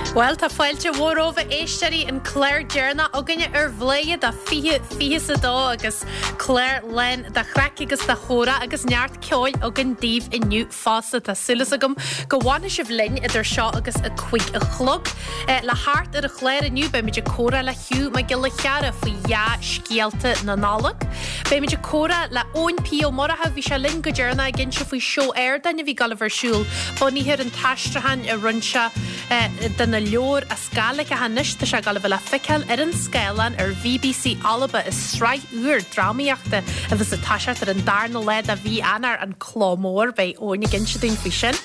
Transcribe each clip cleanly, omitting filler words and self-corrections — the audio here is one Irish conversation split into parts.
Bhuel, tá fáilte mhór romhaibh a éisteoirí, an clár deireanach againne ar Bhladhaire do 2022 agus clár lán de chraic agus de chomhrá agus neart ceoil againn daoibh inniu fosta. Tá súil agam go bhfanfaidh sibh linn idir seo agus a 5 a chlog. Le theacht ar an chlár inniu beimid ag comhrá le Hugh Mac Giolla Chearra faoi dhea-scéalta na Nollag. Beimid ag comhrá le Eoin P Ó Murchú, bhí sé linn go deireanach ag inse faoi seó ardáin a bhí ag dul a bheith ar siúl bunaithe ar an t-aistriúchán a rinne sé de na leabhair as Gàidhlig ach anois tá sé ag dul a bheith le feiceáil ar an scáileán ar BBC Alba i sraith úr drámaíochta a bheas ag toiseacht ar an darna lá de mhí Eanáir, An Cló Mór. Beidh Eoin ag inse dúinn faoi sin.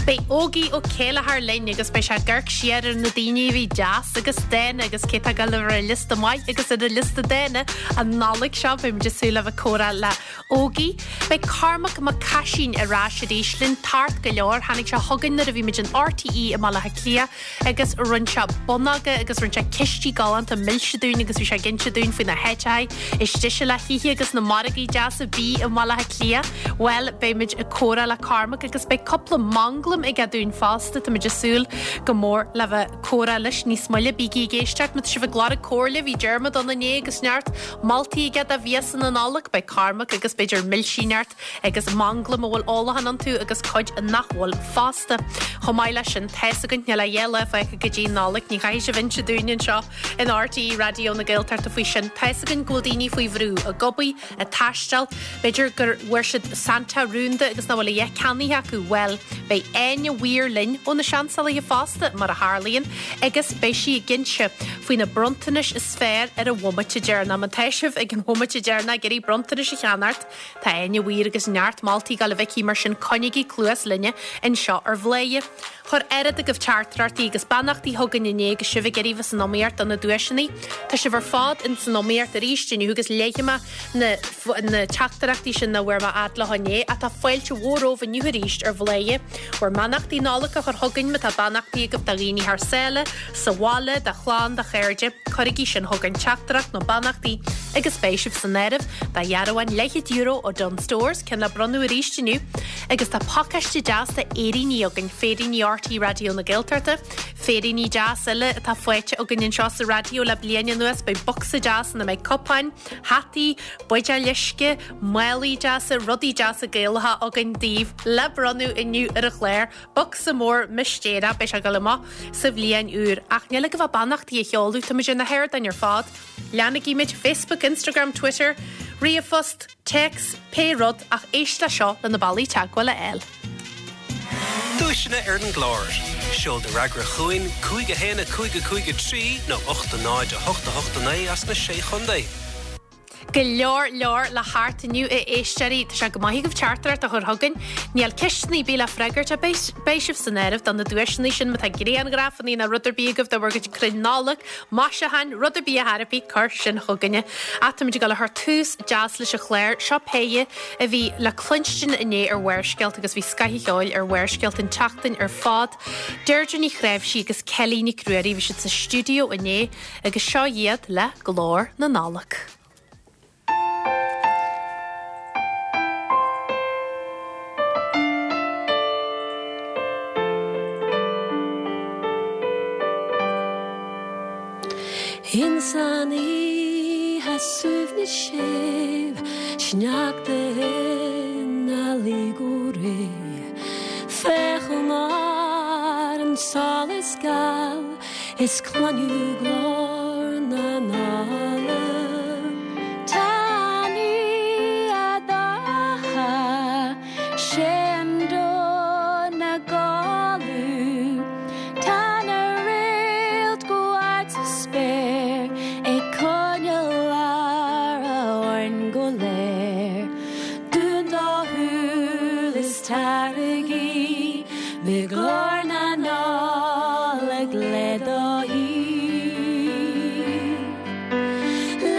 Beidh Ógie Ó Céilleachair linn agus beidh sé ag amharc siar ar na daoine a bhí deas agus dána agus cé atá ag dul a bheith ar an liosta maith agus ar an liosta dána an Nollaig seo. Beimid ag súil le bheith ag comhrá le Ógie. Beidh Cormac Mac Caisín ar ais arís linn tart go leor. Tháinig sé chugainn nuair a bhí muid in RTÉ i mBaile Átha Cliath agus rinne sé bonnóga agus rinne sé cistí galánta milse dúinn agus bhí sé ag inse dúinn faoi na háiteacha is deise le hithe agus na margaí deasa bídh i mBaile Átha Cliath. Bhuel, beimid ag comhrá le Cormac agus beidh cúpla manglam aige dúinn fosta. Táimid ag súil go mór le bheith comhrá leis níos moille. Bígí ag éisteacht má tá sibh ag lorg comhairle, bhí Diarmuid ann inné agus neart moltaí aige do mhiasa na Nollag. Beidh Cormac agus b'fhéidir milsí neart agus manglaim a bhfuil ólachán iontu agus cuid nach bhfuil fosta. Chomh maith leis sin, tá's againn, níl ach lá fágtha go dtí an Nollaig, ní chaithfidh sibh inse dúinn anseo in RTÉ Raidió na Gaeltachta faoi sin. Tá's againn go bhfuil daoine faoi bhrú, ag obair, ag taisteal, b'fhéidir gur bhfuair siad Santa rúnda agus nach bhfuil a dhath ceannaithe acu. Bhuel, beidh Áine Weir linn ó na Seansálaithe fosta, mar a tharlaíonn, agus beidh sí ag inse faoi na bronntanais is fearr ar an bhomaite deireanach. Má tá sibh ag an bhomaite deireanach ag iarraidh bronntanais a cheannacht, tá Áine Weir agus neart moltaí ag dul a bheith aici, mar sin coinnigí cluas linne anseo ar Bhladhaire. Chuir oiread agaibh teachtaireachtaí agus beannachtaí chugainn inné agus sibh ag iarraidh bheith san iomaíocht do na duaiseanna. Tá sibh ar fad in san iomaíocht arís inniu agus léifidh mé na na teachtaireachtaí sin nach bhfuair mé fhad leo inné ach tá fáilte mhór romhaibh inniu arís ar Bhladhaire. Bhur mbeannachtaí Nollag a chur chugainn má tá beannachtaí agaibh do dhaoine thar sáile, sa bhaile, do chlann, do chairde, cuirigí sin chugainn, teachtaireacht nó beannachtaí agus beidh sibh san áireamh do dhearbhán leathchéad euro ó Dunnes Stores, ceann le bronnadh arís inniu. Agus tá pacáiste deas de fhéiríní againn, féiríní RTÉ Raidió na Gaeltachta, féiríní deas eile atá faighte againn anseo sa raidió le bliain anuas, beidh bocsa deas ina mbeidh cupáin, hataí, buidéil uisce, málaí deasa, rudaí deasa Gaelacha againn daoibh le bronnadh inniu ar an chlár. Bocsa mór mistéireach, beidh sé ag dul amach sa bhliain úr. Ach níl agaibh ach beannachtaí a sheoladh, táimid ar na hardáin ar fad. Leanaigí muid, Facebook, Instagram, Twitter, ríomhphost, téacs, pé rud, ach éist le seo le na bealaí teagmháil a fháil. Duaiseanna ar an gclár. Seol do fhreagra chugainn, 5 1 5 5 3 nó 8 0 8 8 9 as na Sé Chontae. Go leor leor le theacht inniu a éisteoirí. Tá sé go maith agaibh teachtaireacht a chur chugainn. Níl ceisteanna ar bith le freagairt ach beidh beidh sibh san áireamh do na duaiseanna sin má tá grianghrafanna nó rud ar bith agaibh de bhur gcuid crainn Nollag, maisiúcháin, rud ar bith a thairfí, cuir sin chugainne. Ach táimid ag dul a chur tús deas leis an chlár. Seo péire a bhí le cluinstin inné ar Bharrscéalta agus bhí scoth an cheoil ar Bharrscéalta an tseachtain ar fad. Deirdre Ní Chnáimhsí agus Kelly Nic Ruairí, bhí siad sa stiúideo inné agus seo iad le Glór na Nollag. Ins an oíche suaimhneas séimh sneachta ina luí go réidh Féachaim ar an solas geal Is cluinim glór na Nollag. Tá an oíche dorcha, sé an domhan ina chodladh. Tá na réalta go hard sa spéir ag coinneáil aire orainn go léir. Dún do shúil is taraigí le glór na Nollag le do thaobh.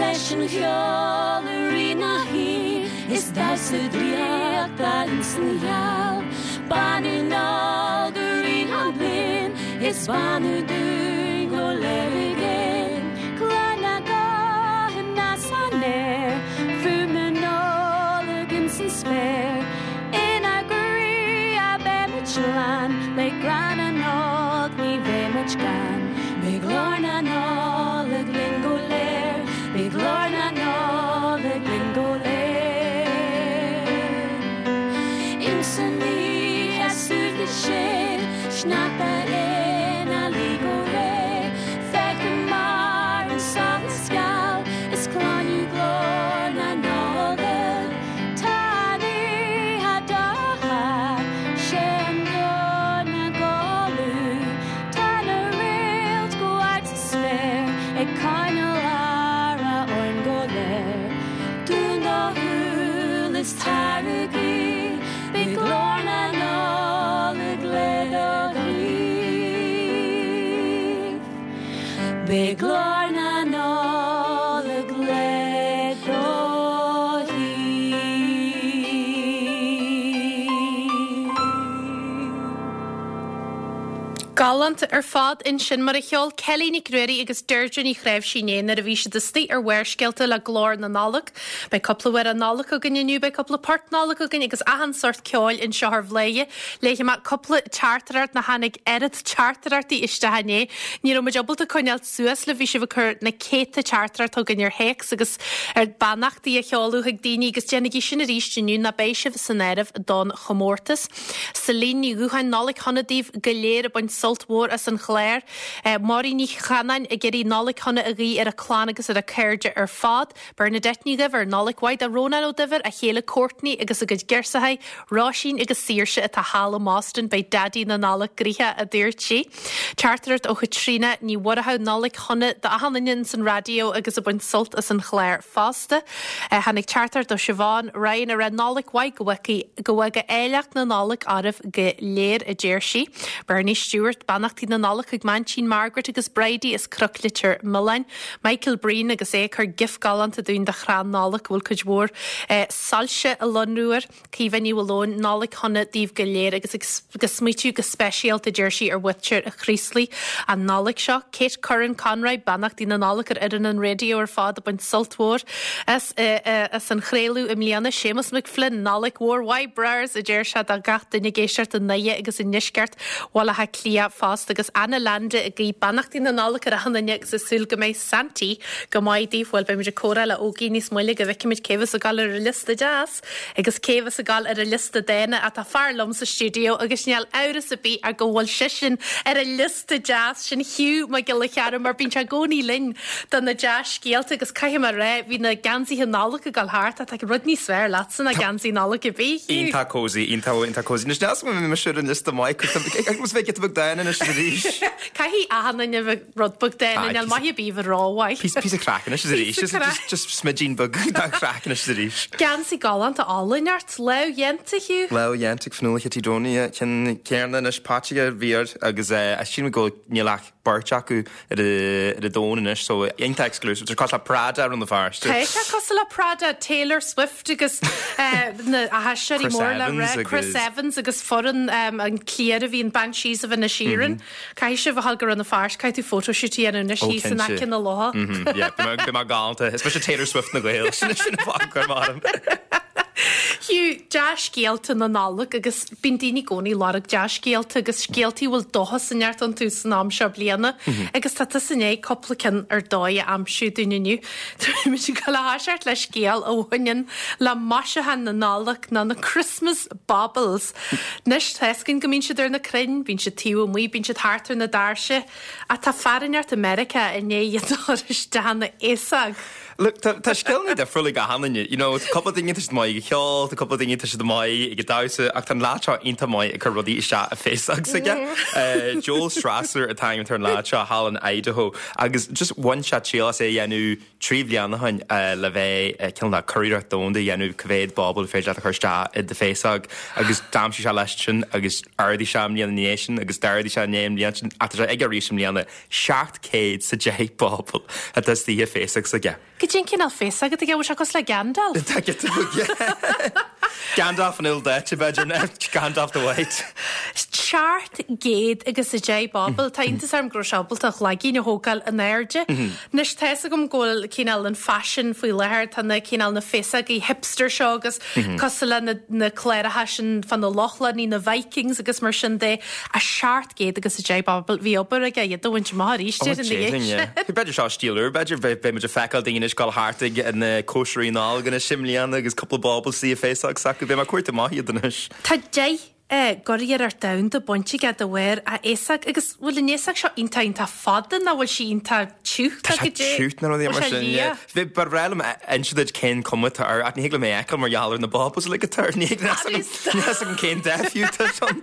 Leis an cheol i rith na hoíche is damhsa draíochta ins an gheal. Beannú nár go rith an bliain is beannú dúinn go léir i gcéin. Cluin na guthanna san aer, fuaim na Nollag ins an spéir. Inár gcroí a beimid lán, le grá na Nollag ní bheimid gann. Beidh glór na Nollag linn go léir, beidh glór na Nollag linn go léir. Insan oíche suaimhneas sin, sneachta ina luí go réidh, feicim mar an solas geal is cluinim glór na Nollag. Tá an oíche dorcha, sé an domhan ina chodladh. Tá na réalta go hard sa spéir ag coinneáil aire orainn go léir. Dún do shúil is tar a guí, beidh glór na Nollag le do thaobh. Beidh glór na Nollag le do thaobh. Galánta ar fad ansin mar a cheol Kelly Nic Ruairí agus Deirdre Ní Chnáimhsí inné nuair a bhí siad istigh ar Bharrscéalta le Glór na Nollag. Beidh cúpla amhrán Nollag againn inniu, beidh cúpla port Nollag againn agus achan sórt ceoil anseo ar Bhladhaire. Léifidh mé cúpla teachtaireacht nó tháinig oiread teachtaireachtaí isteach inné. Ní raibh muid ábalta coinneáil suas libh, bhí sibh ag cur na céadta teachtaireacht chugainn ar théacs agus ar beannachtaí a sheoladh chuig daoine agus déanaigí sin arís inniu nó beidh sibh san áireamh don chomórtas. Celine Ní Dhúcháin, Nollaig shona daoibh go léir ag baint sult mhór as an chlár. Máirín Ní Chanáin ag iarraidh Nollaig shona a ghuí ar a clann agus ar a cairde ar fad. Bernadette Ní Dhuibhir, Nollaig mhaith do Rónán Ó Duibhir, a chéile Courtney agus a gcuid girseachaí, Róisín agus Saoirse atá thall i mBoston, beidh Daidí na Nollag gnoitheach, a dúirt sí. Teachtaireacht ó Chaitríona Ní Mhurchú, Nollaig shona do achan duine ins an raidió agus ag baint sult as an chlár fosta. Tháinig teachtaireacht ó Siobhán Ryan ag rá Nollaig mhaith go bhfága go bhfága áilleacht na Nollag oraibh go léir, a deir sí. Bernie Stewart, Beannachtaí na Nollag chuig m'aintín Margaret agus Bridie as Cnoc Leitir Mealláin. Michael Breen agus é ag cur gif galánta dúinn de chrann Nollag go bhfuil cuid mhór soilse a lonrú air. Caoimhe Ní Mhaoileoin, Nollaig shona daoibh go léir agus ag smaoitiú go speisialta, a deir sí, ar mhuintir a Chraoslaigh an Nollaig seo. Kate Curran Conroy, Beannachtaí na Nollag ar fhoireann an raidió ar fad ag baint sult mhór as as an chraoladh i mbliana. Séamus McFlynn, Nollaig mhór mhaith brars, a deir sé do gach duine ag éisteacht i nDoire agus i ndeisceart Bhaile Átha Cliath fosta agus Anna Landa ag guí beannachtaí na Nollag ar achan duine agus ag súil go mbeidh Santaí go maith daoibh. Bhuel, beimid ag comhrá le Ógie níos moille go bhfeicfimid cé bheas ag dul ar an liosta deas agus cé bheas ag dul ar an liosta dána ach tá fear liom sa stiúideo agus níl amhras ar bith ach go bhfuil seisean ar an liosta deas sin Hugh Mac Giolla Chearra mar bíonn sé i gcónaí linn do na dea-scéalta agus caithfidh mé a rá bhí na geansaithe Nollag ag dul thart ach tá rud níos fearr leatsa ná geansaí Nollag ar bith, Hugh. Iontach cozy, iontach, iontach cozy. Anois níl 's agam an mbeidh mise ar an liosta maith, agus bheidh giota beag dána anois is arís. Caithfidh achan duine a bheith rud beag dána, níl maith ar bith a bheith rómhaith. Píosa craic anois is arís. Píosa craic. Just smidín beag de chraic anois is arís. Geansaí galánta álainn ort, lámhdhéanta, Hugh. Lámhdhéanta ag Fionnuala Chití Donie, ceann céarna anois, Patsy a bhí air agus sílim go níl ach beirt acu ar an domhan anois so iontach exclusive. Tá sé cosúil le Prada ar na Feirste. Tá sé cosúil le Prada, Taylor Swift agus na haisteoirí mór le rá, Chris Evans agus foireann an cliar a bhí in Banshees of Inisherin. Caithfidh sibh a ghabháil go Rann na Feirste, caithfidh tú photoshoot a dhéanamh anois thíos in aice na locha. Yeah, beidh mé galánta. Is mise Taylor Swift na Gael. Sin sin an fáth gur maith liom. Hugh, dea-scéalta na Nollag agus bíonn daoine i gcónaí ag lorg dea-scéalta agus scéaltaí a bhfuil dóchas inteacht iontu san am seo bliana agus tá tusa i ndiaidh cúpla ceann ar dóigh a aimsiú dúinn inniu. Táimid ag dul a thoiseacht le scéal a bhaineann le maisiúcháin na Nollag nó na Christmas Baubles. Anois, tá fhios againn go mbíonn siad ar na crainn, bíonn siad taobh amuigh, bíonn siad thart ar na doirse, ach tá fear inteacht i Meiriceá i ndiaidh iad a chur isteach ina fhéasóg. Look, tá tá scileanna difriúla ag achan duine, you know, tá cúpla daoine tá siad maith ag an cheol, tá cúpla daoine tá siad maith ag an damhsa, ach tá an leaid seo iontach maith ag cur rudaí isteach i bhféasóg s'aige. Joel Strasser an t-ainm atá ar an leaid seo thall in Idaho agus just bhain sé triail as é a dhéanamh 3 bhliain ó shin le bheith cineál de curiarracht domhanda a dhéanamh cá mhéad bauble féidir leat a chur isteach i do féasóg agus d'aimsigh sé leis sin agus d'ardaigh sé an bhliain ina dhiaidh sin agus d'ardaigh sé i ndiaidh an bhliain sin ach tá sé aige arís i mbliana 710 bauble atá istigh i bhféasóg s'aige. Cad Goidé an cineál féasóg atá aige, bhfuil sé cosúil le Gandalf? Tá giota beag, yeah. Gandalf an ildaite, b'fhéidir, nó Gandalf the White. 710 bauble, tá iontas orm go raibh sé ábalta a chloigeann a thógáil in airde. Anois, tá fhios agam go bhfuil cineál an faisean faoi láthair, tá na cineál na féasógaí hipster seo agus cosúil le na na cláracha sin fá na Lochlannaigh, na Vikings agus mar sin de, a 710 bauble, bhí obair aige iad a bhaint amach arís déarfainn ina dhiaidh sin. B'fhéidir seo stíl úr, b'fhéidir, beidh muid ag feiceáil daoine anois ag dul thart ag na cóisirí Nollag anois i mbliana agus cúpla bauble sa fhéasóg s'acu, beidh mé ag cuartú amach iad anois. Tá 10 gcuriarracht domhanda bainte aige de bharr a fhéasóg agus bhfuil an fhéasóg seo iontach iontach fada nó bhfuil sí iontach tiugh? Tá sé tiugh nó rudaí mar sin, yeah. Ba bhreá liom inse duit cén cuma atá air ach ní thig liom é a fheiceáil mar gheall ar na baubles uilig atá air. Ní thig níl a fhios agam cén dath fiú atá ann.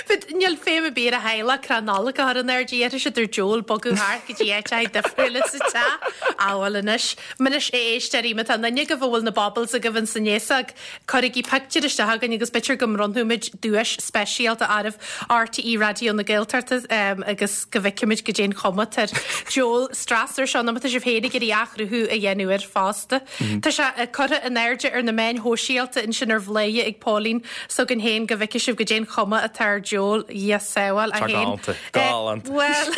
But níl feidhm ar bith ar a theaghlach crann Nollag a chur in airde, iarrfaidh siad ar diabhal bogadh thart go dtí áit difriúil sa teach. Á bhuel anois, anois a éisteoirí, má tá aon duine agaibh a bhfuil na baubles agaibh ins an fhéasóg, Cuirigí pictiúr isteach chugainn agus b'fhéidir go mbronnfaimid duais speisialta oraibh, RTÉ Raidió na Gaeltachta, agus go bhfeicfimid goidé an chuma atá ar diabhal Strasser seo, nó má tá sibh féin ag iarraidh athchruthú a dhéanamh air fosta. Tá sé curtha in airde ar na meáin shóisialta ansin ar Bhladhaire ag Póilín s'againn féin go bhfeicfidh sibh goidé an chuma atá ar diabhal, Dhia sábháil, é féin. Galánta. Galánta. Bhuel,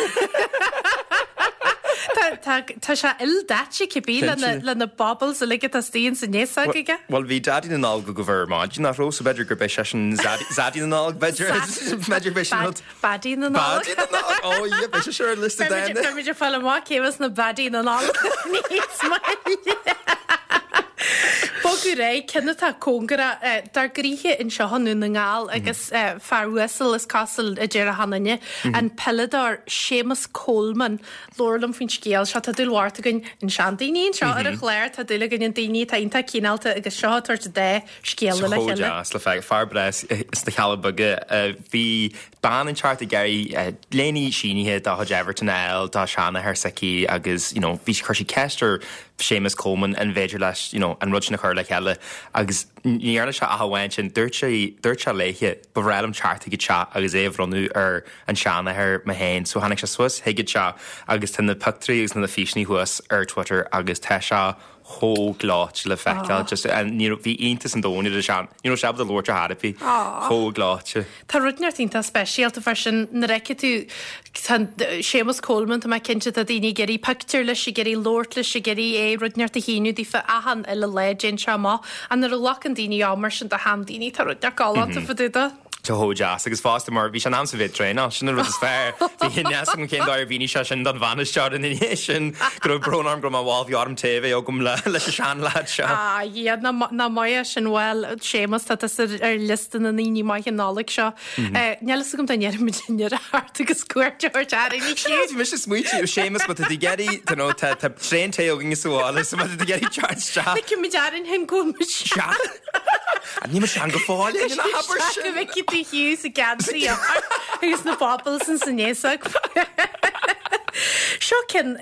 tá, tá, tá sé ildaite cibé le na baubles uilig atá istigh ins an fhéasóg aige. Bhuel, bhí Daidí na Nollag agaibh ar maidin, nach raibh? So b'fhéidir gurb é seisean Zaidí na Nollag, b'fhéidir. B'fhéidir b'é sin rud. Baddie na Nollag. Baddie na Nollag! Oh yeah, beidh sé seo ar liosta daoine. Beimid ag fáil amach cé bheas na Baddie na Nollag níos moille. Bogadh ar aghaidh, ceann atá cóngarach dár gcroíthe anseo i nDún na nGall agus fear uasal is cosúil a deir achan duine, an peileadóir Séamus Coleman. Labhair liom faoin scéal seo. Tá dúil mhór againn in seandaoine anseo ar an chlár. Tá dúil againn in daoine atá iontach cineálta agus seo ag tabhairt dá scéala le Chomh chéile. deas le feiceáil. Fear breá sna Cealla Beaga. Bhí bean inteacht ag iarraidh léine sínithe dá chuid Everton a fháil dá seanathair s'aici agus you know bhí chuir sí ceist ar Séamus Coleman an bhféidir leis you know an rud sin a chur le chéile agus ní dhearna sé ach amháin sin. Dúirt sé dúirt sé léithe ba bhreá liom teacht chuig an teach agus é a bhronnadh ar an seanathair mé féin. So tháinig sé suas chuig an teach agus tá na pictiúirí agus na físeanna thuas ar Twitter agus tá sé chomh gleoite le feiceáil. Just ní raibh, bhí iontas an domhain ar an sean, ní raibh sé ábalta labhairt ar chor ar bith. Chomh gleoite. Tá rud inteacht iontach speisialta fá sin nuair a fheicfidh tú tá Séamus Coleman, tá mé cinnte tá daoine ag iarraidh pictiúr leis, ag iarraidh labhairt leis, ag iarraidh é rud inteacht a shíniú daofa achan uile lá, dtéann sé amach. Ach nuair a ghlacann daoine am mar sin do sheandaoine, tá rud inteacht galánta fá dtaobh de. Tá chomh deas agus fosta mar bhí sé in am sa bhéad traenáil, sin an rud is fearr. Bhí a fhios agam cén dóigh ar mhínigh sé sin don bhainisteoir ina dhiaidh sin, go raibh brón orm go raibh mé mall, bhí orm tae a bheith agam leis an seanleaid seo. Ah yeah, nach maith é sin, bhuel, Séamus, tá tusa ar liosta na ndaoine maithe Nollag seo. Níl fhios agam dá ndéarfaimid inniu thart agus cuairt a thabhairt orainn Sin rud, bhí mise ag smaointiú, Séamus, má tá tú ag iarraidh, you know, tá traein tae againn sa bhaile, so má tá tú ag iarraidh teacht isteach. Feicfimid orainn féin go bhfuil muid sean. Níl mé sean go fóill, ná habair sin. Go bhfeicfidh tú Hugh sa geansaí agus na baubles in san fhéasóg. Seo ceann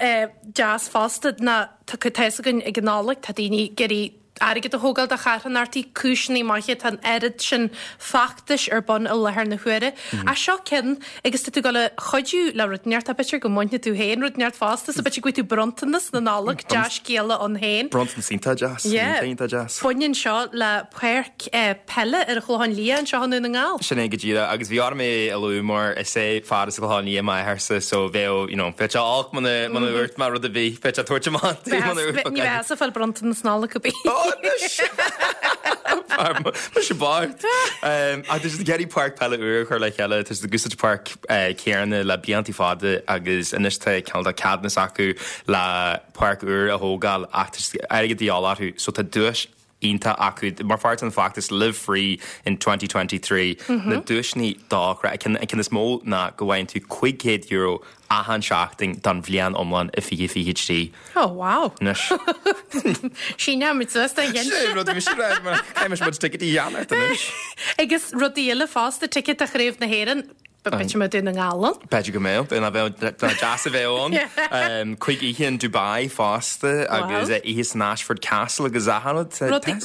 deas fosta ná tá tá fhios againn ag an Nollaig tá daoine ag iarraidh airgead a thógáil do charthanachtaí, cúiseanna maithe, tá an oiread sin feachtais ar bun i láthair na huaire. Ach seo ceann agus tá tú ag dul a chuidiú le rud inteacht, b'fhéidir go mbainfidh tú féin rud inteacht fosta, so b'fhéidir go bhfaighidh tú bronntanas na Nollag, dea-scéala ann féin. Bronntanas iontach deas, Yeah. iontach deas. Baineann seo le páirc peile ar an Chlochán Liath anseo i nDún na nGall. Sin é go díreach, agus bhí orm é a lua mar is é fear as an Chlochán Liath m'athairse so bheadh, you know, bheadh sé olc muna muna ndúirt mé rud ar bith, bheadh sé ag tabhairt amach di muna ndúirt Ní bheadh ag fáil bronntanas Nollag ar bith. Ó, anois! Mise bocht! Ach tá siad ag iarraidh páirc peile úr a chur le chéile, tá siad ag úsáid páirc céanna le blianta fada agus anois tá cineál de ceadúnas acu le páirc úr a thógáil ach tá airgead de dhíobháil orthu so tá duais iontach acu mar pháirt den feachtas Live Free in 2023 na duaiseanna dochreidte. An ceann is mó ná go bhfaigheann tú €500 achan seachtain don bhliain iomlán i 2023. Oh wow. Anois. Síneoimid suas don gceann sin. Sin rud mise rá mar caithfidh muid ticéidí a cheannacht anois. Agus rudaí eile fosta, ticéad do Chraobh na hÉireann. B'fhéidir go mbeidh Dún na nGall ann. B'fhéidir go mbeadh, bheadh deas a bheith ann. 5 oíche in Dubai fosta agus oíche san Ashford Castle agus achan rud.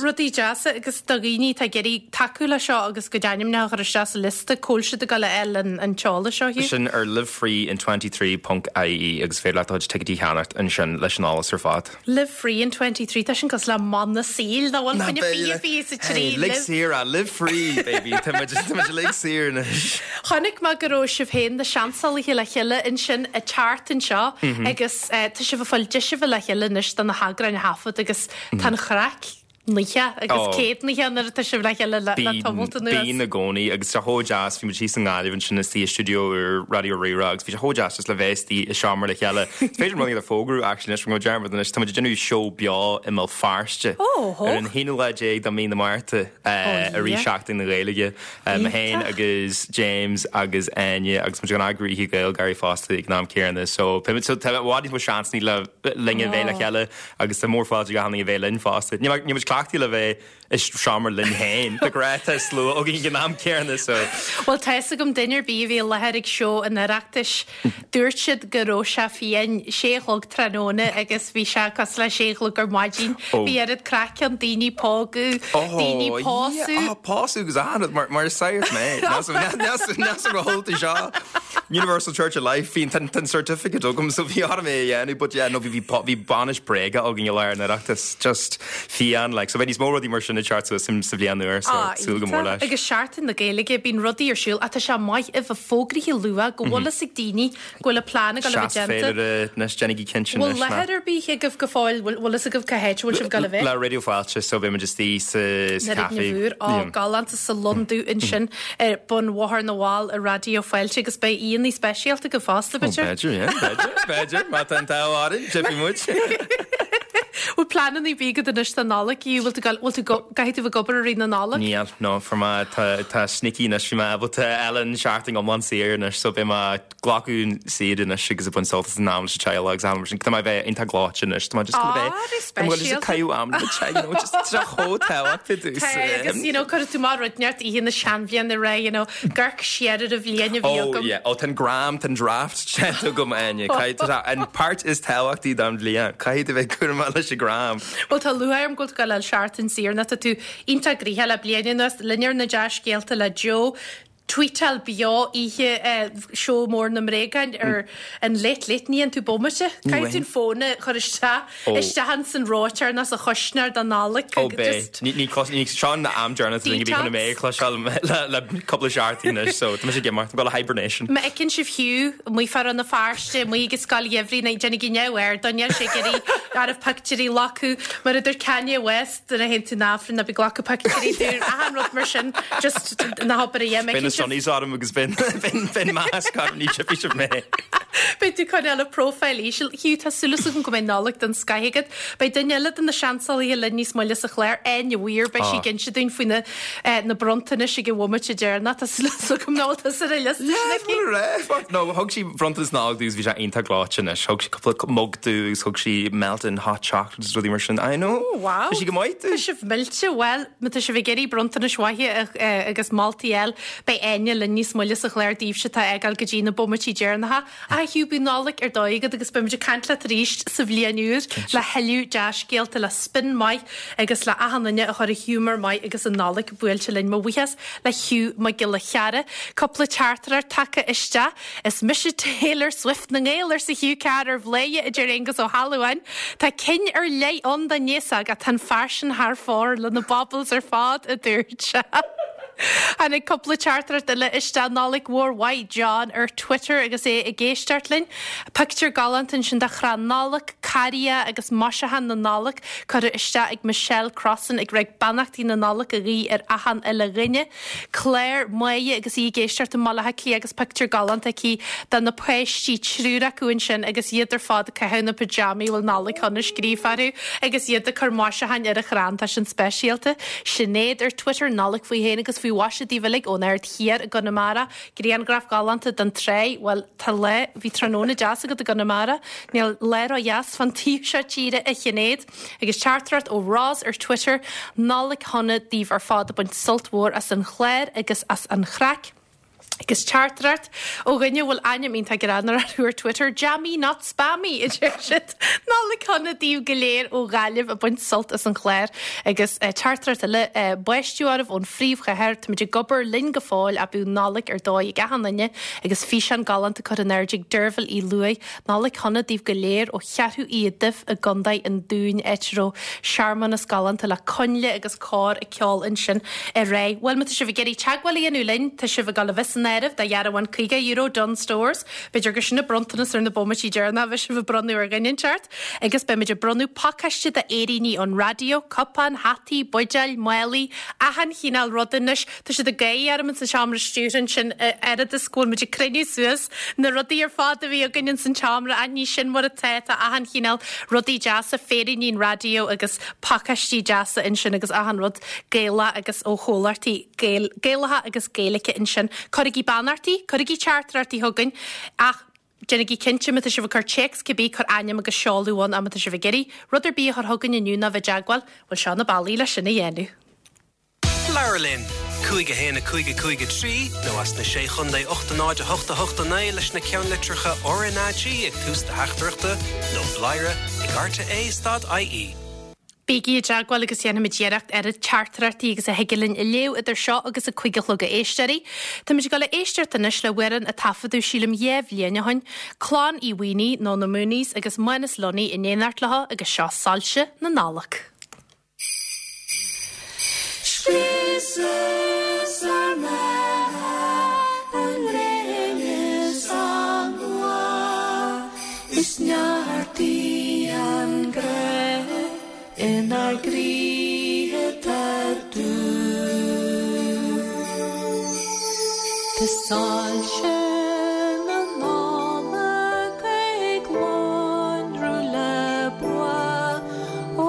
Rudaí deasa agus do dhaoine atá ag iarraidh tacú le seo agus a gcuid ainmneacha a chur isteach sa liosta, cá bhfuil siad ag dul a fháil an t-eolas seo, Hugh? Sin ar livefreein23.ie agus féidir leat do chuid ticéidí a cheannacht ansin leis an eolas ar fad. Live free in 23, tá sin cosúil le mana saoil, nach bhfuil? Fá choinne 20 23, Hey, lig saor é, live free, baby, tá muid tá muid uilig saor anois. Chonaic mé go raibh sibh féin, na seansálaithe le chéile ansin ag teacht anseo agus tá sibh ag fáil deis a bheith le chéile anois do na heagráin a thaifead agus tá an chraic naocha agus céadnaithe nuair atá sibh le chéile le tamalt anuas. Bíonn i gcónaí agus tá sé chomh deas, bhí muid thíos i nGaillimh ansin istigh i stiúideo úr Raidió Rí-Rá agus bhí sé chomh deas just le bheith istigh i seomra le chéile. Is féidir rud a fógrú actually anois, go dearmad anois, tá muid ag déanamh seó beo i mBéal Feirste ar an haonú lá déag de mhí na Márta i rith Seachtain na Gaeilge. Mé féin agus James agus Áine agus muid ag eagrú Oíche GaelGáirí fosta ag an am céanna so tá i bhfad níos mó seansanna le linn a bheith le chéile. Agus tá mórfháilte ag achan duine a bheith linn fosta. Níl muid cleachtaithe le bheith i seomra linn féin. De ghnáth tá slua againn ag an am céanna so. Bhuel tá fhios agam duine ar bith a bhí i láthair ag seó an Oireachtais, dúirt siad go raibh sé fiáin, sé a chlog tráthnóna agus bhí sé cosúil le sé a chlog ar maidin. Bhí oiread craic ann, daoine ag pógadh, daoine ag pósadh. Ó, pósadh agus achan rud mar is sagart mé. Níl go holta seo. Universal Church of Life, bhí an certificate agam so bhí orm é a dhéanamh but yeah no bhí bhí bainis bréige againn i lár an Oireachtais, just fiáin like so beidh níos mó rudaí mar sin ag teacht suas sa bhliain úr so súil go mór leis. Agus Seachtain na Gaeilge, bíonn rudaí ar siúl ach tá sé maith a bheith fógraithe luath go bhfuil fhios ag daoine go bhfuil a plean ag dul a bheith déanta. Seas féilire anois, déanaigí cinnte anois. Bhfuil láthair ar bith agaibh go fóill, bhfuil fhios agaibh cá háit a bhfuil sibh ag dul a bheith? Le Raidió Fáilte so beidh muid istigh sa café. Na Mhór, á galánta sa Lon Dubh ansin ar bun Bhóthar na bhFál i Raidió Fáilte agus beidh aíonna speisialta agaibh fosta, b'fhéidir? Ó, b'fhéidir, yeah, b'fhéidir, b'fhéidir, má tá an t-ádh orainn, tiocfaidh muid. Bhfuil pleananna ar bith agat anois don Nollaig? Bhfuil tú, bhfuil tú, caithfidh tú bheith ag obair i rith na Nollag? Níl, no, fuair mé, tá, tá sneaky anois, bhí mé ábalta fháil an seachtain iomlán saor anois, so beidh mé glacadh saoire anois agus ag baint sult as an am leis an teaghlach agus am mar sin. Tá mé a bheith iontach gleoite anois. Tá mé just gonna bheith Tá mé just ag caitheamh am le mo teaghlach, you know, just tá sé chomh tábhachtach domhsa. Tá agus you know cuirfidh tú mar rud neart oíche na seanbhliana ré you know amharc siar ar an bhliain a bhí Oh agam. yeah, oh tá an gram, tá an draft déanta agam Áine. Caithfidh tá an páirt is tábhachtaí don bhliain. Caithfidh tú bheith cúramach leis an gram. Bhuel tá lúcháir orm go bhfuil tú ag dul a fháil seachtain saor nó tá tú iontach gnoitheach le bliain anuas. Linn ar na dea-scéalta le Joe. Tweetáil beo oíche seó mór na mbréagán ar an Late Late ní fhaigheann tú bomaite. Caithfidh tú an fón a chur isteach isteach ins an reoiteoir nó sa chuisneoir don Nollaig Ó beidh. Ní ní ní seo an am deireanach duine bhí chun mé a chloisteáil le le cúpla seachtain anois so tá mise ag imeacht, I'm gonna hibernation. Má fheiceann sibh Hugh amuigh fá Rann na Feirste, amuigh ag an scoil gheimhridh ná déanaigí neamhaird dó, níl sé ag iarraidh arbh pictiúirí a ghlacadh mar a dúirt Kanye West. Nuair a théann tú 'na Aifreann ná bí ag glacadh pictiúirí dúinn, achan rud mar sin, just ná habair a dhath. Beidh na sunnies orm agus beidh masc orm, ní tchífidh sibh mé. Beidh tú ag coinneáil an profile íseal. Hugh, tá súil agam go mbeidh Nollaig den scoith agat. Beidh duine eile de na seansálaithe linn níos moille sa chlár, Áine Weir, beidh sí ag inse dúinn faoi na na bronntanais ag an bhomaite deireanach. Tá súil agam nach bhfuil tusa ar an liosta sin aici. Yeah, no, thug sí bronntanas Nollag domh agus bhí sé iontach gleoite anois. Thug sí cúpla mug domh agus thug sí melted hot chocolate agus rudaí mar sin. I know. Oh, wow. Tá sí go maith domh. Tá sibh millte. Bhuel, má tá sibh ag iarraidh bronntanais mhaithe agus moltaí a fháil, beidh Áine linn níos moille sa chlár daoibhse atá ag gabháil go dtí na bomaití deireanacha. A Hugh, bíodh Nollaig ar dóigh agat agus beimid ag caint leat arís sa bhliain úr le thuilleadh dea-scéalta, le spin maith agus le achan duine a chur i ghiúmar maith agus an Nollaig buailte linn. Mo bhuíochas le Hugh Mac Giolla Chearra. Cúpla teachtaireacht tagtha isteach. Is mise Taylor Swift na nGael, arsa Hugh Carr ar Bhladhaire, a deir Aengus Ó hAlmhain. Tá cinn ar leith ann don aos óg ach tá an fear sin thar fóir le na baubles ar fad, a dúirt sé. Tháinig cúpla teachtaireacht eile isteach. Nollaig mhór mhaith, John ar Twitter agus é ag éisteacht linn. Pictiúr galánta ansin de chrann Nollag, carria agus maisiúchán na Nollag curtha isteach ag Michelle Crossan ag rá beannachtaí na Nollag a ghuí ar achan uile dhuine. Claire Máire agus í ag éisteacht i mBaile Átha Cliath agus pictiúr galánta aici de na páistí, triúr acu ansin agus iad ar fad ag caitheamh na pyjamaí a bhfuil Nollaig Shona scríofa orthu agus iad ag cur maisiúcháin ar an chrann. Tá sin speisialta. Sinéad ar Twitter, Nollaig faoi shéan agus faoi mhaise daoibh uilig ón Aird Thiar i gConamara. Grianghraf galánta den tráigh. Bhuel, tá lá, bhí tráthnóna deas agat i gConamara. Níl lá ró-dheas fán taobh seo tíre, a Shinéad. Agus teachtaireacht ó Roz ar Twitter, Nollaig shona daoibh ar fad ag baint sult mhór as an chlár agus as an chraic. Agus teachtaireacht ó dhuine a bhfuil ainm iontach greannmhar orthu ar Twitter, Jammy not spammy, a deir siad. Nollaig shona daoibh go léir ó Ghaillimh ag baint sult as an chlár. Agus teachtaireacht eile, báisteach oraibh ón phríomhchathair, táimid ag obair linn go fóill ach bíodh Nollaig ar dóigh ag achan duine agus físeán galánta curtha in airde ag Deirbhile Uí Lúaigh. Nollaig shona daoibh go léir ó Cheathrú Uí Duibh i gContae an Dúin, áit a raibh searmanas galánta le coinnle agus cór ag ceol ansin aréir. Bhuel, má tá sibh ag iarraidh teagmháil a dhéanamh linn, tá sibh ag dul a bheith san áireamh do dhearbhán €50 Dunnes Stores. B'fhéidir gur sin an bronntanas ar na bomaití deireanacha a bheidh sibh ag bronnadh ar dhuine inteacht. Agus beimid ag bronnadh pacáiste d'fhéiríní ón raidió, cupáin, hataí, buidéil, málaí, achan chineál ruda anois. Tá siad ag gáirí orm ins an seomra stiúrtha ansin oiread is go bhfuil muid ag cruinniú suas na rudaí ar fad a bhí againn ins an tseomra ach ní sin mar atá, tá achan chineál rudaí deasa, féiríní an raidió agus pacáistí deasa ansin agus achan rud Gaelach agus ó chomhlachtaí Gaelacha agus Gaeilge ansin. Cuirigí beannachtaí, cuirigí teachtaireachtaí chugainn ach déanaigí cinnte má tá sibh ag cur téacs cibé, cuir ainm agus seoladh ann ach má tá sibh ag iarraidh rud ar bith a chur chugainn inniu nó bheith i dteagmháil, bhuel seo na bealaí leis sin a dhéanamh. Labhair linn! 5 1 5 5 3 nó as na Sé Chontae 8 0 8 8 9 leis na ceannlitreacha RnaG ag tús do theachtaireachta nó bladhaire ag rte stad ie. Bígí i dteagmháil agus déanfaimid iarracht oiread teachtaireachtaí agus a thig linn a léamh idir seo agus a 5 a chlog a éisteoirí. Táimid ag dul a éisteacht anois le hamhrán a taifeadadh sílim 2 bhliain ó shin, Clann Uí Mhaonaigh nó na Mooneys agus Mánas Lunny in éineacht leo agus seo Soilse na Nollag. Scriosas ár mbeatha an ghréin is an bhláth, is neartaigh an grá inár gcroíthe tá dubh. Tá soilse na Nollag ag lonrú le bua ó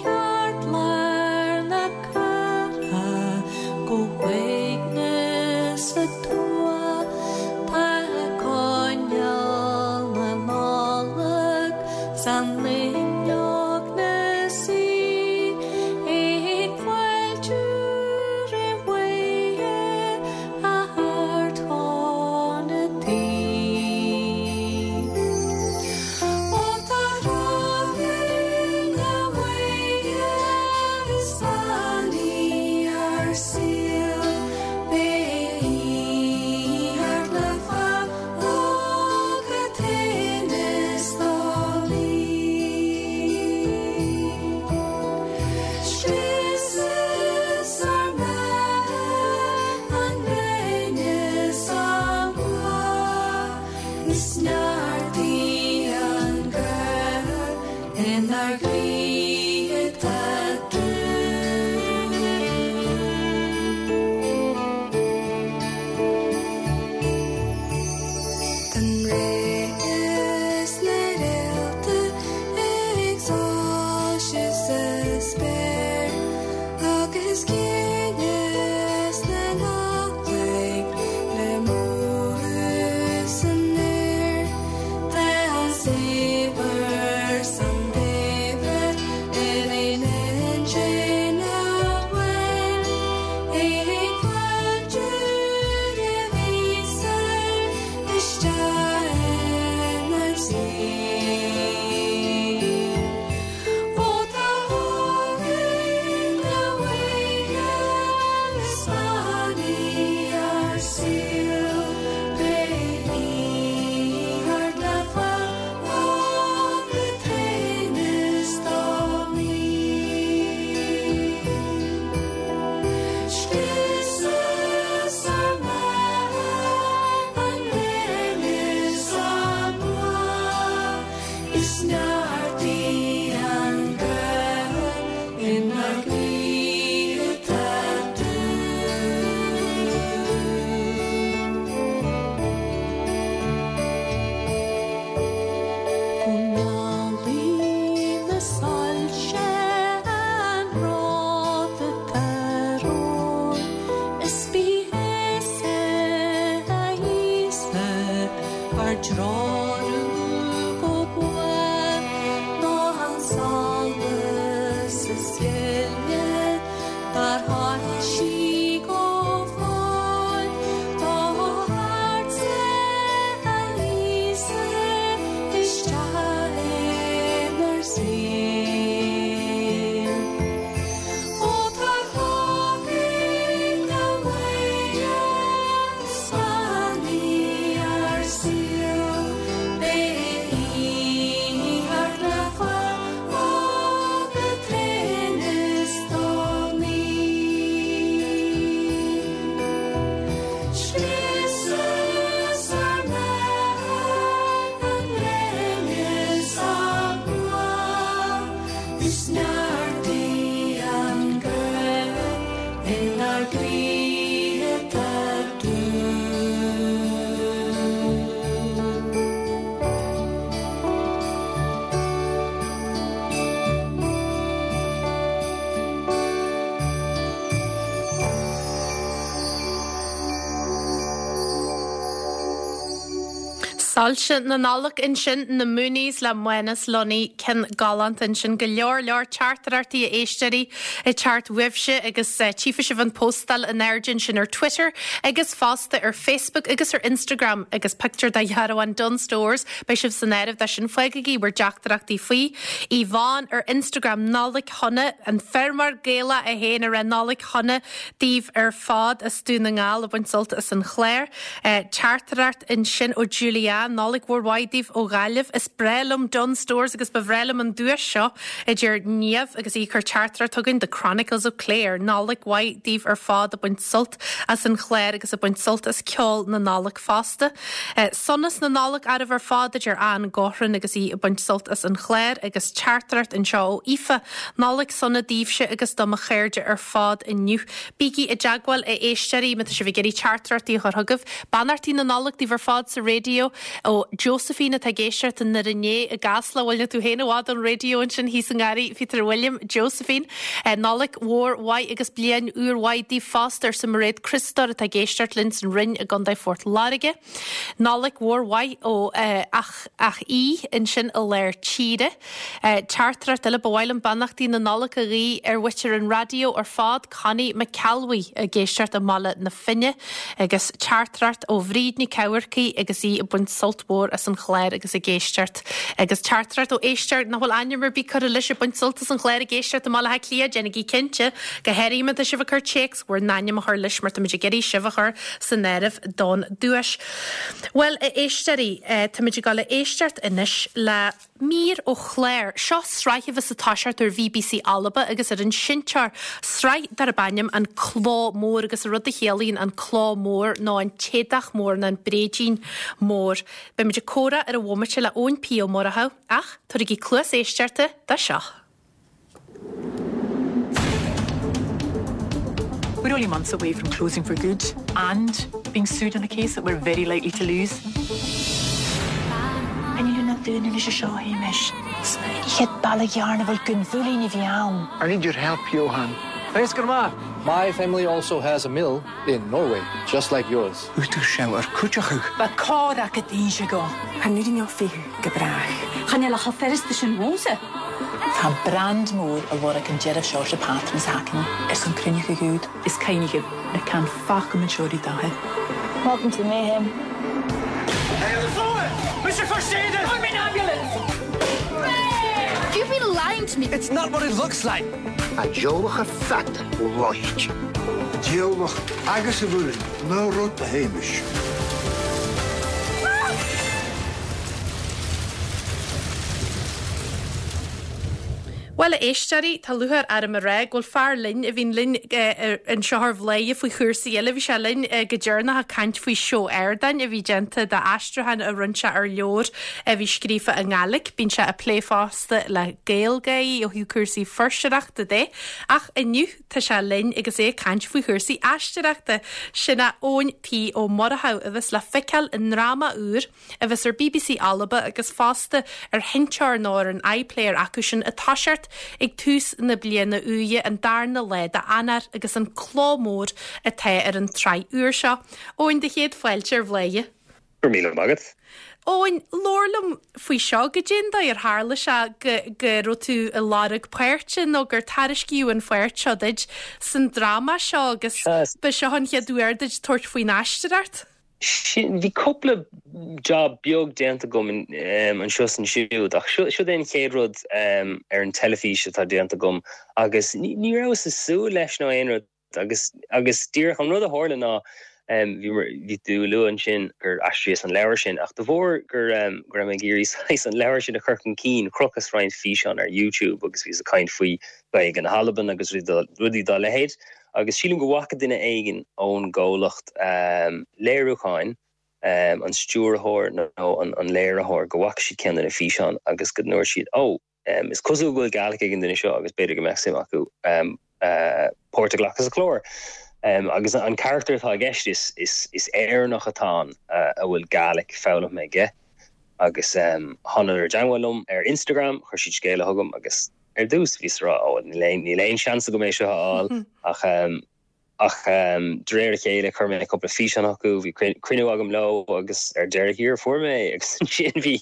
cheartlár na cathrach go huaigneas an tuath. Tá coinneal na Nollag san fhuinneog 'na suí ag fáiltiú roimh Mhuire a Ard-Chun a' Tí. Ó tá rogha Mhuire is bean í ár saol, beidh í thart le fág a thinneas dá luí. Scriosas ár mbeatha an ghréin is an bláth, is neartaigh an grá inár gcroíthe atá dubh. Tá an Rí is na réalta ag soilsiú sa spéir agus ciúnas na Nollag le mothú san aer. Tá an saibhir 's an daibhreas ar aon intinn amháin ag fáiltiú roimh Íosa isteach inár saol. Ó tá Aoine Mhuire is bean í ár saol, beidh í thart le fág a thinneas dá luí. Scriosas ár mbeatha an ghréin is an bláth, is neartaigh an grá inár gcroíthe atá dubh. Go ngealaí na soilse an rud atá romhainn, is bí thusa a Íosa ár dtreorú go buan ná an solas is gile dár shoilsigh go fóill. Tá Soilse na Nollag ansin, na Mooneys le Mánas Lunny, ceann galánta ansin. Go leor leor teachtaireachtaí a éisteoirí ag teacht uaibhse agus tchífidh sibh an póstáil in airde ansin ar Twitter agus fosta ar Facebook agus ar Instagram agus pictiúr de dhearbhán Dunnes Stores. Beidh sibh san áireamh dó sin. Fágaigí bhur dteachtaireachtaí faoi. Yvonne ar Instagram, Nollaig Shona, an feirmeoir Gaelach é féin ag rá Nollaig Shona daoibh ar fad as Dún na nGall ag baint sult as an chlár. Teachtaireacht ansin ó Julianne, Nollaig mhór mhaith daoibh ó Ghaillimh. Is breá liom Dunnes Stores agus ba bhreá liom an duais seo, a deir Niamh agus í ag cur teachtaireacht chugainn, The Chronicles of Clare. Nollaig mhaith daoibh ar fad ag baint sult as an chlár agus ag baint sult as ceol na Nollag fosta. Sonas na Nollag oraibh ar fad, a deir Ann Gaughran agus í ag baint sult as an chlár agus teachtaireacht anseo ó Aoife, Nollaig sona daoibhse agus do mo chairde ar fad inniu. Bígí i dteagmháil, a éisteoirí, má tá sibh ag iarraidh teachtaireachtaí a chur chugaibh. Beannachtaí na Nollag daoibh ar fad sa raidió ó Josephine atá ag éisteacht i nDoire Né i gCasla. Bhuel, níl tú féin i bhfad ón raidió ansin thíos i nGarraí Phíotair William. Josephine, Nollaig mhór mhaith agus bliain úr mhaith daoibh fosta, arsa Mairéad Criostóir atá ag éisteacht linn san Rinn i gContae Phort Láirge. Nollaig mhór mhaith ó ach ach í ansin i lár tíre. Teachtaireacht eile, ba mhaith liom beannachtaí na Nollag a ghuí ar mhuintir an raidió ar fad, Connie McElwee ag éisteacht i mBaile na Finne agus teachtaireacht ó Bhríd Nic Eamharcaigh agus í ag baint sult mhór as an chlár agus ag éisteacht agus teachtaireacht ó éisteoir nach bhfuil ainm ar bith curtha leis ag baint sult as an chlár ag éisteacht i mBaile Átha Cliath, déanaigí cinnte go háirithe má tá sibh ag cur téacs bhur n-ainm a chur leis mar táimid ag iarraidh sibh a chur san áireamh don duais. Bhuel, a éisteoirí, táimid ag dul a éisteacht anois le mír ó chlár. Seo sraith a bheas ag toiseacht ar BBC Alba agus ar an seinnteoir, sraith darb ainm An Cló Mór agus an rud a chiallaíonn an cló mór nó an t-éadach mór nó an bréidín mór. Beimid ag comhrá ar an bhomaite le Eoin P Ó Murchú ach tabhairigí cluas éisteachta do seo. We're only months away from closing for good and being sued on a case that we're very likely to lose. I need your help, Johan. Thanks grandma. My family also has a mill in Norway, just like yours. Ba go. Go brách. Chan eil a cho sin mhósa. Tá brand mór a lorg an deireadh Seoirse Patras haicne ar son cruinneacha gúd is cainnigh na can facha dathe. Welcome to the mayhem. Hey, on the floor! Mr. First Aider! I'm in ambulance! You've been lying to me. It's not what it looks like. A diolach fat roicht. Diolach agus a bhúin ná rud a Hamish. Bhuel, a éisteoirí, tá lúcháir orm a rá go bhfuil fear linn a bhíonn linn anseo ar Bhladhaire faoi chúrsaí eile. Bhí sé linn go deireanach ag caint faoi seó ardáin a bhí déanta d'aistriúchán a rinne sé ar leabhar a bhí scríofa i nGàidhlig. Bíonn sé ag plé fosta le Gaelgáirí ó thaobh cúrsaí fuirseoireachta de. Ach inniu tá sé linn agus é ag caint faoi chúrsaí aisteoireachta. Sin é Eoin P Ó Murchú a bheas le feiceáil i ndráma úr a bheas ar bbc Alba agus fosta ar sheinnteoir nó ar an iPlayer acu sin ag toiseacht ag tús na bliana úire, an darna lá d'Eanáir agus an Cló Mór atá ar an tsraith úr seo. Eoin, do chéad fáilte ar Bhladhaire. Go raibh míle maith agat. Eoin, labhair liom faoi seo, goidé an dóigh ar tharla sé go go raibh tú ag lorg páirte nó gur tairiscíodh an pháirt seo duit san dráma seo agus ba seo an chéad uair duit tabhairt faoin aisteoireacht? Sin, bhí cúpla job beag déanta agam anseo is ansiúd ach siod é an chéad rud ar an teilifís atá déanta agam agus ní rabhas ag súil leis nó aon rud agus agus díreach an rud a tharla ná bhí bhí tú ag lua ansin gur aistríos an leabhar sin ach de bharr gur go raibh mé ag iarraidh saghas an leabhar sin a chur chun cinn chrochas roinnt físeán ar YouTube agus bhíos ag caint faoi Ghaeilge na hAlban agus rudaí dá leithéid. Agus sílim go bhfaca duine éigin ón gcomhlacht léiriúcháin, an stiúrthóir nó an léiritheoir, go bhfaca siad ceann de na físeáin agus go ndúirt siad, 'Ó, is cosúil go bhfuil Gaelic ag an duine seo agus b'fhéidir go mbeadh suim acu páirt a ghlacadh sa chlár. Agus an carachtar atá i gceist, is Éireannach atá ann a bhfuil Gaelic foghlamtha aige. Agus thánadar i dteangmháil liom ar Instagram, chuir siad scéala chugam agus. Ar dtús, bhíos ag rá, ó, níl aon, níl aon seans agam é seo a fháil, ach, Ach de réir a chéile chuir mé cúpla físeán chucu, bhí cruinniú agam leo agus ar deireadh thiar fuair mé é agus ansin bhí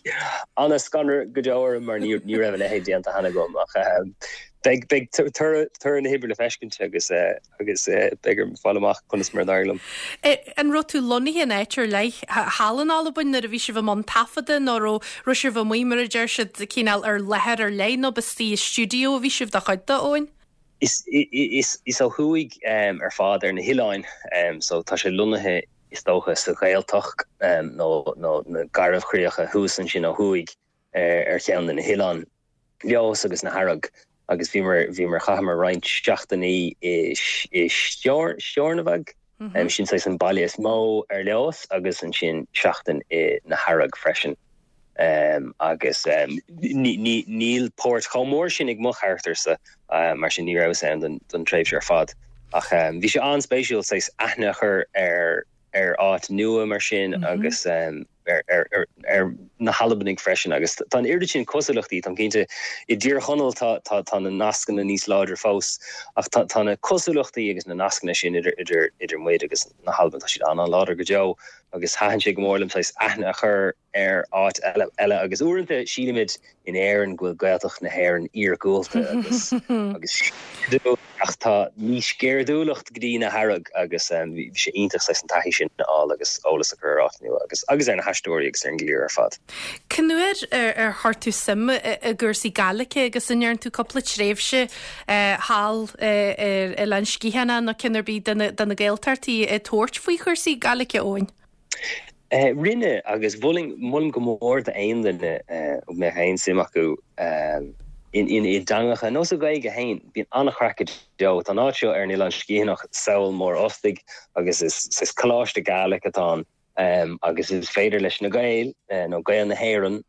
an-scanradh go deo orm mar ní raibh a leithéid déanta cheana agam ach beidh beidh toradh na hoibre le feiscint agus agus beidh orm fáil amach conas mar a d'éirigh liom. An raibh tú lonnaithe in áit ar leith thall in Albain nuair a bhí sibh i mbun taifeadta nó raibh raibh sibh amuigh mar a deir siad cineál ar láthair ar leith nó ba istigh i stiúideo a bhí sibh do chuid de, Eoin? Is ó thuaidh ar fad ar na hoileáin so tá sé lonnaithe is dócha sa Ghaeltacht nó na Garbhchríocha thuas ansin ó thuaidh ar cheann de na hoileáin, Leodhas agus na hEarraig agus bhíomar, bhíomar, chaitheamar roinnt seachtainí i Steòrnabhagh, sin saghas an baile is mó ar Leodhas agus ansin seachtain i na hEarraig freisin. Agus níl páirt chomh mór sin ag mo charachtar-sa, mar sin ní rabhas ann don tréimhse ar fad. Ach bhí sé an-spéisiúil saghas aithne a chur ar ar áit nua mar sin agus ar ar na hAlbanaigh freisin. Agus tá an oiread sin cosúlachtaí, táim cinnte, i dTír Chonaill tá tá tá na nascanna níos láidre fós, ach tá tá na cosúlachtaí agus na nascanna sin idir idir idir muid agus na hAlbain, tá siad an-an-láidir go deo. Agus thaitin sé go mór liom saghas aithne a chur ar áit eile agus uaireanta sílimid in Éirinn go bhfuil Gaeltacht na hÉireann iargúlta agus agus ach tá níos sceirdiúlacht go dtí na hEarraig agus bhí sé iontach saghas an taithí sin a fháil agus eolas a chur ar áit nua agus agus ar na haisteoirí agus ar an gcliar ar fad. Cén uair ar chuir tú suim i gcúrsaí Gaeilge agus an ndearna tú cúpla tréimhse thall ar Oileán Sgitheanach nó ceann ar bith de na Gaeltachtaí ag tabhairt faoi chúrsaí Gaeilge, Eoin? Rinne, agus mholfainn, molaim go mór d'aon duine a mbeadh aon suim acu i dteangacha nó sa Ghaeilge féin. Bíonn an-chraic go deo. Tá an áit seo ar an Oileán Sgitheanach, Sabhal Mòr Ostaig, agus is saghas coláiste Gaelic atá ann agus is féidir leis na Gaeil, nó Gaeil na hÉireann,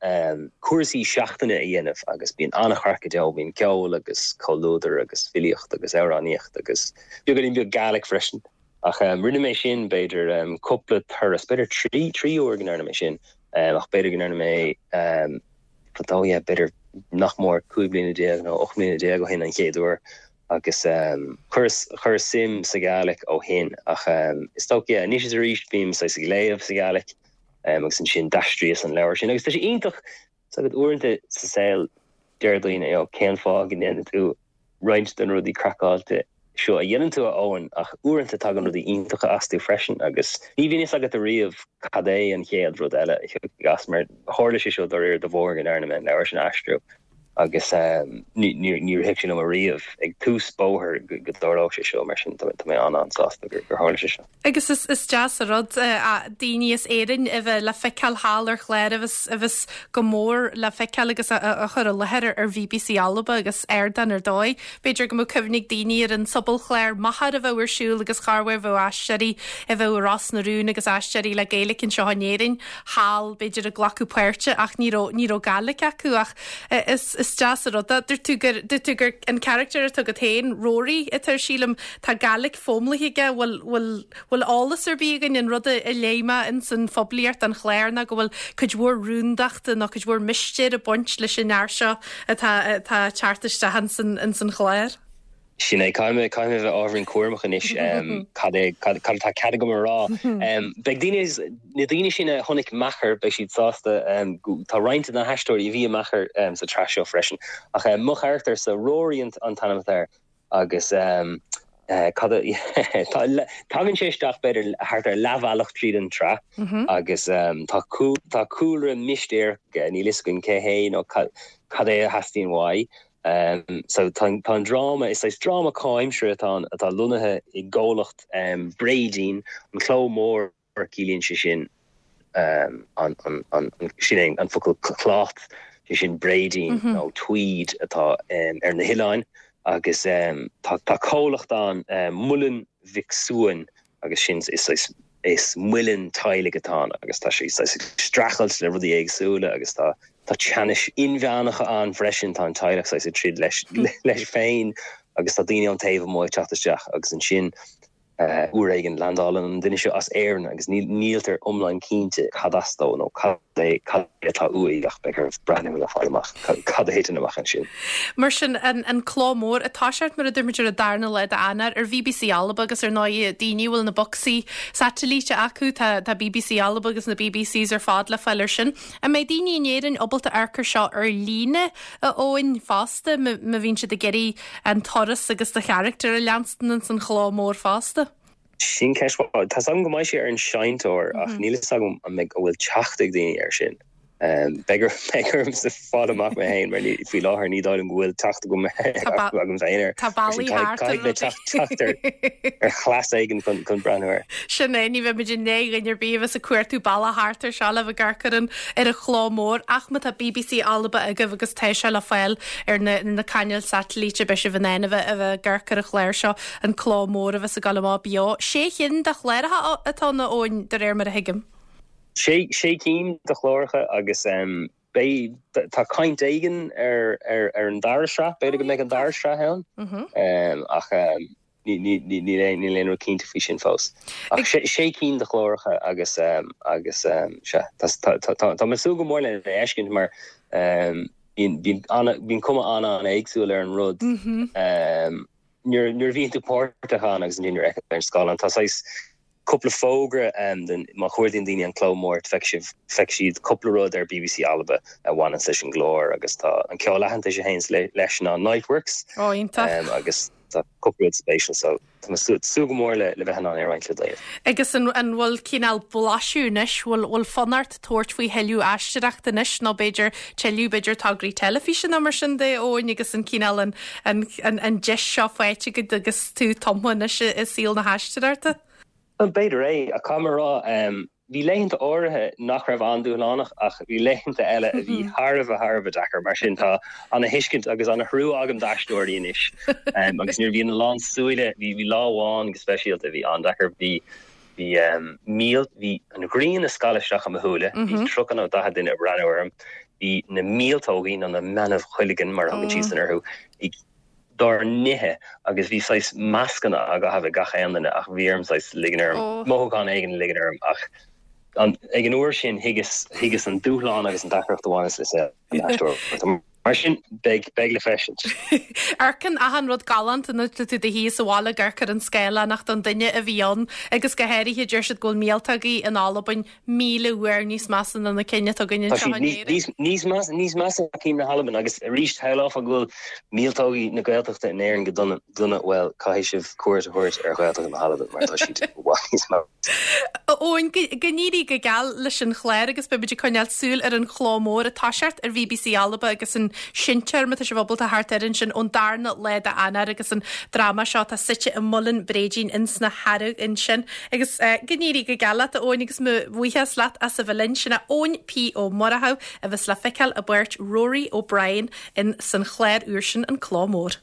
cúrsaí seachtaine a dhéanamh agus bíonn an-chraic go deo. Bíonn ceol agus comhluadar agus filíocht agus amhránaíocht agus beagáinín beag Gaelic freisin. Ach rinne mé sin, b'fhéidir, cúpla turas, b'fhéidir 3, 3 uair go ndearna mé sin, ach b'fhéidir go ndearna mé, fadó, yeah, b'fhéidir nach mór 15 bliana nó 18 mbliana ó shin an chéad uair agus chuireas, chuireas suim sa Ghaelic ó shin ach is dócha, yeah, anois is arís bím saghas ag léamh sa Ghaelic agus ansin d'aistríos an leabhar sin agus tá sé iontach, 's agat uaireanta sa saol deir daoine, you know, cén fáth go ndéanann tú roinnt de na rudaí craiceáilte seo a dhéanann tú, a Eoin, ach uaireanta tagann rudaí iontacha astu freisin agus ní bhíonn fhios agat ariamh cad é an chéad rud eile a thiocfaidh as mar tharla sé seo dáiríre de bharr go ndearna mé an leabhar sin a aistriú agus ní rithfeadh sé liom ariamh ag tús bóthair go dtarlódh sé seo mar sin tá mé an-an-sásta gur tharla sé seo. Agus is deas an rud daoine as Éirinn a bheith le feiceáil thall ar chlár a bheas, a bheas go mór le feiceáil agus á chur i láthair ar BBC Alba agus ardán ar dóigh. B'fhéidir go mbeadh cuimhne ag daoine ar an sobalchlár Machair a bheadh ar siúl agus chorruair bheadh aisteoirí a bheadh i Ros na Rún agus aisteoirí le Gaeilge anseo in Éirinn thall b'fhéidir ag glacadh páirte ach ní raibh, ní raibh Gaeilge acu ach is, is deas an rud é. Dúirt tú gur, dúirt tú gur an carachtar atá agat féin, Rory, atá air sílim, Tá Gaelic foghlamtha aige, bhfuil, bhfuil, bhfuil eolas ar bith againn, an rud a léigh mé ins an phoiblíocht don chlár ná go bhfuil cuid mhór rúndachta nó cuid mhór mistéir ag baint leis an fhear seo atá, atá ag teacht isteach ins an, ins an chlár. Sin é, caithfidh mé, caithfidh mé a bheith ábhairín cúramach anois, cad é, cad, cad atá cead agam a rá. Beidh daoine, na daoine sin a chonaic Meachair, beidh siad sásta, tá roinnt de na haisteoirí a bhí i Meachair sa tsraith seo freisin. Ach mo charachtar-sa, Rory an t-ainm atá air, Agus cad a, tagann sé isteach b'fhéidir thart ar leathbhealach tríd an tsraith agus tá tá cúlra mistéireach aige, níl fhios againn cé hé nó cad é a theastaíonn uaidh. So tá an dráma, is saghas dráma comhaimseartha atá ann atá lonnaithe i gcomhlacht Bréidín, an cló mór. ciallaíonn sé sin an, sin é an focal cloth, sé sin bréidín nó tweed atá ar na hoileáin agus tá comhlacht ann, Muileann Mhic Suain agus sin is is muileann teaghlaigh atá ann agus tá sé saghas ag streachailt le rudaí éagsúla agus tá tá teannais inmheánacha ann freisin, tá an teaghlach saghas ag troid leis leis féin agus tá daoine ón taobh amuigh ag teacht isteach agus ansin. Uair éigin, landálann an duine seo as Éirinn agus níltear iomlán cinnte cad as dó nó cad é cad é atá uaidh ach beidh oraibh breathnú le fáil amach cad a thiteann amach ansin. Mar sin, an Cló Mór ag toiseacht, mar a dúirt muid, ar an darna lá d'Eanáir ar BBC Alba agus ar ndóigh daoine a bhfuil na bocsaí satailíte acu, tá BBC Alba agus na BBCs ar fad le fáil ar sin. An mbeidh daoine in Éirinn ábalta amharc ar seo ar líne, a Eoin, fosta, má bhíonn siad ag iarraidh an turas agus do charachtar a leanstan ins an chló mór fosta? Sin ceist mhaith. Tá's agam go mbeidh sé ar an seinnteoir ach níl fhios agam an mbeidh, an bhfuil teacht ag daoine air sin. Beidh ormsa fáil amach mé féin mar faoi láthair ní dóigh liom go bhfuil teacht agam agam féin air. Tá bealaí thart ar Caithfidh mé teacht ar chleas éigin chun breathnú air. Sin é, ní bheidh muid i ndiaidh dhuine ar bith a bheas ag cuartú bealach thart ar seo le bheith ag amharc ar an ar an chló mór ach má tá BBC Alba agaibh agus tá sé le fáil ar na na cainéil satailíte beidh sibh in ann a bheith a bheith ag amharc ar an chlár seo, an cló mór a bheas ag dul amach beo. Sé chinn de chláracha atá ann a Eoin, de réir mar a thuigim. Sé sé cinn de chláracha agus beidh tá caint éigin ar ar ar an dara sraith, b'fhéidir go mbeidh an dara sraith ann ach Níl aon rud cinnte faoi sin fós. Ach sé cinn de chláracha agus agus sea, tá mé ag súil go mór lena fheiscint mar bíonn cuma an-an-éagsúil ar an rud nuair a bhíonn tú páirteach ann agus ansin nuair a fheiceann tú ar an scáileán. Tá saghas Cúpla fógra den, má chuardaíonn daoine an Cló Mór, feicfidh sibh, feicfidh siad cúpla rud ar bbc Alba a bhaineanns leis an gclár agus tá an ceol aitheantais a théanns leis ná Niteworks. Ó, iontach. Agus tá cúpla rud spéisiúil so tá mé ag súil go mór le le bheith in ann é a roinnt le daoibh. Agus an an bhfuil cineál blaiseadh anois, bhfuil bhfuil fonn ort tabhairt faoi thuilleadh aisteoireachta anois nó b'fhéidir tuilleadh b'fhéidir tograí teilifíse nó mar sin de, Eoin, agus an cineál an an an an deis seo faighte agat agus tú tumtha anois i i saol na haisteoireachta? Bhuel, b'fhéidir é, ach caithfidh mé a rá, bhí laethanta áirithe nach raibh an-dúshlánach ach bhí laethanta eile a bhí thar a bheith, thar a bheith deacair. Mar sin, tá ana-thuiscint agus ana-thrua agam d'aisteoirí anois. Agus nuair a bhíonn a lán súile, bhí bhí lá amháin go speisialta a bhí an-deacair, bhí bhí míl, bhí an ghrian ag scalladh isteach i mo shúile, bhí 30 nó 40 duine ag breathnú orm, bhí na míoltógaí, nó na meanbh-chuilgeann mar a thugann siadsan orthu, ag dár n-ithe agus bhí saghas mascanna á gcaitheamh ag gach aon duine ach bhí orm saghas ligean orm, mothúchán éigin a ligean orm ach ag an uair sin thuigeas, thuigeas an dúshlán agus an deacracht a bhaineas le saol an aisteora. Mar sin, beidh, beidh le feiscint. Amharcann achan rud galánta nuair atá tú i do shuí sa bhaile ag amharc ar an scáileán ach don duine a bhí ann agus go háirithe deir siad go bhfuil míoltógaí in Albain 1,000 uair níos measa ná na cinn atá againn Tá anseo siad in Éirinn. níos, níos measa, níos measa ná cinn na hAlban agus arís shamhlófá go bhfuil míoltógaí na Gaeltachta in Éirinn go dona, dona, bhuel, caithfidh sibh cuairt a thabhairt ar Ghaeltacht na hAlban mar tá siad i bhfad níos measa. Eoin, go n-éirí go geal leis an chlár agus beidh muid ag coinneáil súil ar an chló mór ag toiseacht ar bbc Alba agus an seinnteoir má tá sibh ábalta theacht air ansin ón darna lá d'Eanáir agus an dráma seo atá suite i Muileann Bréidín ins na hEarraigh ansin. Agus go n-éirí go geal leat a Eoin agus mo bhuíochas leat as a bheith linn. Sin é Eoin P Ó Murchú a bheas le feiceáil i bpáirt Rory O'Brien in san chlár úr sin An Cló Mór.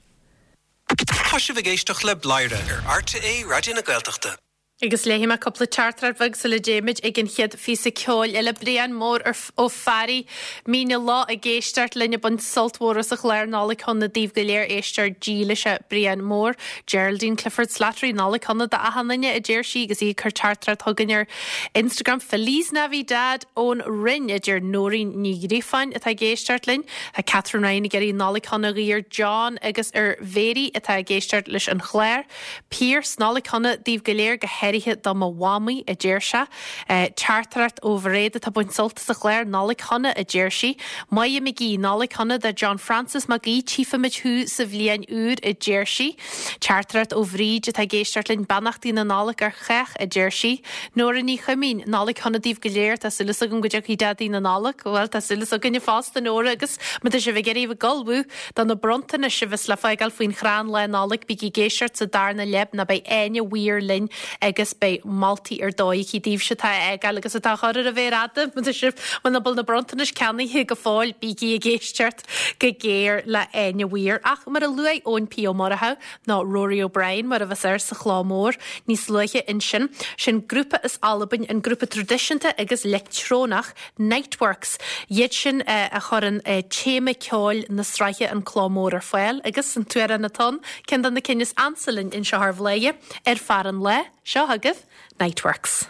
Tá sibh ag éisteacht le Bladhaire ar RTÉ Raidió na Gaeltachta. Agus léifidh mé cúpla teachtaireacht bheag sula dtéimid ag an chéad phíosa ceoil eile. Brian Mór Ó Fearraigh, Míne lá ag éisteacht linn ag baint sult mhór as an chlár Nollaig Shona daoibh go léir éisteoir dílis é Brian Mór. Geraldine Clifford Slattery, Nollaig Shona d'achan duine, a deir sí agus í ag cur teachtaireacht chugainn ar Instagram. Feliz Navidad ón Rinn, a deir Nóirín Ní Ghríofáin atá ag éisteacht linn. Tá Catherine Ryan ag iarraidh Nollaig Shona a ghuí ar John agus ar Mhary atá ag éisteacht leis an chlár. Pearse, Nollaig Shona daoibh go léir, go háirithe do mo mhamaí, a deir sé. Teachtaireacht ó Mhairéad atá ag baint sult as an chlár, Nollaig Shona, a deir sí. Máire McGee, Nollaig Shona do John Francis Mac Aoidh, tchífimid thú sa bhliain úr, a deir sí. Teachtaireacht ó Bhríd atá ag éisteacht linn, Beannachtaí na Nollag ar chách, a deir sí. Nóra Ní Chuimín, Nollaig Shona daoibh go léir, tá súil agam go dtiocfaidh Daidí na Nollag. Bhuel, tá súil againne fosta, Nóra, agus má tá sibh ag iarraidh a bheith ag ullmhú Do na bronntanais a bheas le fágáil faoin chrann Lá Nollag, bígí ag éisteacht sa darna leath nó beidh Áine Weir linn ag. agus beidh moltaí ar dóigh aici daoibhse atá á fhágáil agus atá á chur ar a mhéar fhada, má tá sibh, muna bhfuil na bronntanais ceannaithe go fóill, bígí ag éisteacht go géar le Áine Weir. Ach mar a luaigh Eoin P. Ó Murchú, nó Rory O'Brien mar a bheas air sa chló mór níos luaithe ansin, sin grúpa as Albain, an grúpa traidisiúnta agus leictreonach Niteworks. Iad sin a chuireann téama ceoil na sraithe An Cló Mór ar fáil agus an t-amhrán atá ann, ceann de na cinn is ansa linn anseo ar Bhladhaire, Ar Fear an Lae, seo chugaibh Niteworks.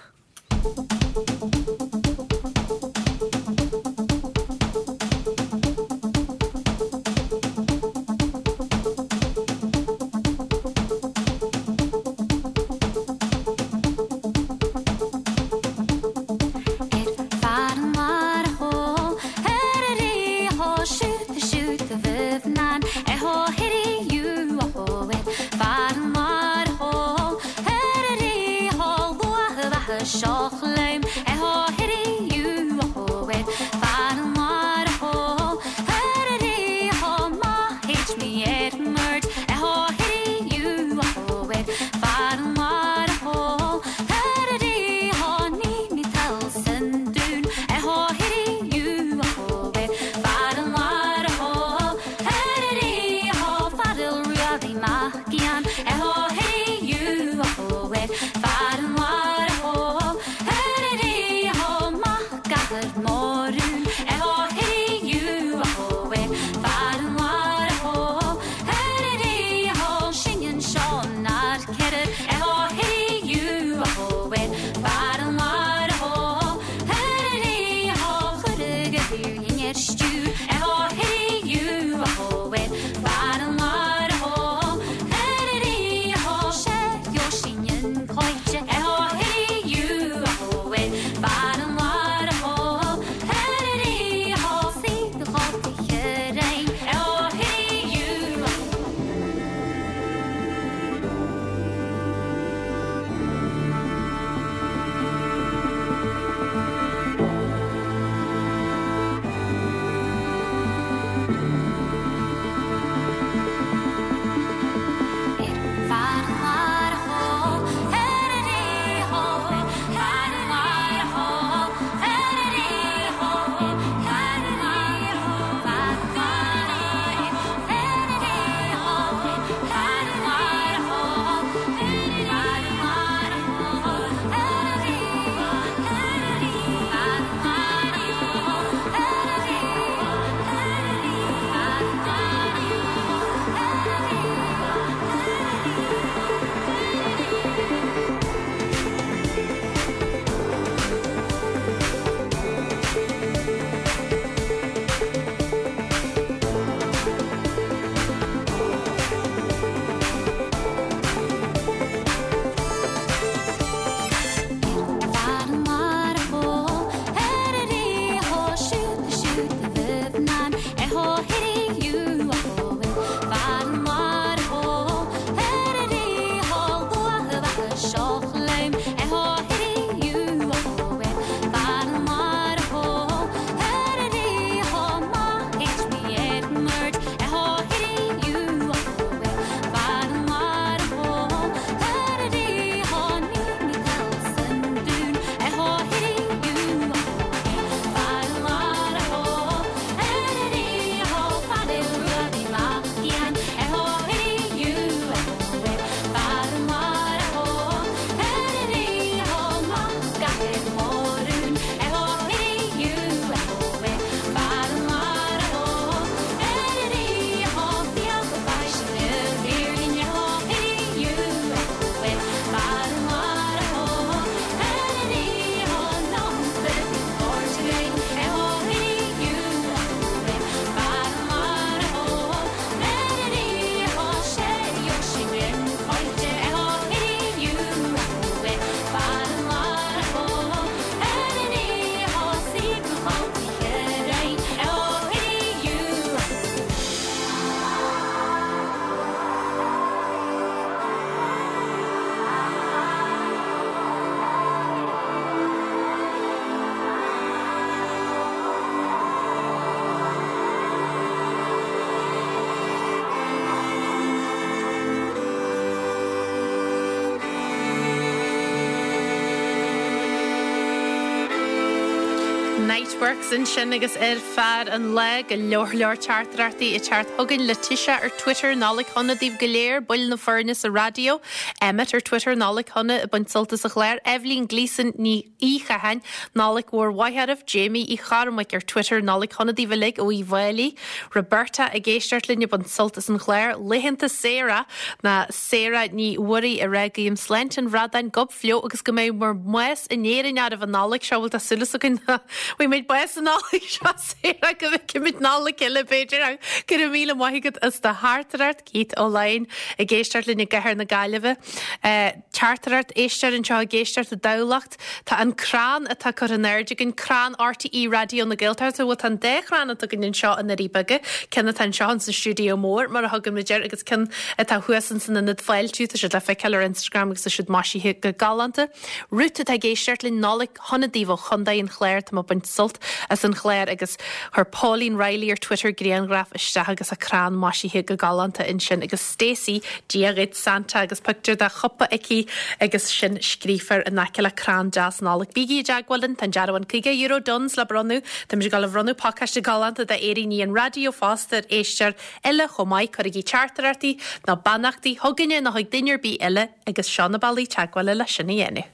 Niteworks ansin agus ar fear an lae, go leor leor teachtaireachtaí ag teacht chugainn. Letitia ar Twitter, Nollaig shona daoibh go léir, baill na foirne sa raidió. Emmet ar Twitter, Nollaig shona, ag baint sult as an chlár. Eibhlín Gleeson Ní Chatháin, Nollaig mhór mhaith oraibh. Jamie Uí Chormaic ar Twitter, Nollaig shona daoibh uilig ó Uíbh Fhailí. Roberta ag éisteacht linn ag baint sult as an chlár. Laethanta saora ná Sarah Ní Mhuirí ag rá guím sláinte an bhradáin, gob fliuch agus go mbeidh bhur mbás in Éirinn oraibh an Nollaig seo, bhuel tá súil againn go bhfaighidh muid bás an Nollaig seo Sarah, go bhfeicfimid Nollaig eile b'fhéidir ach go raibh míle maith agat as do theachtaireacht, Keith Ó Laighin ag éisteacht linn i gcathair na Gaillimhe. Teachtaireacht, éisteoir anseo ag éisteacht i dTamhlacht. Tá an crann atá curtha in airde againn, crann RTÉ Raidió na Gaeltachta, bhuel tá an dá chrann atá againn anseo i nDoirí Beaga, ceann atá anseo ins an stiúideo mór mar a thugann muid air agus ceann atá thuas ins an ionad fáiltiú, tá siad le feiceáil ar Instagram agus tá siad maisithe go galánta. Ruth atá ag éisteacht linn, Nollaig shona daoibh ó Chontae an Chláir, tá mé ag baint sult as an chlár agus chuir Pauline Reilly ar Twitter grianghraf isteach agus a crann maisithe go galánta ansin agus Stacey, Dia dhuit Santa agus pictiúr de chupa aici agus sin scríofa in aice le crann deas Nollag. Bígí i dteagmháil linn, tá an dearbhán €50 Dunnes le bronnadh. Táimid ag dul a bhronnadh pacáiste galánta d'fhéiríní an raidió fosta ar éisteoir eile chomh maith. Cuirigí teachtaireachtaí nó beannachtaí chugainne nó chuig duine ar bith eile agus seo na bealaí teagmhála le sin a dhéanamh.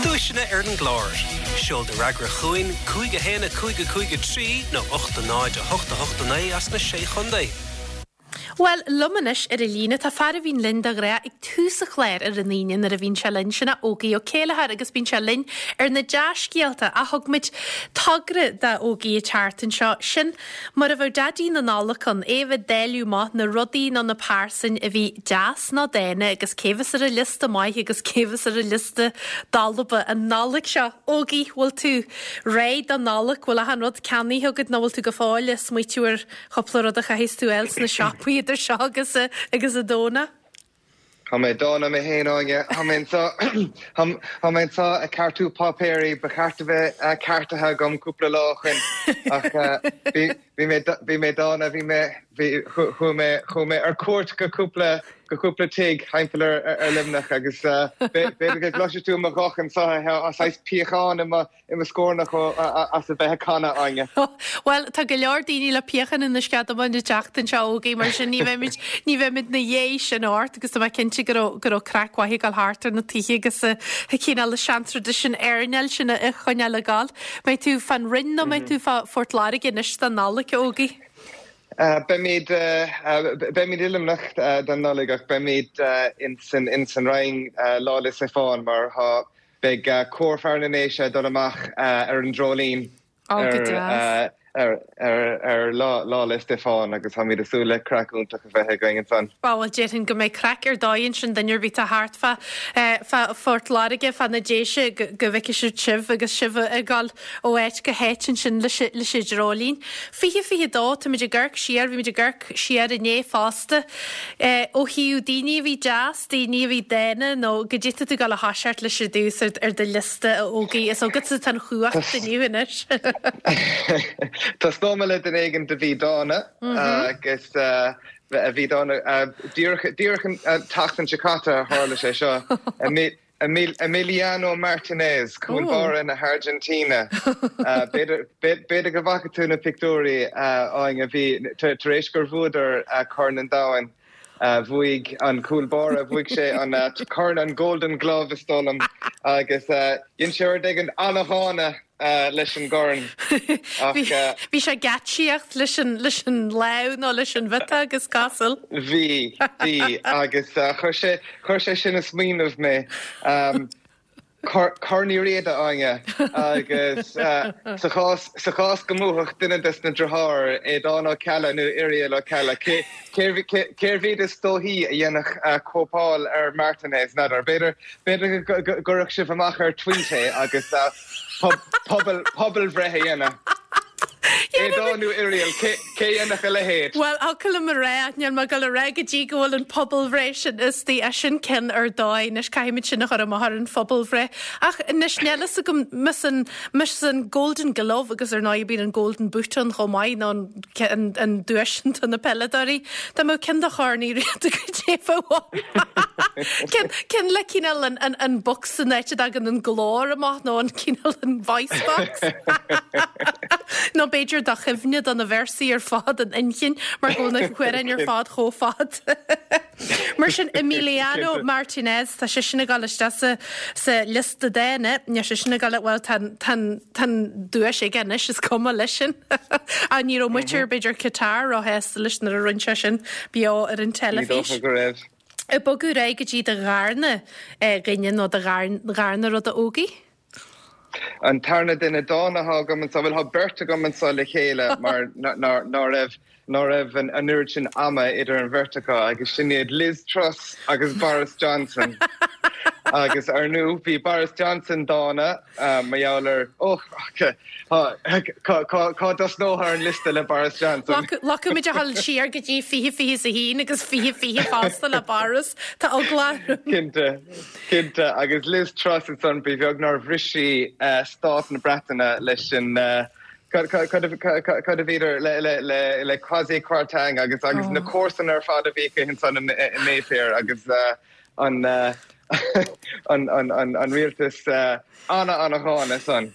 Duaiseanna ar an gclár. Seol do fhreagra chugainn, 5 1 5 5 3 nó 8 0 8 8 9 as na Sé Chontae. Bhuel, liom anois ar an líne tá fear a bhíonn linn de ghnáth ag tús an chláir ar an Aoine nuair a bhíonn sé linn, sin é Ógie Ó Céilleachair agus bíonn sé linn ar na dea-scéalta ach thug muid togra d'Ógie an tseachtain seo, sin mar a bheadh Daidí na Nollag ann, é a bheith ag dáileadh amach na rudaí nó na pearsain a bhí deas nó dána agus cé bheas ar an liosta maith agus cé bheas ar an liosta dalba an Nollaig seo. Ógie, bhfuil tú réidh don Nollaig? Bhfuil achan rud ceannaithe agat nó bhfuil tú go fóill ag smaoitiú ar Cúpla rud a chaithfeas tú a fháil sna siopaí idir seo agus agus an Domhnach. Tá mé dána mé féin, Áine. Tá mé anseo, tá mé anseo ag ceartú páipéirí ba cheart a bheith ceartaithe agam cúpla lá ó shoin ach bhí, bhí mé, bhí mé dána, bhí mé, bhí, chuaigh mé, chuaigh mé ar cuairt go cúpla, go cúpla tigh thimpeall ar, ar Luimneach agus b'fhéidir go gcloisfidh tú mo ghuth anseo, tá saghas piachán i mo, i mo scornach as a bheith ag canadh, Áine. Bhuel, tá go leor daoine le piachán ina sceadamán an tseachtain seo, Ógie, mar sin ní bheimid, ní bheimid 'na dhiaidh sin ort agus tá mé cinnte go raibh, go raibh craic mhaith ag dul thart ar na tithe agus an cineál seantraidisiún airneáil sin a choinneáil ag dul. Mbeidh tú fán Rinn nó mbeidh tú fá Phort Láirge anois don Nollaig, a Ógie? Beimid, beimid i Luimneach don Nollaig ach beimid ins an, ins an Rinn Lá 'le Stiofáin mar tá, Beidh Cór Fear na nDéise ag dul amach ar an Dreoilín ar ar Lá 'le Stiofáin agus táimid ag súil le craic iontach a bheith againn ansan. Bhuel, déarfainn go mbeidh craic ar dóigh ansin, duine ar bith atá thart fá fá Phort Láirge, fá na Déise, go go bhfeicfidh siad sibh agus sibh ag dul ó áit go háit ansin leis leis an Dreoilín. 2022, táimid ag amharc siar, bhí muid ag amharc siar inné fosta. Ó thaobh daoine a bhí deas, daoine a bhí dána nó goidé tá tú ag dul a thoiseacht leis ar dtús ar do liosta a Ógie, is agatsa atá an chumhacht inniu anois. Tosnóidh mé le duine éigin a bhí dána agus a bhí dána díreach díreach an tseachtain seo caite a tharla sé seo. Emiliano Martinez, cúl báire na hAirgintíne. B'fhéidir go bhfaca tú na pictiúirí, Áine, bhí, tar éis gur bhuadar Corn an Domhain, bhuaigh an cúl báire, bhuaigh sé an corn, an Golden Glove is dóigh liom, agus dhein sé rud éigin an-dhána leis an gcorn. Ach. Bhí sé ag geáitsíocht leis an, leis an lámh nó leis an bhiotág is cosúil. Bhí, bhí, agus chuir sé, chuir sé sin ag smaoineamh mé. Corn Uí Riada, Áine, agus sa chás, sa chás go mbuafadh duine des na driotháir, Aodán Ó Ceallaigh nó Irial Ó Ceallaigh, cé, cérbh iad is dóichí a dhéanfadh cóipeáil ar Martinez, n'fheadar. B'fhéidir, b'fhéidir go gcuirfeadh sibh amach ar tweet é agus. Pobalbhreith a dhéanamh. Aodán nó Irial, cé a dhéanfadh a leithéid? Bhuel, thiocfadh liom a rá, ach níl mé ag dul a rá go dtí go bhfuil an pobalbhreith sin istigh, é sin ceann ar dóigh, anois caithfimid sin a chur amach ar an phobalbhreith. Ach anois níl fhios agam, más an, más an Golden Glove agus ar ndóigh bíonn an Golden Boot ann chomh maith nó an, an duais sin do na peileadóirí, dá mbeadh ceann de chorn Uí Riada goidé a bheadh ann. Ceann, ceann le cineál an, an, an box san áit a dtagann an glór amach nó an cineál an voice box. Nó b'fhéidir do chuimhne do na véarsaí ar fad in inchinn mar go bhfuil na hamhráin ar fad chomh fada. Mar sin Emiliano Martinez, tá seisean ag dul isteach sa, sa liosta dána, níl seisean ag dul, bhuel tá an, tá an, tá an duais aige anois, is cuma leis sin. Ach ní raibh muintir, b'fhéidir Qatar róshásta leis nuair a rinne sé sin beo ar an Ní teilifís. dócha go raibh. Ag bogadh ar aghaidh go dtí do dharna dhuine nó do dharna rud a Ógie? An tarna duine dána atá agam anseo, bhuel, tá beirt agam anseo le chéile mar ná raibh ná raibh an oiread sin ama idir an bheirt acu agus sin iad Liz Truss agus Boris Johnson. Agus ar ndú bhí Boris Johnson dána mar gheall ar, ó, cá dtosnófá ar an liosta le Boris Johnson? Locaimid a dhul siar go dtí 2021 agus 2020 fosta le Boris. Tá eagla orm. Cinnte. Cinnte, agus Liz Truss ansan, ba bheag nár bhris sí stát na Breataine leis an, cad a bhíodar, le Kwasi Kwarteng agus agus na comharsana ar fad a bhí aici ansan i Mayfair agus an an rialtas ana-ana-dhána san.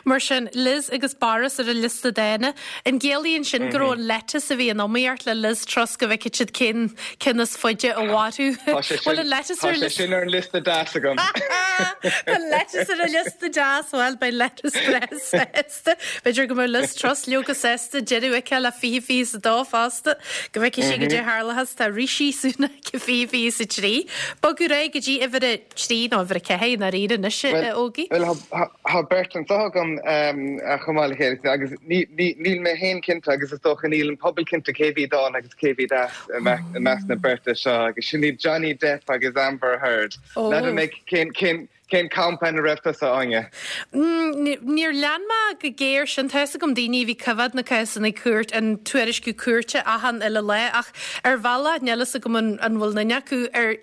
Mar sin, Liz agus Boris ar an liosta dána. An gciallaíonn sin go raibh an lettuce a bhí in iomaíocht le Liz Truss go bhfeicfeadh siad cén ceann is faide a mhairfeadh? Tá sé Bhfuil an lettuce ar tá sé sin ar an liosta deas agam. Tá lettuce ar an liosta deas, bhuel beidh lettuce breá sásta. B'fhéidir go mbeidh Liz Truss leoga sásta deireadh aici le 2022 fosta. Go bhfeicfidh sí goidé a tharlóchas tá Rishi Sunak i 2023. Bogadh ar aghaidh go dtí uimhir a 3 nó uimhir a 4 i ndáiríre anois, a Ógie. Bhuel, tá beirt anseo agam chomh maith le chéile agus níl mé féin cinnte agus is dócha níl an pobal cinnte cé bhí dána agus cé bhí deas i measc na beirte seo agus sin iad Johnny Depp agus Amber Heard. N'fheadar mé cén cén campa ina raibh tusa, Áine? Níor lean mé go géar sin. Tá fhios agam daoine a bhí coimhéad na cásanna cúirt, an tuairisciú cúirte achan uile lá ach ar bhealach níl fhios agam an bhfuil duine acu ar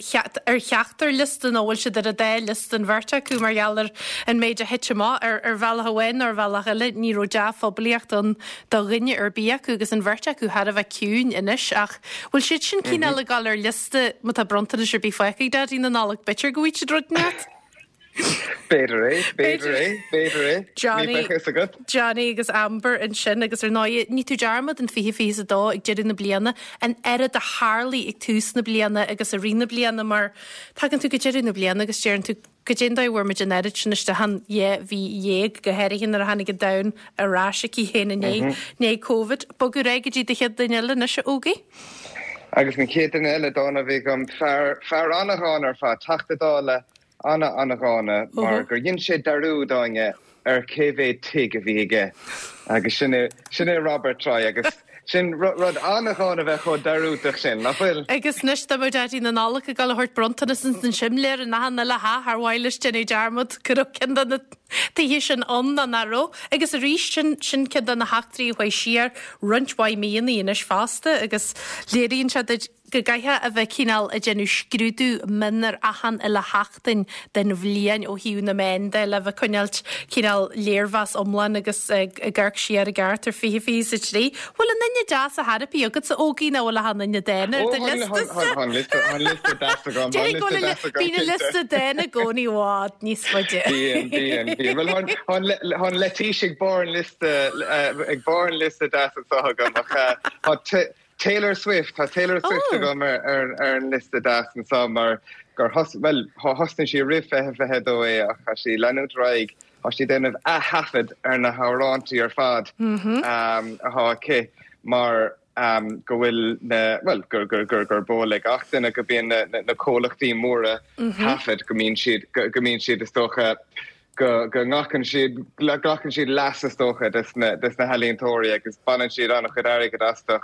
ar cheachtar liosta nó bhfuil siad ar an dá liosta an bheirt acu mar gheall ar an méid a thit amach. Ar ar bhealach amháin nó ar bhealach eile ní raibh dea-phoiblíocht ann do dhuine ar bith acu agus an bheirt acu thar a bheith ciúin anois ach bhfuil siad sin cineál ag dul ar liosta má tá bronntanais ar bith fágtha ag Daidí na Nollag b'fhéidir go bhfaighidh siad rud inteacht? B'fhéidir é, b'fhéidir é, b'fhéidir é. Ní bheadh fhios agat. Johnny agus Amber ansin agus ar ndóigh ní tú dearmad an 2022 ag deireadh na bliana, an oiread a tharlaigh ag tús na bliana agus i rith na bliana mar tagann tú go deireadh na bliana agus deireann tú goidé an dóigh a bhfuair muid an oiread sin isteach in 12 mhí, go háirithe nuair a tháinig an domhan ar ais chuici féin i ndiaidh Covid. Bogadh ar aghaidh go dtí do chéad duine eile anois, a Ógie. Agus an chéad duine eile dána a bhí agam, fear, fear an-dhána ar fad, Teachta Dála ana-ana-dhána mar gur dhein sé dearúd, Áine, ar cé mhéad tigh a bhí aige agus sin é, sin é Robert Troy agus sin rud an-dhána a bheith chomh dearúdach sin, nach bhfuil? Agus anois dá mbeadh Daidí na Nollag ag dul a thabhairt bronntanas ins an simléar in achan uile theach ar mhaith leis déanamh dearmad go raibh ceann de na tithe sin ann nó nach raibh. Agus arís sin, sin ceann de na heachtraí a chuaigh siar roinnt mhaith míonna anois fosta agus léiríonn sé duit go gcaithfeá a bheith cineál ag déanamh scrúdú mion ar achan uile sheachtain den bhliain ó thaobh na meán de le bheith coinneáilt cineál léirmheas iomlán agus ag amharc siar i gceart ar 2023. Bhfuil aon duine deas ar chor ar bith agatsa a Ógie nó bhfuil achan duine dána ar do liosta-sa? Tá an liosta deas agam. Déarfainn go bhfuil bíonn an liosta dána i gcónaí i bhfad níos faide. Bíonn, bíonn, bíonn. Bhuel, tá an leitís ag barr an liosta, ag barr an liosta deas anseo agam ach tá Taylor Swift, Tá Taylor Swift agam ar an liosta deas anseo mar gur thos, bhuel, thosnaigh sí roimh 2022 é ach tá sí ag leanúint ar aghaidh, tá sí ag déanamh ath-thaifead ar na hamhráintí ar fad atá aici mar go bhfuil na, bhuel, gur, gur, gur, gurb eol ag gach duine go mbíonn na, na comhlachtaí móra taifead, go mbíonn siad, go mbíonn siad is dócha, go nglacann siad, glacann siad leas is dócha des na, des na healaíontóirí agus baineann siad an-chuid airgid astu.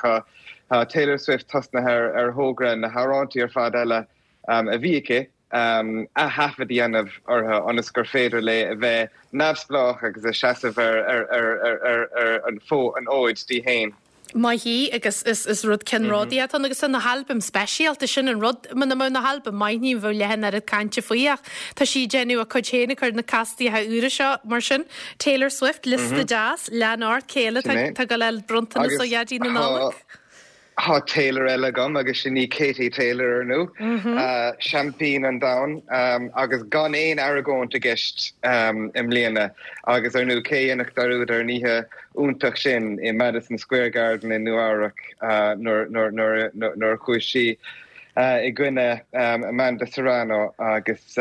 Tá Taylor Swift tosnaithe ar, ar thogra na hamhráintí ar fad eile a bhí aici. ath-thaifead a dhéanamh orthu ionas gur féidir léi a bheith neamhspleách agus a seasamh ar an fhód di féin. Maith í agus is rud ceannródaíoch atá ann agus tá na halbaim speisialta, sin an rud, muna mbeadh na halbaim maith ní bheadh leath an oiread cainte faoi ach tá sí ag déanamh a cuid féin ag cur na castaíocha úra seo mar sin. Taylor Swift, liosta deas, lean ort, cé eile tá ag dul a fháil bronntanas ó Dhaidí na Nollag? Tá Taylor eile agam agus sin í Katie Taylor, ar ndú, seaimpín an domhain agus gan aon argóint i gceist i mbliana. Agus ar ndú, cé a dhéanfadh dearúd ar an oíche iontach sin i Madison Square Garden i Nua-Eabhrac nuair a chuaigh sí i gcoinne Amanda Serrano agus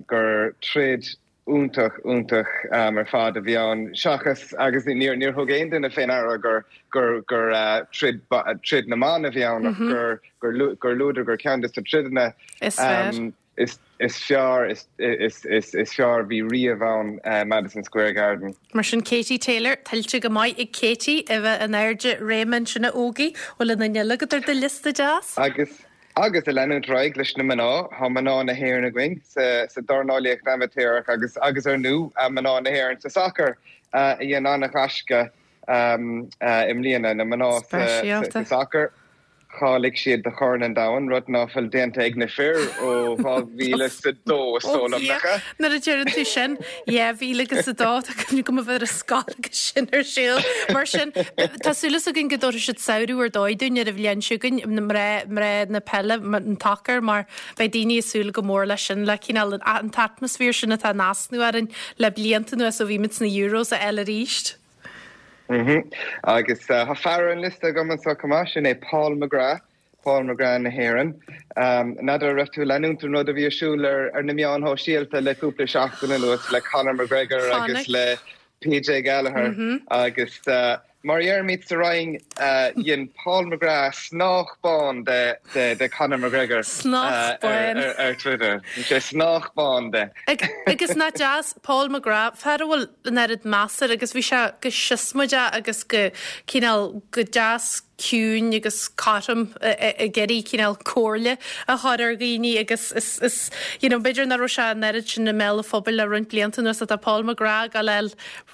gur troid iontach, iontach ar fad a bhí ann. Seachas, agus níor thug aon duine fé ndeara gur, gur, gur troid, troid na mban a bhí ann ach gur, gur, gur luadar gur ceann de na troideanna is fearr, is, is fearr, is, is, is, is fearr a bhí riamh ann i Madison Square Garden. Mar sin Katie Taylor, tuillte go maith ag Katie a bheith in airde réime ansin a Ógie, bhfuil aon duine eile agat ar do liosta deas? Agus. Agus ag leanúint ar aghaidh leis na mná, tá mná na hÉireann againn sa dornálaíocht amaitéarach agus, agus ar ndú, mná na hÉireann sa sacar a dhein an-ghaisce i mbliana. Na mná sa sacar, cháiligh siad do Chorn an Domhain, rud ná fuil déanta ag na fir ó 2002, is dóigh liom, nach ea? Nuair a deireann tú sin, 2002, tá cuimhne agam a bheith ar an scoil agus sin ar siúl. Mar sin, tá súil againn go dtabharfaidh siad samhradh ar dóigh dúinn ar an bhliain seo chugainn, mná, mná na peile, an tsacair, mar beidh daoine ag súil go mór leis sin, le cineál an t-atmaisféar sin atá in easnamh orainn le blianta anuas ó bhí muid sna Euros a fháil arís. Agus tá fear ar an liosta agam anseo chomh maith, sin é Paul McGrath. Paul McGrath na hÉireann. N'fheadar an raibh tú ag leanúint an rud a bhí ar siúl ar na meáin shóisialta le cúpla seachtain anuas le Conor McGregor agus le PJ Gallagher agus mar a dheirimid sa Rinn dhein Paul McGrath snách bán de Conor McGregor ar Twitter. Dhein sé snách bán de. Agus nach deas Paul McGrath, fear a bhfuil an oiread meas air agus bhí sé go siosmaideach agus go cineál go deas ciúin agus cothrom ag iarraidh cineál comhairle a chur ar dhaoine agus is, is, you know, b'fhéidir nach raibh sé an oiread sin i mbéal an phobail le roinnt blianta anuas ach tá Paul McGrath ag dul a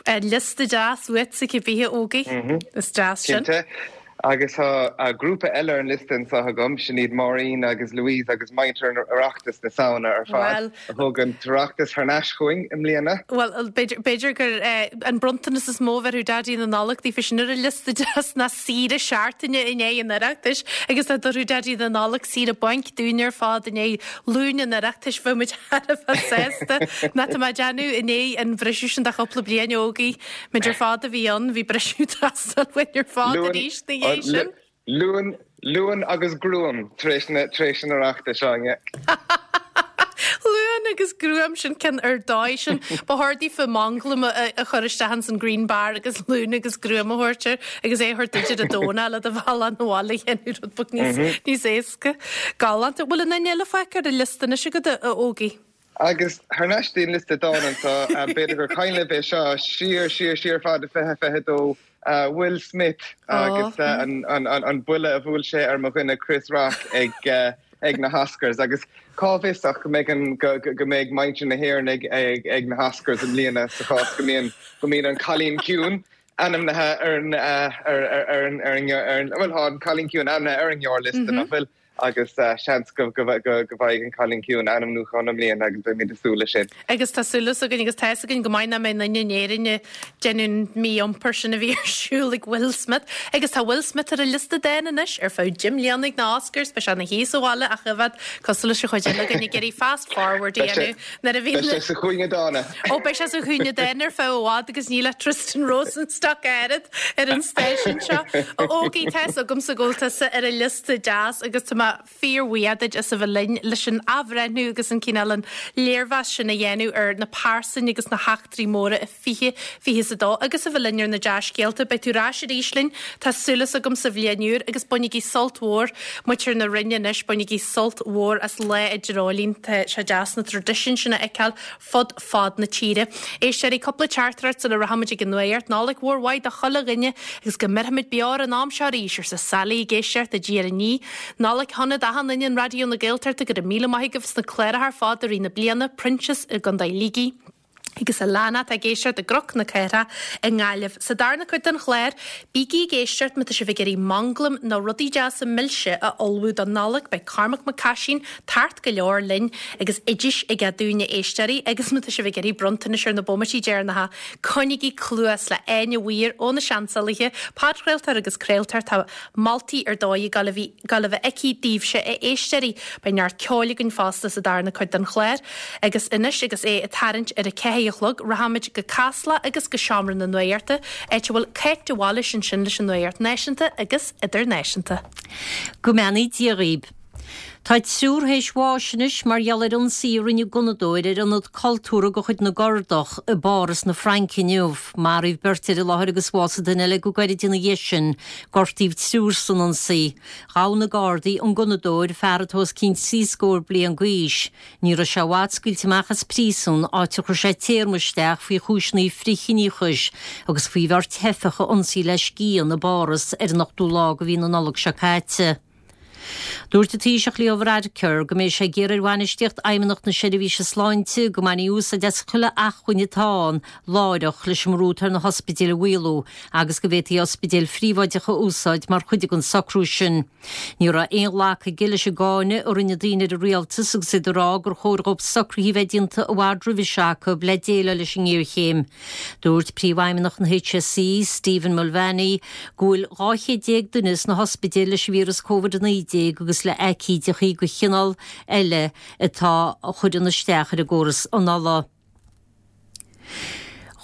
fháil liosta deas uait cibé a Ógie. Is deas sin. Cinnte. Agus tá grúpa eile ar an liosta anseo agam, sin iad Máirín agus Louise agus muintir Oireachtas na Samhna ar fad a thug an tOireachtas thar n-ais chugainn i mbliana. Bhuel, b'fhéidir gur an bronntanas is mó a bhéarfadh Daidí na Nollag daofa sin ar an liosta deas ná saoire seachtaine i ndiaidh an Oireachtais agus dá dtabharfadh Daidí na Nollag saoire bainc dúinn ar fad i ndiaidh Luan an Oireachtais bheadh muid thar a bheith sásta. Ná tá mé ag déanamh i ndiaidh an bhriseadh sin de chúpla bliain a Ógie. Muid ar fad a bhí ann, bhí briseadh ag teastáil uainn ar fad arís ina dhiaidh sin. Luan, Luan agus gruaim tar éis na, tar éis an Oireachtais, Áine. Luan agus gruaim, sin ceann ar dóigh sin. Ba chóir daofa manglam a chur isteach ins an green bar agus luan agus gruaim a thabhairt air agus é a thabhairt duit ar an Domhnach le do bhealach 'na bhaile a dhéanamh rud beag níos, níos éasca. Galánta. Bhfuil aon duine eile fágtha ar an liosta anois agat, a Ógie? Agus thar n-ais dtí'n liosta dán anseo, b'fhéidir gur cuimhin libh é seo, siar, siar, siar fada 2022, Will Smith agus an buille a bhuail sé ar mo dhuine Chris Rock ag na hOscars. Agus cá bhfios ach go mbeidh an, go mbeidh muintir na hÉireann ag na hOscars i mbliana sa chás go mbíonn, go mbíonn an Cailín Ciúin ainmnithe ar an, ar an, ar an, bhuel tá an Cailín Ciúin ainmnithe ar an ngearrliosta, nach bhfuil? agus seans go bhfaighidh an Cailín Ciúin ainmniúchán i mbliana agus beimid ag súil leis sin. Agus tá súil againn agus tá fhios againn go maith nach mbeidh aon duine in Éirinn ag déanamh an mí-iompar sin a bhí ar siúl ag Will Smith. Agus tá Will Smith ar an liosta dán anois ar feadh 10 mbliana ag na Oscars, beidh sé ina shuí sa bhaile ach i bhfad cosúil leis an chuid eile againn ag iarraidh fast forward a dhéanamh nuair a bhíonn Beidh sé sa chúinne dána. Ó beidh sé sa chúinne dána ar feadh i bhfad agus níl ach Tristan Rosenstock oiread ar an stáisiún seo. A Ógie, tá fhios agamsa go bhfuil tusa ar an liosta deas agus tá mé fíorbhuíoch duit as a bheith linn leis an athbhreithniú agus an cineál an léirmheas sin a dhéanamh ar na pearsain agus na heachtraí móra i 2022 agus a bheith linn ar na dea-scéalta. Beidh tú ar ais arís linn, tá súil agam sa bhliain úr agus bainigí sult mhór, muintir na Rinne anois, bainigí sult mhór as Lá an Dreoilín. Tá sé deas na traidisiúin sin a fheiceáil fud fad na tíre. Éisteoirí, cúpla teachtaireacht sula rachaimid ag an nuacht. Nollaig mhór mhaith do chuile dhuine agus go mbeirfimid beo ar an am seo arís, arsa Sally ag éisteacht i dTír an Fhia. Nollaig shona. shona d'achan duine in Raidió na Gaeltachta, go raibh míle maith agaibh sna cláracha ar fad i rith na bliana, Proinsias i gContae Shligigh. Agus Alana atá ag éisteacht i gCnoc na Cathrach i nGaillimh. Sa darna cuid den chlár, bígí ag éisteacht má tá sibh ag iarraidh manglam nó rudaí deasa milse a ullmhú don Nollaig, beidh Cormac Mac Caisín tart go leor linn agus oidis aige dúinn a éisteoirí agus má tá sibh ag iarraidh bronntanais ar na bomaití deireanacha, coinnígí cluas le Áine Mhaoir ó na Seansálaithe, podchraoltóir agus craoltóir, tá moltaí ar dóigh ag dul a bheith aici daoibhse a éisteoirí. Beidh neart ceoil againn fosta sa darna cuid den chlár. Agus anois agus é ag tarraingt ar a ceathair a chlog, rachaimid go Casla agus go Seomra na Nuachta, áit a bhfuil Cáit de Bhailís ansin leis an Nuacht Náisiúnta agus Idirnáisiúnta. Go mbeannaí Dia dhaoib. Tá triúr théis bháis anois mar gheall ar ionsaí a rinne gunnadóir ar ionad cultúrtha de chuid na gCurdach i bPáras na Fraince inniu. Maraíodh beirt ar an láthair agus bhásaigh duine eile go gairid ina dhiaidh sin. Gortaíodh triúr san ionsaí. Ghabh na Gardaí an gunnadóir, fear atá os cionn trí scór bliain d'aois. Ní raibh sé i bhfad scaoilte amach as príosún, áit ar chuir sé téarma isteach faoi chúiseanna frithchiníochais agus faoi bheirt theifeach a ionsaí le scian i bPáras ar an ochtú lá de mhí na Nollag seo caite. Dúirt an Taoiseach Leo Varadkar go mbeidh sé ag iarraidh ar bhainistíocht Fheidhmeannacht na Seirbhíse Sláinte go mbainfí úsáid as chuile acmhainn atá ann láithreach leis an mbrú atá ar na hospidéil a mhaolú agus go bhféadfaí ospidéil phríobháideacha a úsáid mar chuid den socrú sin. Ní raibh aon ghlacadh aige leis an gcáineadh a rinne daoine ar an rialtas agus iad ag rá gur chóir dhóibh socruithe a bheith déanta i bhfad roimhe seo acu le déileáil leis an ngéarchéim. Dúirt Príomhfheidhmeannach an HSE, Stephen Mulvaney, go bhfuil 12 chéad duine sna hospidéil leis an víreas Covid-19 agus le haicídeachaí de chineál eile atá a chuireann isteach ar an gcóras anála.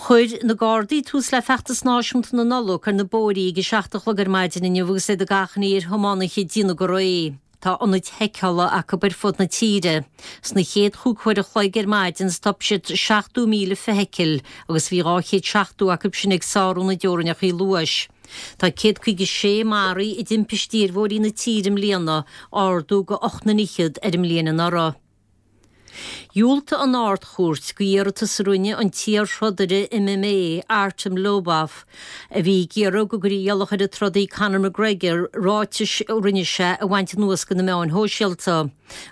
Chuir na Gardaí tús le feachtas náisiúnta na Nollag ar na bóithrí ag a 7 a chlog ar maidin inniu agus iad ag achainí ar thiománaithe déanamh go réidh. Tá ionaid sheiceála acu ar fud na tíre. Sna chéad chúig huair a chloig ar maidin stop siad 70,000 feithicil agus bhí 270 acu sin ag sárú na dteorainneacha luais. Tá 156 maraithe i dtimpistí ar bhóithrí na tíre i mbliana, ardú de ocht n-fhichead ar an mbliain anuraidh. Dhiúltaigh an Ard-Chúirt go iarratas a rinne an t-iar-throdaire MMA, Artem Lobov, a bhí ag iarraidh go gcuirfí iallach ar an trodaí Conor McGregor ráitis a rinne sé a bhaint anuas de na meáin shóisialta.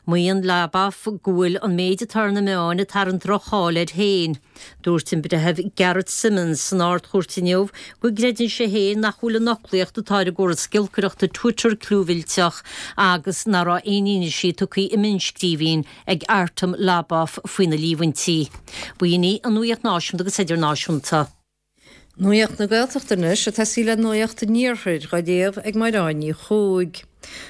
Maíonn Lobov go bhfuil an méid atá ar na meáin ag tarraingt droch-cháil air féin. Dúirt an Breitheamh Gareth Simmonds san Ard-Chúirt inniu go gcreideann sé féin nach bhfuil an fhoclaíocht atá ar an gcóras giolcaireachta Twitter clúmhillteach agus nach raibh aon fhianaise tugtha i mionnscríbhinn ag Artem Lobov faoi na líomhaintí. B'in í an Nuacht Náisiúnta agus Idirnáisiúnta. Nuacht na Gaeltachta anois, ag tosaí le Nuacht an Iarthair, dhá léamh ag Mairéad Ní Chuaig.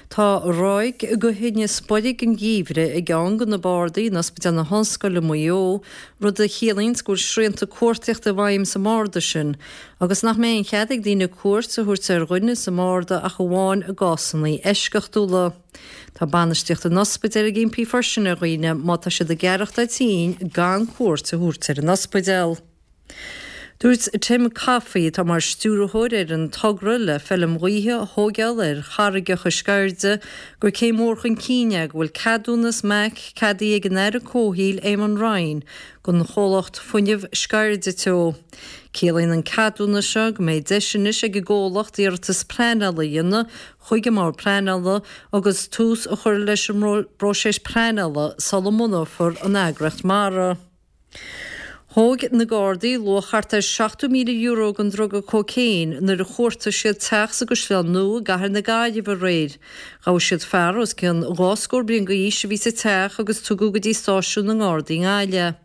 Tá ráig de thinneas boirg an gheimhridh i gceann de na bardaí in Ospidéal na hOllscoile i Maigh Eo, rud a chiallaíonns go bhfuil srianta cuartaíochta i bhfeidhm sa mbarda sin agus nach mbeidh aon chead ag daoine cuairt a thabhairt ar dhuine sa mbarda ach amháin i gcásanna eisceachtúla. Tá bainistíocht an ospidéil ag impí freisin ar dhaoine má tá siad ag aireachtáil tinn gan cuairt a thabhairt ar an ospidéal. Dúirt Tim Coffey, atá mar stiúrthóir ar an togra le feilm ghaoithe a thóigeáil ar charraigeacha Sceirde, gur céim mhór chun cinn é go bhfuil ceadúnas MAC ceadaithe ag an Aire Comhshaoil Eamon Ryan don chomhlacht Fuinneamh Sceirde Teo. Ciallaíonn an ceadúnas seo go mbeidh deis anois ag an gcomhlacht iarratas pleanála a dhéanamh chuig an mBord Pleanála agus tús a chur leis an bpróiseas pleanála sula mbunófar an eagraíocht mara. Thóg na Gardaí luach thart ar €70,000 den druga cócaon nuair a chuartaigh siad teach sa gCaisleán Nua i gcathair na Gaillimhe aréir. Ghabh siad fear os cionn dhá scór bliain d'aois a bhí sa teach agus tugadh go dtí stáisiún na nGardaí i nGaillimh é.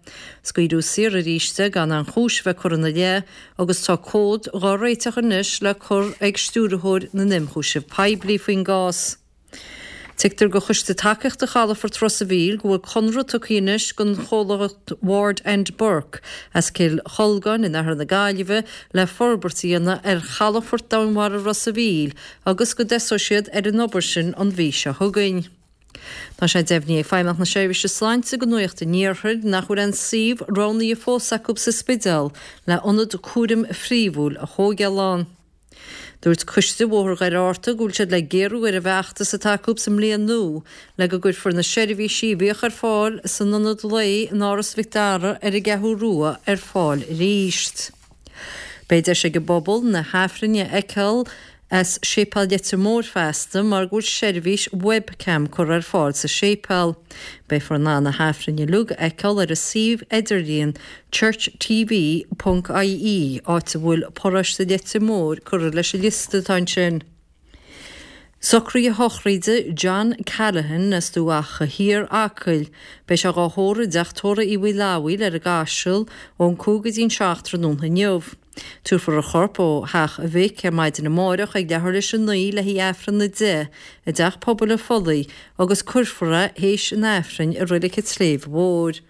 Scaoileadh saor arís é gan aon chúis a bheith curtha ina leith agus tá comhad dhá réiteach anois le cur ag Stiúrthóir na nImchúiseamh Poiblí faoin gcás. Tuigtear do Choiste Tacaíochta Chalafort Ros a' Mhíl go bhfuil conradh tugtha anois don chomhlacht Ward and Burke as Cill Cholgáin in oirthear na Gaillimhe le forbairt a dhéanamh ar chalafort domhainmhara Ros a' Mhíl agus go dtosóidh siad ar an obair sin an mhí seo chugainn. Tá sé deimhnithe ag Feidhmeannacht na Seirbhíse Sláinte do Nuacht an Iarthair nach bhfuil aon suíomh roghnaithe fós acu sa Spidéal le ionad cúraim phríomhúil a thóigeáil ann. Dúirt Coiste Bhóthar Dhoire Fhátharta go bhfuil siad le géarú ar an bhfeachtas atá acu sa mbliain nua le go gcuirfear na seirbhísí a bhíodh ar fáil san ionad lae in Áras Mhic Dara ar an gCeathrú Rua ar fáil arís. Beidh deis ag an bpobal na hAifrinn a fheiceáil. as Séipéal Leitir Móir feasta mar go bhfuil seirbhís webcam curtha ar fáil sa séipéal. Beifear in ann na hAifrinn uilig a fheiceáil ar an suíomh idirlíon churchtv ponc ie, áit a bhfuil paróiste Leitir Móir curtha leis an liosta atá ansin. Socruithe sochraide John Callaghan as Dumha Acha Thiar, Acaill. Beidh sé dhá thórramh i dteach tórraimh Uí Mhaoileamhaoil ar an gCaiseal ón 5 go dtí an 7 tráthnóna inniu. Tabharfar a chorp ó theach a mhic ar maidin amáireach ag leathuair théis a 9 le haghaidh Aifreann a 10 i dTeach Pobail an Phollaigh agus cuirfear é théis an Aifrinn i Reilig an tSléibhe Mhóir.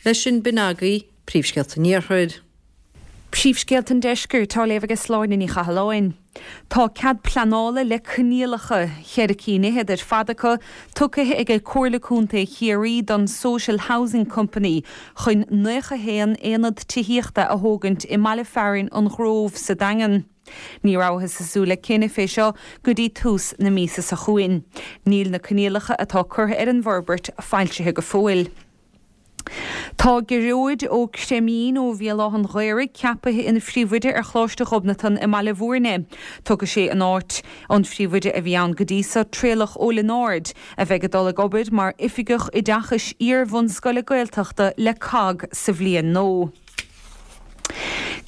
Leis sin b'in agaibh Príomhscéalta an Iarthair. Príomhscéalta an Deiscirt á léamh ag Sláine Ní Chathalláin. Tá cead pleanála le coinníollacha, cheithre cinn fhichead ar fad acu, tugtha ag Comhairle Contae Chiarraí don Social Housing Company chun 91 aonad tithíochta a thógaint i mbaile fearainn an Ghrove sa Daingean. Ní rabhthas ag súil le cinneadh fé seo go dtí tús na míosa seo chugainn. Níl na coinníollacha atá curtha ar an bhforbairt foilsithe go fóill. Tá Gearóid Ó Creimín ó Bhéal Átha'n Ghaorthaidh ceapaithe ina phríomhoide ar Choláiste Ghobnatan i mBaile Bhúirne. Tógfaidh sé in áit an phríomhoide a bhí ann go dtí so, Traolach Ó Lionáird, a bheidh ag dul ag obair mar Oifigeach Oideachais Iar-bhunscoile Gaeltachta le cogg sa bhliain nua.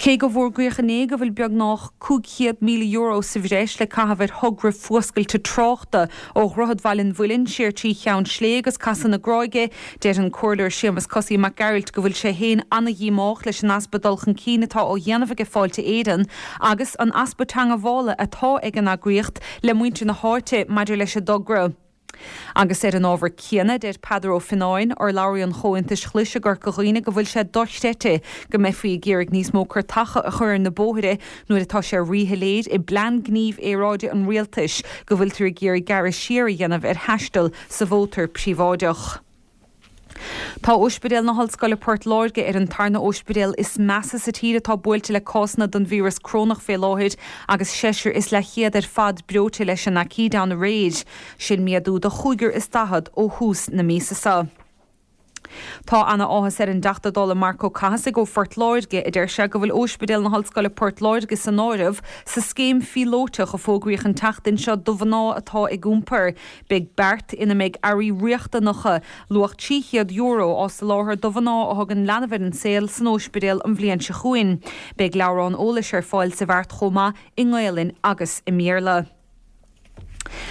Cé go bhfógraíodh inné go bhfuil beagnach €500,000 sa bhreis le caitheamh ar thogra fuascailte tráchta ó Dhroichead Bhaile an Mhuilinn siar trí Cheann Slé agus Casadh na Gráige, deir an Comhairleoir Séamus Cosaí Mac Gearailt go bhfuil sé féin ana-dhíomách leis an easpa dul chun cinn atá á dhéanamh aige Fáilte Éireann agus an easpa teangabhála atá ag an eagraíocht le muintir na háite maidir leis an dtogra. Agus ar an ábhar céanna, deir Peadar Ó Fionnáin, urlabhraí an Chomhaontais Ghlais i gCorca Dhuibhne go bhfuil sé dochreidte go mbeifí ag iarraidh níos mó cairteacha a chur ar na bóithre nuair atá sé ríshoiléir i bPlean Gnímh Aeráide an Rialtais go bhfuiltear ag iarraidh gearradh siar a dhéanamh ar thaisteal sa mhótar príobháideach. Tá Ospidéal na hOllscoile Port Láirge ar an tarna óispidéal is measa sa tír atá buailte le cásanna den víreas corónach fé láthair agus seisear is leathchéad ar fad breoite leis an aicíd ann aréir. Sin méadú de chúigear is daichead ó thús na míosa seo. Tá ana áthas ar an dTeachta Dála Marc Ó Cathasaigh ó Phort Láirge a deir sé go bhfuil Óispidéal na hOllscoile Port Láirge san áireamh sa scéim phíolóiteach a fógraíodh an tseachtain seo do mhná atá ag iompar. Beidh beart ina mbeidh earraí riachtanacha, luach €300, á soláthar do mhná a thugann leanbh ar an saol san óispidéal an bhliain seo chugainn. Beidh leabhrán eolais ar fáil sa bheart chomh maith i nGaelainn agus i mBéarla.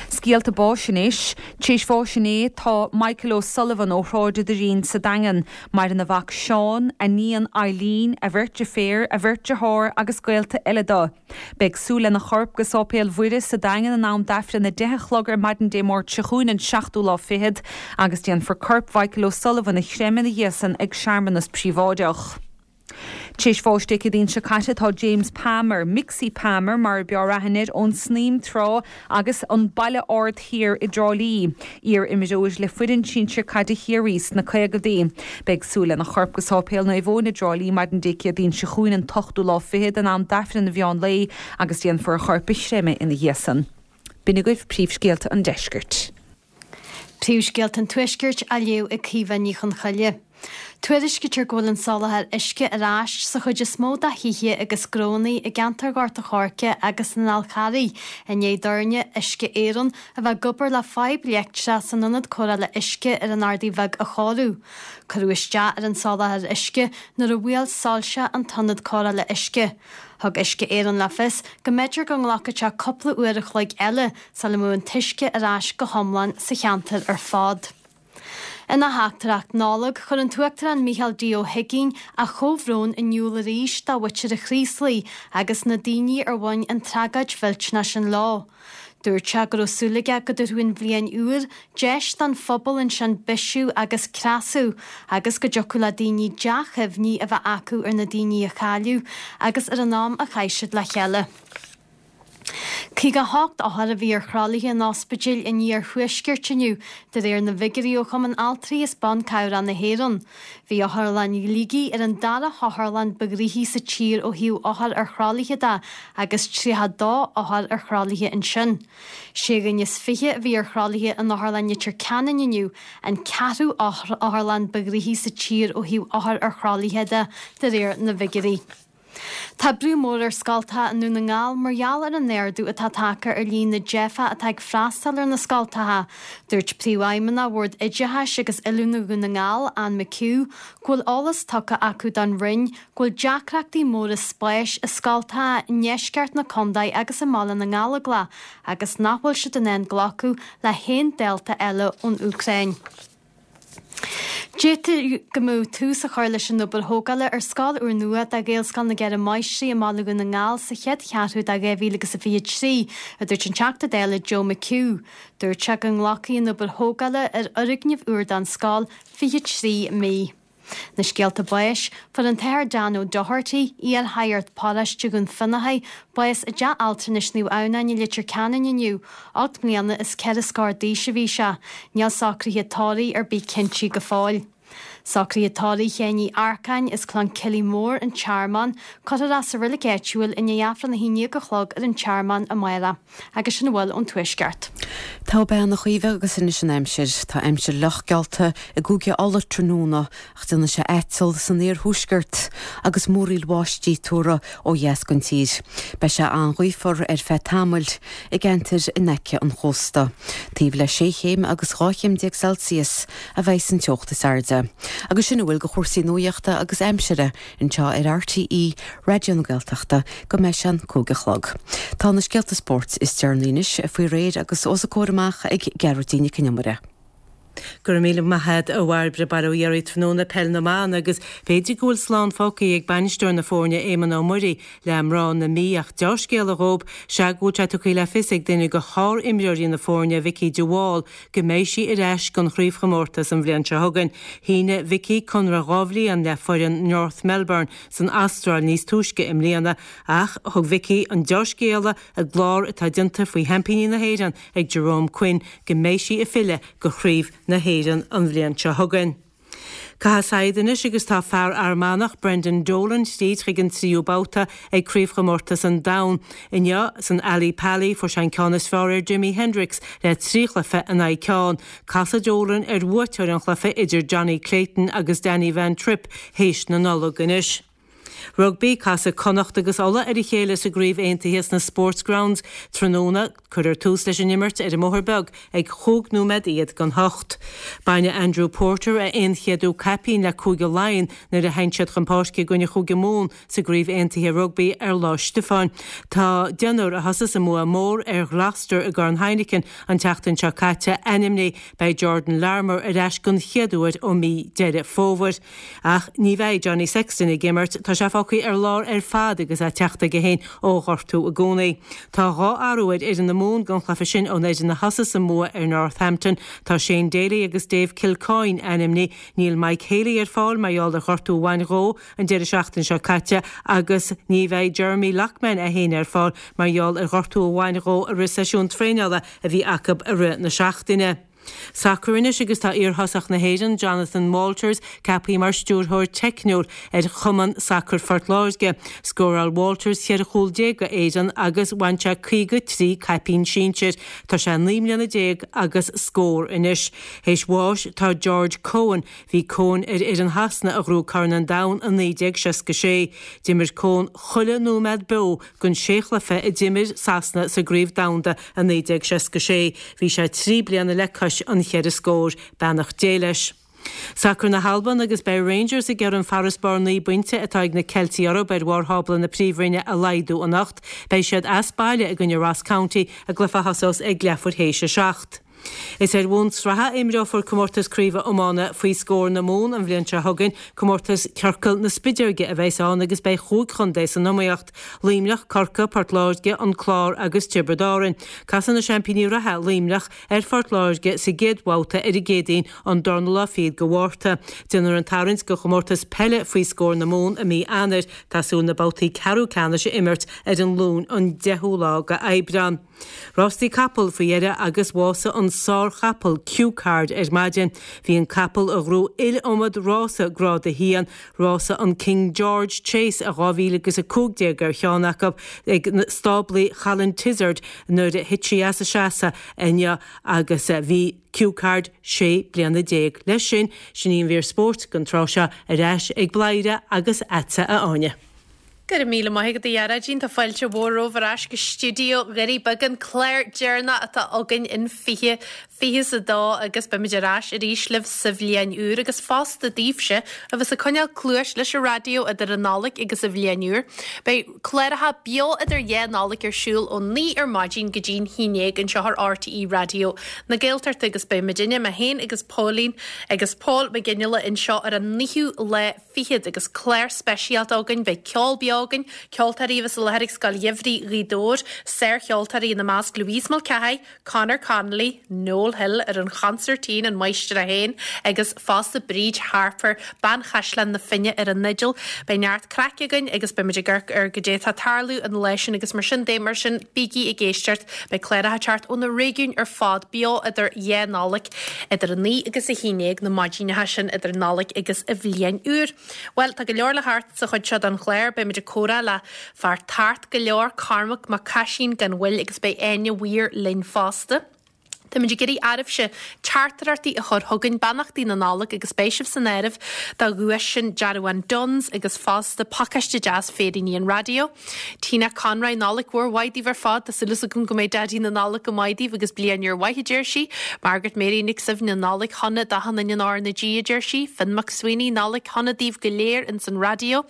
Scéalta báis anois. Tar éis bháis inné tá Michael O'Sullivan ó Shráid an Doirín sa Daingean. Maireann a mhac Seán, a níon Eileen, a bheirt deirféar, a bheirt dearthár agus gaolta eile dó. Beidh súil lena chorp go Sáipéal Mhuire sa Daingean in am d'Aifreann 10 a chlog ar maidin Dé Máirt seo chugainn an seachtú lá fichead agus déanfar corp Mhichael O'Sullivan a chreimeadh ina dhiaidh san ag searmanas príobháideach. Tar éis bháis Dé Céadaoin seo caite tá James Palmer, Mixie Palmer mar a b'fhearr aithne air, ón Snaidhm Trá agus an Baile Ard Thiar i dTrá Lí. Iar-imreoir le foireann sinsir caide Chiarraí sna caogaidí. Beidh súil lena chorp go Sáipéal Naomh Eoin i dTrá Lí maidin Dé Céadaoin seo chugainn an t-ochtú lá fichead in am d'Aifreann an mheán lae agus déanfar a chorp a chreimeadh ina dhiaidh san. B'in agaibh príomhscéalta an deiscirt. Príomhscéalta an Tuaiscirt á léamh ag Caoimhe Ní Chonchoille. Tuairiscítear go bhfuil an soláthar uisce ar ais sa chuid is mó de thithe agus gnónna i gceantar Ghort a' Choirce agus an Fháil Charraigh i ndiaidh d'fhoirne Uisce Éireann a bheith ag obair le fadhb leictreach san ionad cóireála uisce ar an Ardaidh Bheag a chóiriú. Cuireadh isteach ar an soláthar uisce nuair a bhuail soilse an t-ionad cóireála uisce. Thug Uisce Éireann le fios go mb'fhéidir go nglacfadh sé cúpla uair a chloig eile sula mbeadh an t-uisce ar ais go hiomlán sa cheantar ar fad. Ina theachtaireacht Nollag, chuir an tUachtarán Micheál D. Ó hUigínn a chomhbhrón in iúl arís do mhuintir an Chraoslaigh agus na daoine ar bhain an tragóid mhillteanach sin leo. Dúirt sé go raibh súil aige go dtabharfadh an bhliain úr deis don phobal ansin bisiú agus cneasú agus go dtiocfadh le daoine dea-chuimhní a bheith acu ar na daoine a cailleadh agus ar an am a chaith siad le chéile. 58 othar a bhí ar thralaithe in ospidéil an iarthuaiscirt inniu, de réir na bhfigiúirí ó Chumann Altraí is Ban Cabhrach na hÉireann. Bhí Otharlann Shligigh ar an dara hotharlann ba ghnoithí sa tír ó thaobh othar ar thralaithe de agus 32 othar ar thralaithe ansin. Sé dhuine is fiche a bhí ar thralaithe in Otharlann Leitir Ceanainn inniu, an ceathrú otharlann ba ghnoithí sa tír ó thaobh othar ar thralaithe de, de réir na bhfigiúirí. Tá brú mór ar scoltacha i nDún na nGall mar gheall ar an ardú atá tagtha ar líon na dteifeach atá ag freastal ar na scoltacha. Dúirt Príomhfheidhmeannach Bhord Oideachais agus Oiliúna Dhún na nGall, Anne McHugh, go bhfuil eolas tugtha acu don Roinn go bhfuil deacrachtaí móra spáis i scoltacha i ndeisceart na contae agus i mBaile na nGallóglach agus nach bhfuil siad in ann glacadh le haon dalta eile ón Úcráin. D'fhéadfadh go mbeadh tús á chur leis an obair thógála ar scoil úrnua do Ghaelscoil na gCeithre Máistrí i mBaile Dhún na nGall sa chéad cheathrú de 2023, a dúirt an Teachta Dála Joe McHugh. Dúirt sé go nglacfaidh an obair thógála ar fhoirgneamh úr don scoil 23 mí. Na scéalta báis, Fuair an tAthair Dan O'Doherty, iar-shagart paróiste Dhún Fionnachaidh, bás i dteach altranais Naomh Adhamhnáin i Leitir Ceanainn inniu. 8 mbliana is 4 scór d'aois a bhí sé. Níl socruithe tórraimh ar bith cinnte go fóill. Socruithe tórraimh Sheáin Uí Earcáin as Clann Cillí Mór, An Tearmann, cuirfear é sa reilig áitiúil i ndiaidh Aifreann 11 a chlog ar an Tearmann amárach. Agus sin a bhfuil ón Tuaisceart. Tá bean a Chaoimhe agus anois an aimsir. Tá aimsir fhliuch geallta i gCúige Uladh tráthnóna ach déanfaidh sé aiteal san iarthuaisceart agus múraíl bháistí tuartha ó dheas den tír. Beidh sé an-ghaofar ar feadh tamaill i gceantair in aice an chósta. Taobh le sé chéim agus 12 chéim Celsius a bheidh an teocht is airde. Agus sin a bhfuil de chúrsaí nuaíochta agus aimsire anseo ar RTÉ Raidió na Gaeltachta go mbeidh sé an 5 a chlog. Tá na scéalta spóirt is deireanaí anois faoi réir agus os a comhair amach ag Gearóidín Nic Con Iomaire. Go raibh míle maith agat a Bhairbre, Bail ó Dhia oraibh tráthnóna Peil na mBan agus b'fhéidir go bhfuil slán fágtha ag bainisteoir na foirne Éamonn Ó Muirí le mná na Mí ach deá-scéala dhób sea go bhfuil sé tugtha le fios ag duine de shár-imreoirí na foirne Vikki de Wall go mbeidh sí ar ais don chraobhchomórtas an bhliain seo chugainn. Shínigh Vikki conradh 2 bhliain le foireann North Melbourne san Astráil níos túisce i mbliana ach thug Vikki an deá-scéala i gclár atá déanta faoi sheaimpíní na hÉireann ag Jerome Quinn go mbeidh sí ag filleadh go Chraobh na hÉireann an bhliain seo chugainn. Caitheamh saighead anois agus tá fear Fhear Manach, Brendan Dolan, tríd chuig an tríú babhta ag Craobhchomórtas an Domhain. Inniu san Ally Pally fuair sé an ceann is fearr ar Jimi Hendrix le 3 chluiche in aghaidh ceann. Casfaidh Dolan ar bhuaiteoir an chluiche idir Jonny Clayton agus Danny Van Trijp théis na Nollag anois. Rugbaí, Casfaidh Connacht agus Ulaidh ar a chéile sa gCraobh Aontaithe sna Sportsgrounds tráthnóna. Cuirfear tús leis an imirt ar an mBóthar Beag ag chúig nóiméad iad don hocht. Bainfidh Andrew Porter a aon-chéadú caipín le Cúige Laighean nuair a théann siad chun páirce i gcoinne Chúige Mumhan sa gCraobh Aontaithe Rugbaí ar Lá Stiofáin. Tá deichniúr a thosaigh sa mbua mór ar Ghloucester i gCorn Heineken an tseachtain seo caite ainmnithe. Beidh Jordan Larmour ar ais don chéad uair ó mí Deireadh Fómhair. Ach ní bheidh Johnny Sexton ag imirt, tá sé fágtha ar lár ar fad agus é ag teacht aige féin ó ghortú i gcónaí. Tá 2 athrú ar fhoireann na Mumhan don chluiche sin ón fhoireann a thosaigh sa mbua ar Northampton. Tá Shane Daly agus Dave Kilcoyne ainmnithe. Níl Mike Haley ar fáil mar gheall ar ghortú a bhain dhó an deireadh seachtaine seo caite agus ní bheidh Jeremy Loughman é féin ar fáil mar gheall ar ghortú a bhain dhó i rith seisiún traenála a bhí acu i rith na seachtaine. Sacar anois agus tá iarthosach na hÉireann, Jonathan Walters, ceaptha mar stiúrthóir teicniúil ar Chumann Sacair Phort Láirge. Scóráil Walters 14 chúl do Éirinn agus bhain sé 53 caipín sinsir. Tá sé 19 mbliana agus scór anois. Théis bháis tá George Cohen. Bhí Cohen ar fhoireann Shasana a ghnóthaigh Corn an Domhain i 1966. D'imir Cohen chuile nóiméad beo den sé chluiche a d'imir Sasana sa gCraobh Domhanda i 1966. Bhí sé 3 bliana le cois an cheithre scór. Beannacht Dé leis. Sacar na hAlban agus beidh Rangers ag iarraidh an farasbarr 9 bpointe atá ag na Ceiltigh orthu ar bharr thábla na Príomhroinne a laghdú anocht. Beidh siad as baile i gcoinne Ross County i gcluiche a thosós ag leathuair théis a 7. Is ar bhonn sraithe a imreofar Comórtas Craoibhe Iomána faoi scór na Mumhan an bhliain seo chugainn. Comórtas Ciorcal na Spideoige a bheas ann agus beidh chúig chontae san iomaíocht, Luimneach, Corcaigh, Port Láirge, An Clár agus Tiobraid Árann. Casfaidh na seaimpíní reatha, Luimneach, ar Phort Láirge sa gcéad bhabhta ar an gCéadaoin, an darna lá fichead de Mhárta. Déanfar an tarraingt do chomórtas peile faoi scór na Mumhan i mí Eanáir. Tá súil na babhtaí ceathrú ceannais a imirt ar an Luan an 10ú lá de Aibreán. Rástaí capall faoi dheireadh agus bhásaigh an sár-chapall Cue Card ar maidin. Bhí an capall a ghnóthaigh iliomad rása Grád 1, rása an King George Chase i 2015 ar cheann acu, ag stáblaí Cholin Tizard nuair a thit sí as a seasamh inniu agus bhí Cue Card 16 bliana. Leis sin, sin í an mhír spóirt don tráth seo, ar ais ag Bladhaire agus agatsa a Áine. Go raibh míle maith agat a Ghearóidín, tá fáilte mhór romhaibh ar ais go stiúideo Dhoirí Beaga, an clár deireanach atá againn in 2022 agus beimid ar ais arís libh sa bhliain úr agus fosta daoibhse a bheas ag coinneáil cluais leis an raidió idir an Nollaig agus an bhliain úr. Beidh cláracha beo idir dhá Nollaig ar siúl ó 9 ar maidin go dtí'n 11 anseo ar RTÉ Raidió na Gaeltachta agus beidh muidinne, mé féin agus Póilín agus Pól Mac Fhionnghaile anseo ar an naoú lá fichead agus clár speisialta againn. Beidh ceol beo againn, ceoltóirí a bheas i láthair ag Scoil Gheimhridh Ghaoth Dobhair, sárcheoltóirí ina measc Louise Mulcahy, Conor Connolly, Noel Hill ar an chonsairtín, an máistir é féin, agus fosta Bríd Harper, bean Chaisleán na Finne ar an fhidil. Beidh neart craic againn agus beimid ag amharc ar goidé atá ag tarlú an lá sin agus mar sin de, mar sin bígí ag éisteacht. Beidh cláracha ag teacht ó na réigiúin ar fad beo idir dhá Nollaig. Idir 9 agus 11 na maidineacha sin idir Nollaig agus an Bhliain Úr. Bhuel, tá go leor le theacht sa chuid seo den chlár. Beimid ag comhrá le fear tart go leor, Cormac Mac Caisín gan mhoill agus beidh Áine Weir linn fosta. Táimid ag iarraidh oraibhse teachtaireachtaí a chur chugainn, beannachtaí na Nollag agus beidh sibh san áireamh do dhuais sin dearbhán Dunnes agus fosta pacáiste deas féiríní an raidió. Tina Conroy, Nollaig mhór mhaith daoibh ar fad. Tá súil agam go mbeidh Daidí na Nollag go maith daoibh agus bliain úr mhaith, a deir sí. Margaret Mary Nic Suibhne, Nollaig shona d'achan duine in R na G, a deir sí. Finn McSweeney, Nollaig shona daoibh go léir ins an raidió.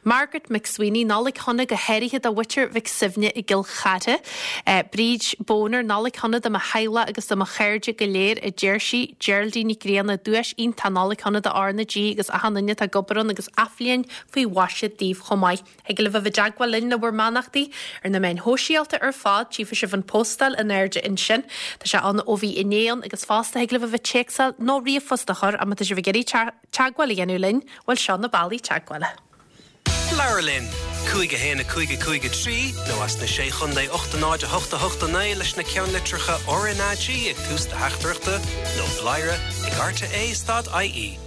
Margaret McSweeney, Nollaig shona go háirithe do mhuintir Mhic Suibhne i gCill Chartha. Bríd Boner, Nollaig shona do mo theaghlach agus do mo chairde go léir, a deir sí. Geraldine Nic Grianna, Duais iontach Nollaig shona do R na G agus achan duine atá ag obair ann agus athbhliain faoi mhaise daoibh chomh maith. Thig libh a bheith i dteagmháil linn le bhur mbeannachtaí ar na meáin shóisialta ar fad, tchífidh sibh an phóstáil in airde ansin. Tá sé ann ó bhí inné ann agus fosta thig libh a bheith téacsáil nó ríomhphost a chur ach má tá sibh ag iarraidh teagmháil a dhéanamh linn, bhuel seo na bealaí teagmhála. Labhair linn! 5 1 5 5 3 nó as na Sé Chontae 8 0 8 8 9 leis na ceannlitreacha RnaG ag tús do theachtaireachta nó bladhaire ag rte stad ie.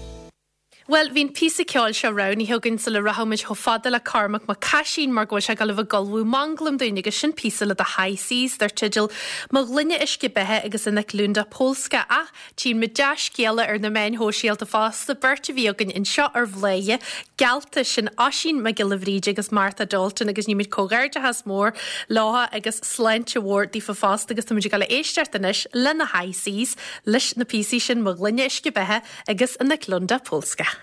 Bhuel, bhí an píosa ceoil seo roghnaithe againn sula rachadh muid chomh fada le Cormac Mac Caisín mar go bhfuil sé ag dul a bheith ag ullmhú manglam dúinn agus sin píosa le The High Seas dar teideal Mo Ghloine Uisce Beatha agus In Eklunda Polska. Ach tchíonn muid dea-scéala ar na meáin shóisialta fosta, beirt a bhí againn anseo ar Bhladhaire, geallta, sin Oisín Mac Giolla Bhríde agus Martha Dalton agus nímid comhghairdeachas mór leo agus sláinte mhór daofa fosta agus táimid ag dul a éisteacht anois le na High Seas leis na píosaí sin Mo Ghloine Uisce Beatha agus In Eklunda Polska.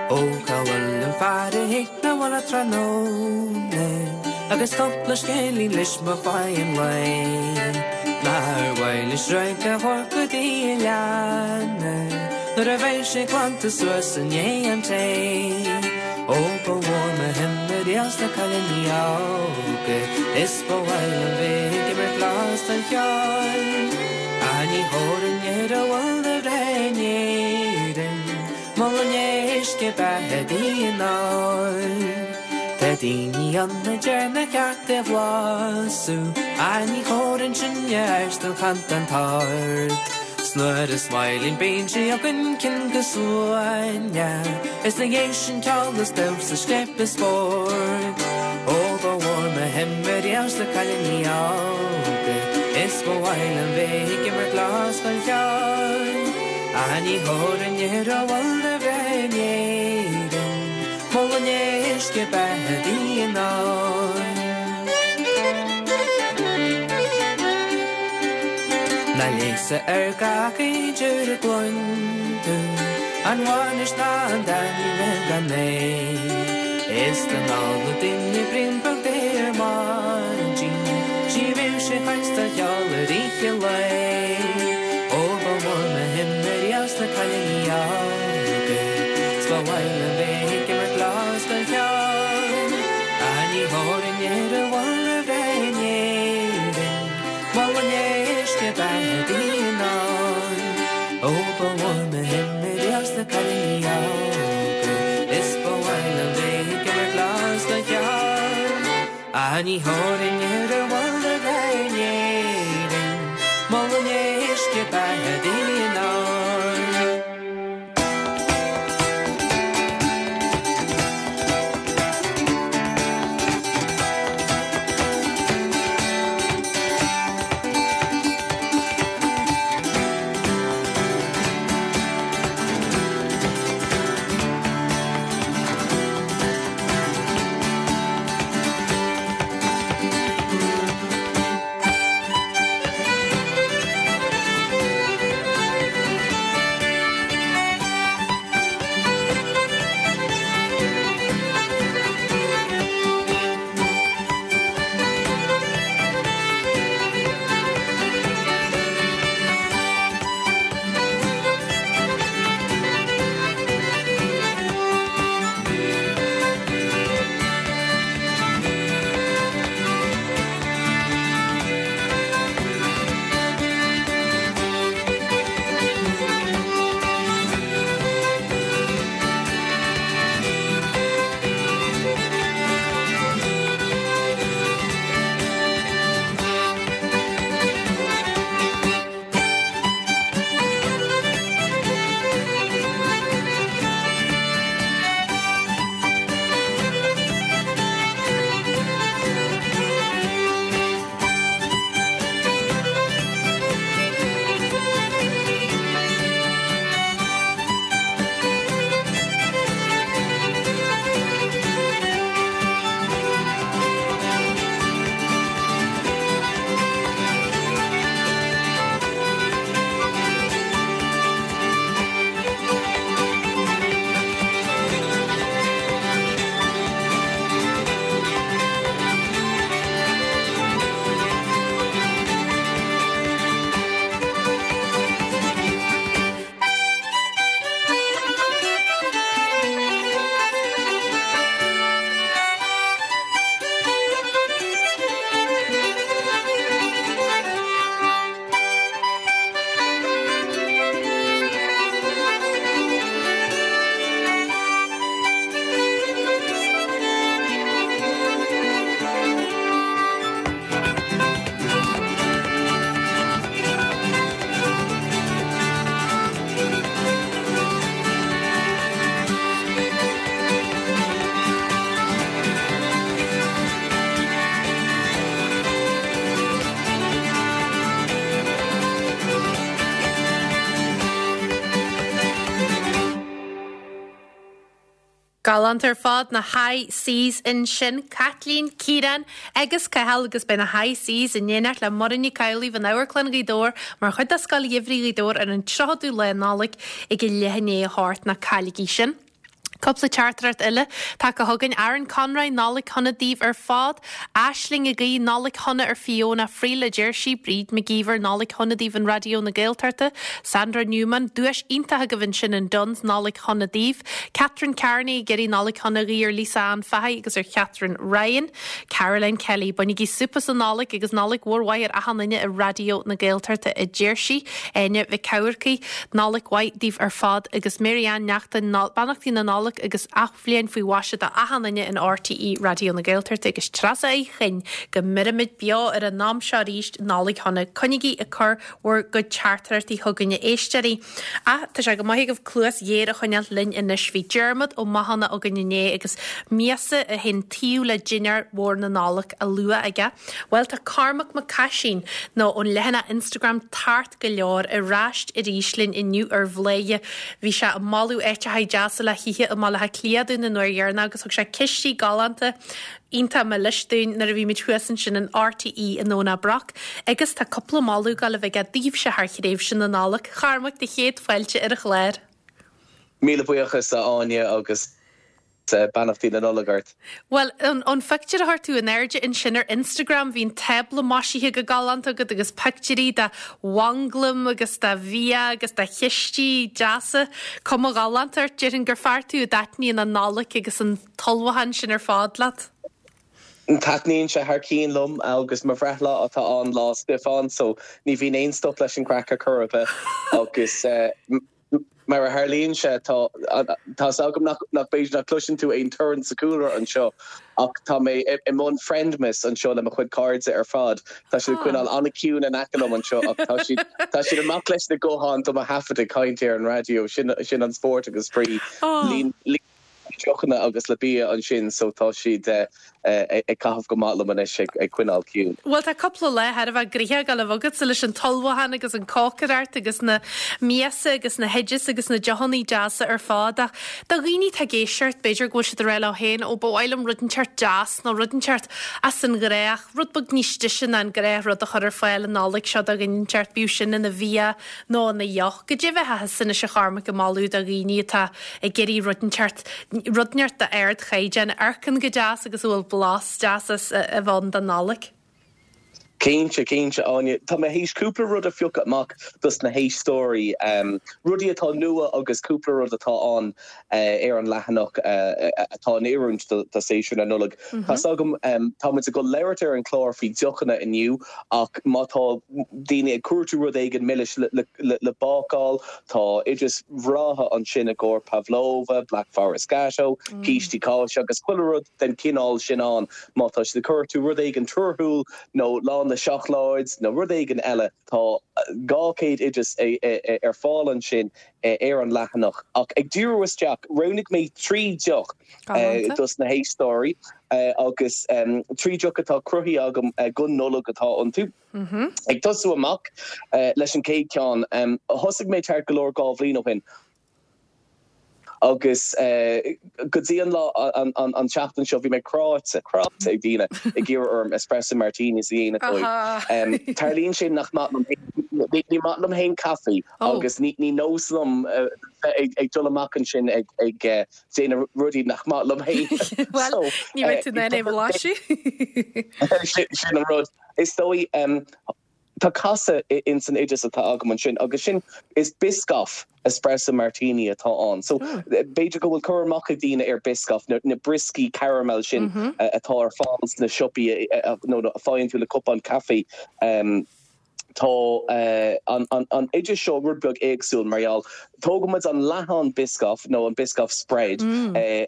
Ó cá bhfuil an fear a thig 'na bhaile tráthnóna Agus cúpla scéilín leis mo mhaidhm an lae Nár mhaith leis radharc a thabhairt go dtí a leanna Nuair a bheidh sé glanta suas i ndiaidh an tae Ó ba mhór mo shuim ariamh sna cailíní óga Is ba mhaith liom bheith ag imirt blas den cheol Ach ní thabharfainn ar a bhfuil de bhreith in Éirinn Mo ghloine uisce beatha di in ól Tá daoine ann a deir nár cheart é bhlasú Ach ní thabharfainn sin air don channtán tart 'S nuair is maith linn bíonn sí againn cinnte go suaimhneach Is 'na dhiaidh sin ceol is damhsa scléip is spórt Ó ba mhór mo shuim ariamh sna cailíní óga Is ba mhaith liom bheith ag imirt lá scoil cheoil Ach ní thabharfainn ar a bhfuil de bhreith in Éirinn Mo ghloine uisce beatha di in ól. Ná léasadh ar gach idir a gcluin tú An bhainis ná an dá ní raibh gan é Is don ól na daoine braon beag de ar maidin 'S ní bheadh sé chaint do cheol ar oíche lae Ó ba mhór mo shuim ariamh sna cailíní óga 'S ba mhaith liom bheith ag imirt lá scoil cheoil Ach ní thabharfainn ar a bhfuil de bhreith in Éirinn Mo ghloine uisce beatha di in ól Ó ba mhór mo shuim ariamh sna cailíní óga Is ba mhaith liom bheith ag imirt lá scoil cheoil Ach ní thabharfainn ar a bhfuil de bhreith in Éirinn Mo ghloine uisce beatha di in ól. Galánta ar fad, na High Seas ansin, Caitlín, Ciarán agus Cathal agus beidh na High Seas in éineacht le Muireann Nic Amhlaoibh in Amharclann Ghaoth Dobhair mar chuid de Scoil Gheimhridh Ghaoth Dobhair ar an 30ú lá Nollag ag a leath i ndiaidh a 8, ná cailligí sin. Cúpla teachtaireacht eile tagtha chugainn. Aaron Conroy, Nollaig shona daoibh ar fad. Aisling ag guí Nollaig shona ar Fiona Friel, a deir sí. Bríd McGeever, Nollaig shona daoibh in Raidió na Gaeltachta. Sandra Newman, Duais iontach agaibh ansin in Dunnes, Nollaig shona daoibh. Catherine Carney ag iarraidh Nollaig shona a ghuí ar Lisa Ann Fahy agus ar Chatherine Ryan. Caroline Kelly, Bainigí súp as an Nollaig agus Nollaig mhór mhaith ar achan duine i Raidió na Gaeltachta, a deir sí. Áine Mhic Eamharcaigh, Nollaig mhaith daoibh ar fad agus Mary Ann Neachtain, Beannachtaí na Nollag agus Athbhliain faoi mhaise do achan duine in RTÉ Raidió na Gaeltachta agus Treasa Uí Chuinn go mbeirimid beo ar an am seo arís Nollaig shona. Coinnigí ag cur bhur gcuid teachtaireachtaí chugainn a éisteoirí. Ach tá sé go maith agaibh cluas ghéar a choinneáil linn anois. Bhí Diarmuid Ó Mathúna againn inné agus miasa a théann taobh le dinnéar mhór na Nollag á lua aige. Bhuel tá Cormac Mac Caisín, nó ón leathanach Instagram Tart go Leor, ar ais arís linn inniu ar Bhladhaire. Bhí sé ag moladh áiteacha deasa le hithe i mBaile Átha Cliath dúinn an uair dheireanach agus thug sé cistí galánta iontach milis dúinn nuair a bhí muid thuas ansin in RTÉ i nDomhnach Broc agus tá cúpla moladh ag gabháil a bheith aige daoibhse thar thréimhse na Nollag. A Chormaic, do chéad fáilte ar an chlár. Míle buíochas a Áine agus beannachtaí na Nollag ort. Bhuel, ón phictiúr a chuir tú in airde ansin ar Instagram, bhí an tábla maisithe go galánta agat agus pictiúirí de mhanglaim agus de bhia agus de chistí deasa. Cuma ghalánta ort, déarfainn gur fear tú a dtaitníonn an Nollaig agus an t-ullmhúchán sin ar fad leat. Taitníonn sé thar cionn liom agus mo bhreithlá atá ann, Lá Stiofáin, so ní bhíonn aon stop leis an gcraic ar chor ar bith agus mar a tharlaíonn sé tá tá's agam nach nach b'fhéidir nach gcloiseann tú aon torann sa chúlra anseo ach tá mé i mbun Friendmas anseo le mo chuid cairde ar fad. Tá siad ag coinneáil an-ciúin in aice liom anseo ach tá siad tá siad amach leis na gutháin do mo thaifead ag caint ar an raidió. Sin sin an spórt agus spraoi. Líon deochanna agus le bia ansin so tá siad ag caitheamh go maith liom anois ag coinneáil ciúin. Bhuel tá cúpla lá thar a bheith gnoitheach ag gabháil a bheith agatsa leis an t-ullmhúchán agus an cócaireacht agus na miasa agus na hoideas agus na deochanna deasa ar fad ach do dhaoine atá ag éisteacht b'fhéidir go bhfuil siad ag rá leo féin ó ba mhaith liom rud inteacht deas nó rud inteacht as an ghnách, rud beag níos deise ná an gnáthrud a chur ar fáil an Nollaig seo do dhuine inteacht, bíodh sin ina bhia nó ina dheoch. Goidé a bheifeá thusa anois a Chormaic ag moladh do dhaoine atá ag iarraidh rud inteacht, rud inteacht d'ardchaighdeán, a amharcann go deas agus a bhfuil blas deas as a bheith ann don Nollaig. Cinnte, cinnte, Áine. Tá mé théis cúpla rud a phiocadh amach dos na héisteoirí, rudaí atá nua agus cúpla rud atá ann ar an leathanach atá in oiriúint do séasúr na Nollag. Tá's agam, tá muid ag dul labhairt ar an chlár faoi deochanna inniu ach má tá daoine ag cuartú rud éigin milis le bácáil, tá oidis bhreátha ansin i gcomhair pavlova, black forest gateau, cístí cáise agus chuile rud den chineál sin ann. Má tá siad ag cuartú rud éigin torthúil nó lán le seacláid nó rud éigin eile, tá 200 oideas ar fáil ansin ar an leathanach. Ach ag díriú isteach, roghnaigh mé 3 deoch dos na héisteoirí agus 3 deoch atá cruthaithe agam don Nollaig atá iontu. Ag tosú amach leis an chéad cheann, thosaigh mé ceart go leor 2 bhliain ó shin agus go dtí an lá an tseachtain seo bhí mé cráite, cráite ag daoine ag iarraidh orm espresso martinis a dhéanamh dóibh. Tarlaíonn sé nach maith liom, ní maith liom féin caife agus ní nós liom bheith ag dul amach ansin ag déanamh rudaí nach maith liom féin. Bhuel, ní bheidh tú in ann é a bhlaiseadh. Sin an rud. Is dóigh, tá casadh ins an oideas atá agam ansin agus sin, is Biscoff espresso martini atá ann. So, b'fhéidir go bhfuil cur amach ag daoine ar Biscoff, na brioscaí caramel sin atá ar fáil sna siopaí nó a faigheann tú le cupán caife. Tá an oideas seo rud beag éagsúil mar gheall, tógann muid an leathán Biscoff nó an Biscoff spread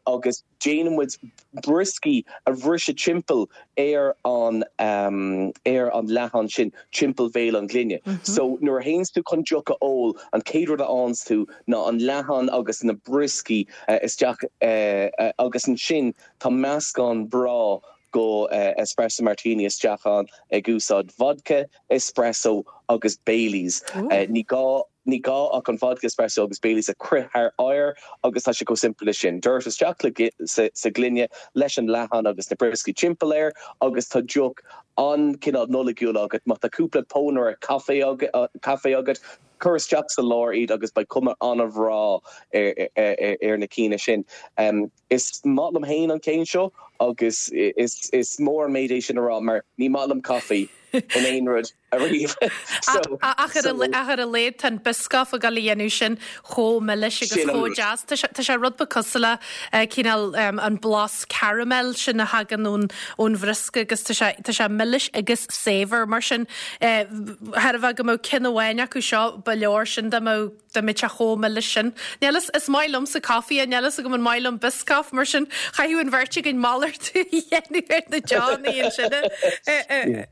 agus déanann muid brioscaí a bhriseadh timpeall ar an ar an leathán sin timpeall bhéal an ghloine. So nuair a théanns tú chun deoch a ól, an chéad rud a fhaigheanns tú ná an leathán agus na brioscaí isteach agus ansin tá meascán breá. Go espresso martini isteach ann ag úsáid vodka, espresso agus Baileys. Ní gá ní gá ach an vodka, espresso agus Baileys a crith thar oighear agus tá sé chomh simplí leis sin. Doirt isteach sa ghloine leis an leathán agus na brioscaí timpeall air agus tá deoch an-chineál Nollaigiúil agat. Má tá cúpla pónaire caife caife agat, cuir isteach sa lár iad agus beidh cuma an-bhreá ar na cinn sin. Is maith liom féin an ceann seo agus is mór an méid é sin a rá mar ní maith liom caife in aon rud ariamh. Ach ar a laghad tá an Biscoff ag dul a dhéanamh sin chomh milis agus chomh deas. Tá sé rud beag cosúil le cineál an blas caramel sin a thagann ón bhriosca agus tá sé tá sé milis agus saibhir mar sin. Thar a bheith go mbeadh ceann amháin acu seo ba leor sin dá mbeadh Dá mbeadh sé chomh milis sin. Níl fhios, is maith liomsa caife, níl fhios agam an maith liom Biscoff, mar sin chaithfeadh an bheirt againn malartú a dhéanamh ar na deochanna ansin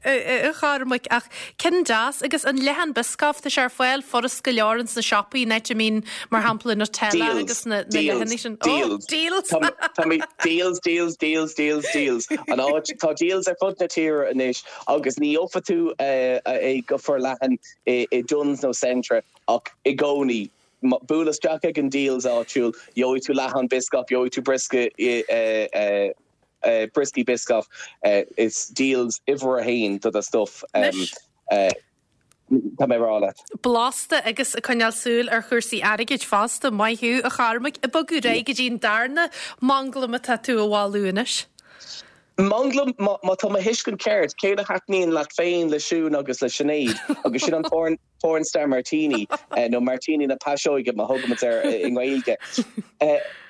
a Chormaic. Ach ceann deas, agus an leathán Biscoff, tá sé ar fáil furast go leor ins na siopaí, in áit a mbíonn, mar shampla, Nutella agus na leathanaigh sin. Dealz. Dealz. Tá mé, Dealz, Dealz, Dealz, Dealz, Dealz. An áit, tá Dealz ar fud na tíre anois agus ní gheofa tú é go forleathan i Dunnes nó Centra. Ach i gcónaí, buail isteach ag an Dealz áitiúil, gheobhaidh tú leathán Biscoff, gheobhaidh tú briosca, brioscaí Biscoff. Is Dealz uimhir a haon do do stuff, tá mé a rá leat. Blasta agus ag coinneáil súil ar chúrsaí airgid fosta. Maith thú, a Chormaic. Ag bogadh ar aghaidh go dtí an darna manglam atá tú a mholadh anois. Manglam, má tá mo thuiscint ceart, ceann a thaitníonn leat féin, le Siún agus le Sinéad, agus sin an porn. Pornstar Martini, nó Martini na Paiseoige mar a thugaimid air i nGaeilge.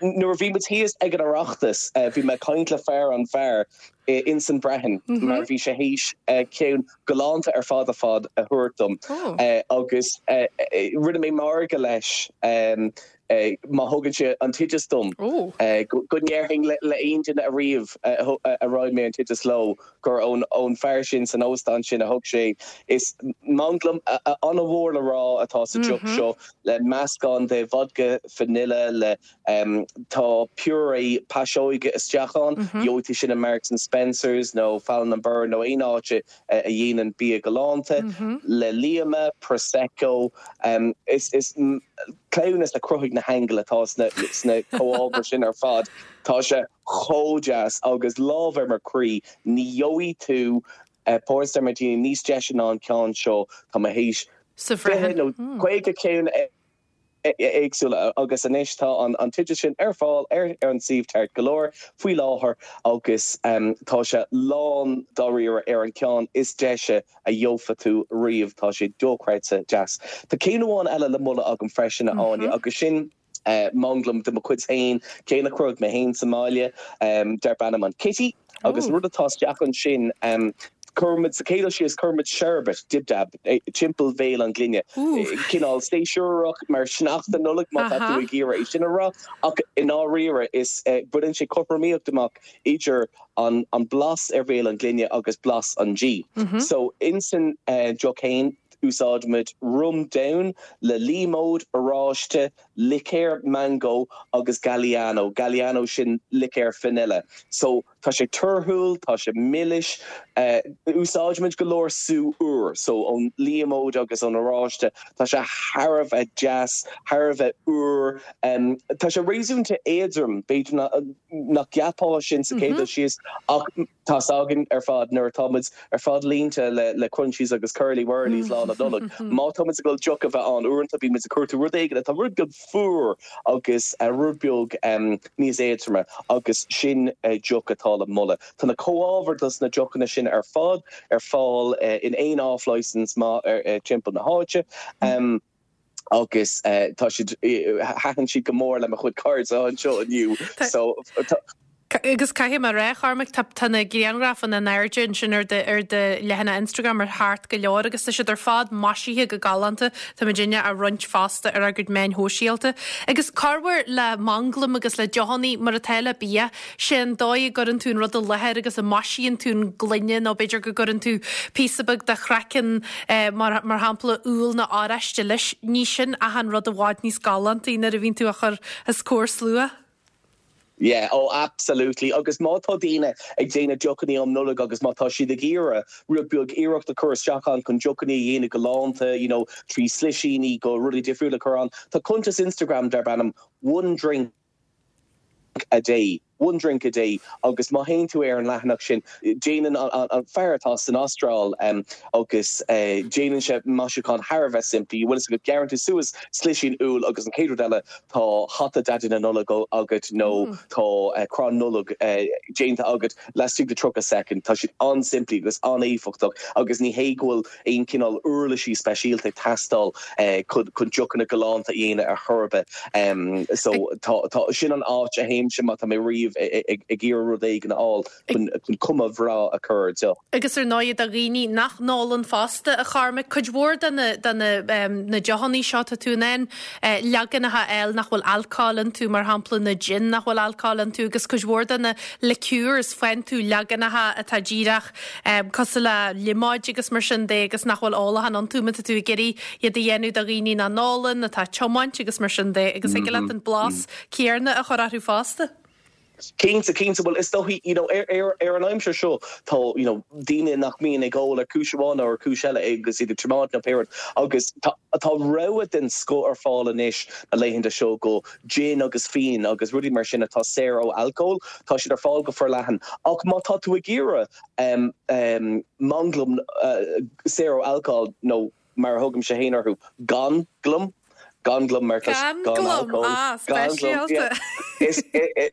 Nuair a bhí muid thíos ag an Oireachtas, bhí mé ag caint le fear an bheáir ins an Brehon mar bhí sé théis ceann galánta ar fad ar fad a thabhairt dom agus rinne mé margadh leis má thugann sé an t-oideas dom go ndéarfainn le aon duine ariamh a roinn mé an t-oideas leo gur ón fear sin san óstán sin a thug sé. Is manglam an-mhór le rá atá sa deoch seo le meascán de vodka vanilla le tá purée paiseoige isteach ann, gheobhaidh tú sin i Marks and Spencers nó Fallon and Birr nó aon áit a dhéanann bia galánta, le líoma, prosecco. Is cleamhnas a chruthaigh na haingil atá sna comhábhair sin ar fad. Tá sé chomh deas agus lámh ar mo chroí, ní gheobhaidh tú Pornstar Martini níos deise ná an ceann seo. Tá mé théis 20 nó 50 ceann éagsúla agus anois tá an t-oideas sin ar fáil ar an suíomh Tart Galore faoi láthair agus tá sé lán dáiríre ar an ceann is deise a gheofa tú riamh. Tá sé dochreidte deas. Tá ceann amháin eile le moladh agam freisin, a Áine, agus sin manglam de mo chuid féin, ceann a chruthaigh mé féin sa mbaile, darb ainm an Kitty. Agus rud atá isteach ansin, cuirimid, sa chéad dul síos, cuirimid sherbet, dib dab, timpeall bhéal an ghloine. Cineál séasúrach mar sneachta Nollag má tá tú ag iarraidh é sin a rá, ach i ndáiríre is baineann sé cothromaíocht amach idir an blas ar bhéal an ghloine agus blas an dí. So insan deoch fhéin, úsáidimid rum donn le líomóid, oráiste, licéar mangó agus Galliano, Galliano sin licéar vanilla. So tá sé torthúil, tá sé milis, úsáidimid go leor sú úr, so ón líomóid agus ón oráiste, tá sé thar a bheith deas, thar a bheith úr, tá sé réasúnta éadrom, b'fhéidir nach gceapfá sin sa chéad dul síos ach, Tá's againn ar fad nuair atá muid ar fad líonta le Crunchies agus Curly Wurlies lá na Nollag, má tá muid ag dul deoch a bheith ann, uaireanta bíonn muid ag cuartú rud éigin atá rud beag fuar agus rud beag níos éadroime agus sin deoch atá le moladh. Tá na comhábhair dos na deochanna sin ar fad ar fáil in aon off-licence maith timpeall na háite. Agus tá siad, thaitin siad go mór le mo chuid cairde anseo inniu. So tá. Agus caithfidh mé a rá, a Chormaic, tá, tá na grianghrafanna in airde ansin ar do, ar do leathanach Instagram ar thart go leor agus tá siad ar fad maisithe go galánta. Tá muidinne á roinnt fosta ar ár gcuid meáin shóisialta. Agus corruair le manglaim agus le deochannaí mar atá le bia, sé an dóigh a gcuireann tú an rud i láthair agus a maisíonn tú an gloine nó b'fhéidir go gcuireann tú píosa beag de chraiceann mar mar shampla úll nó oráiste leis, ní sin achan rud i bhfad níos galántaí nuair a bhíonn tú á chur os comhair slua. Yeah, oh absolutely. Agus má tá daoine ag déanamh deochannaí um Nollaig agus má tá siad ag iarraidh rud beag iarracht a chur isteach ann chun deochannaí a dhéanamh galánta, you know, trí slisíní go rudaí difriúla a chur ann, tá cuntas Instagram darb ainm One Drink a Day, One Drink a Day, agus má théann tú ar an leathanach sin, déanann an fear atá san Astráil agus déanann sé maisiúchán thar a bheith simplí, bhfuil fhios agat, gearrann tú suas slisín úll agus an chéad rud eile tá hata Daidí na Nollag agat nó tá crann Nollag déanta agat laistigh de 30 soicind. Tá siad an-simplí agus an-éifeachtach agus ní hé go bhfuil aon chineál uirlisí speisialta ag teastáil chun deochanna galánta a dhéanamh ar chor ar bith. So tá, sin an áit a théimse má tá mé riamh ag iarraidh rud éigin a fháil chun cuma bhreá a chur ar deoch. Agus ar ndóigh do dhaoine nach n-ólann fosta, a Chormaic, cuid mhór de na de na na deochannaí seo tá tú in ann leaganacha a fháil nach bhfuil alcól iontu, mar shampla na gin nach bhfuil alcól iontu agus cuid mhór de na liqueurs faigheann tú leaganacha atá díreach cosúil le liomóid agus mar sin de agus nach bhfuil ólachán iontu má tá tú ag iarraidh iad a dhéanamh do dhaoine nach n-ólann, atá ag tiomáint agus mar sin de agus thig leat an blas céanna a chur orthu fosta. Cinnte, cinnte. Bhuel, is dóichí, you know, ar, ar, ar an aimsir seo, tá, you know, daoine nach mbíonn ag ól ar chúis amháin nó ar chúis eile agus iad ag tiomáint nó pé rud agus tá, tá rogha den scoth ar fáil anois na laethanta seo go gin agus fíon agus rudaí mar sin atá saor ó alcól, tá siad ar fáil go forleathan. Ach má tá tú ag iarraidh um, um, manglam uh, saor ó alcól nó mar a thugaimse féin orthu, gan glam, gan glam mar tá gan alcól, ah, speisialta. Is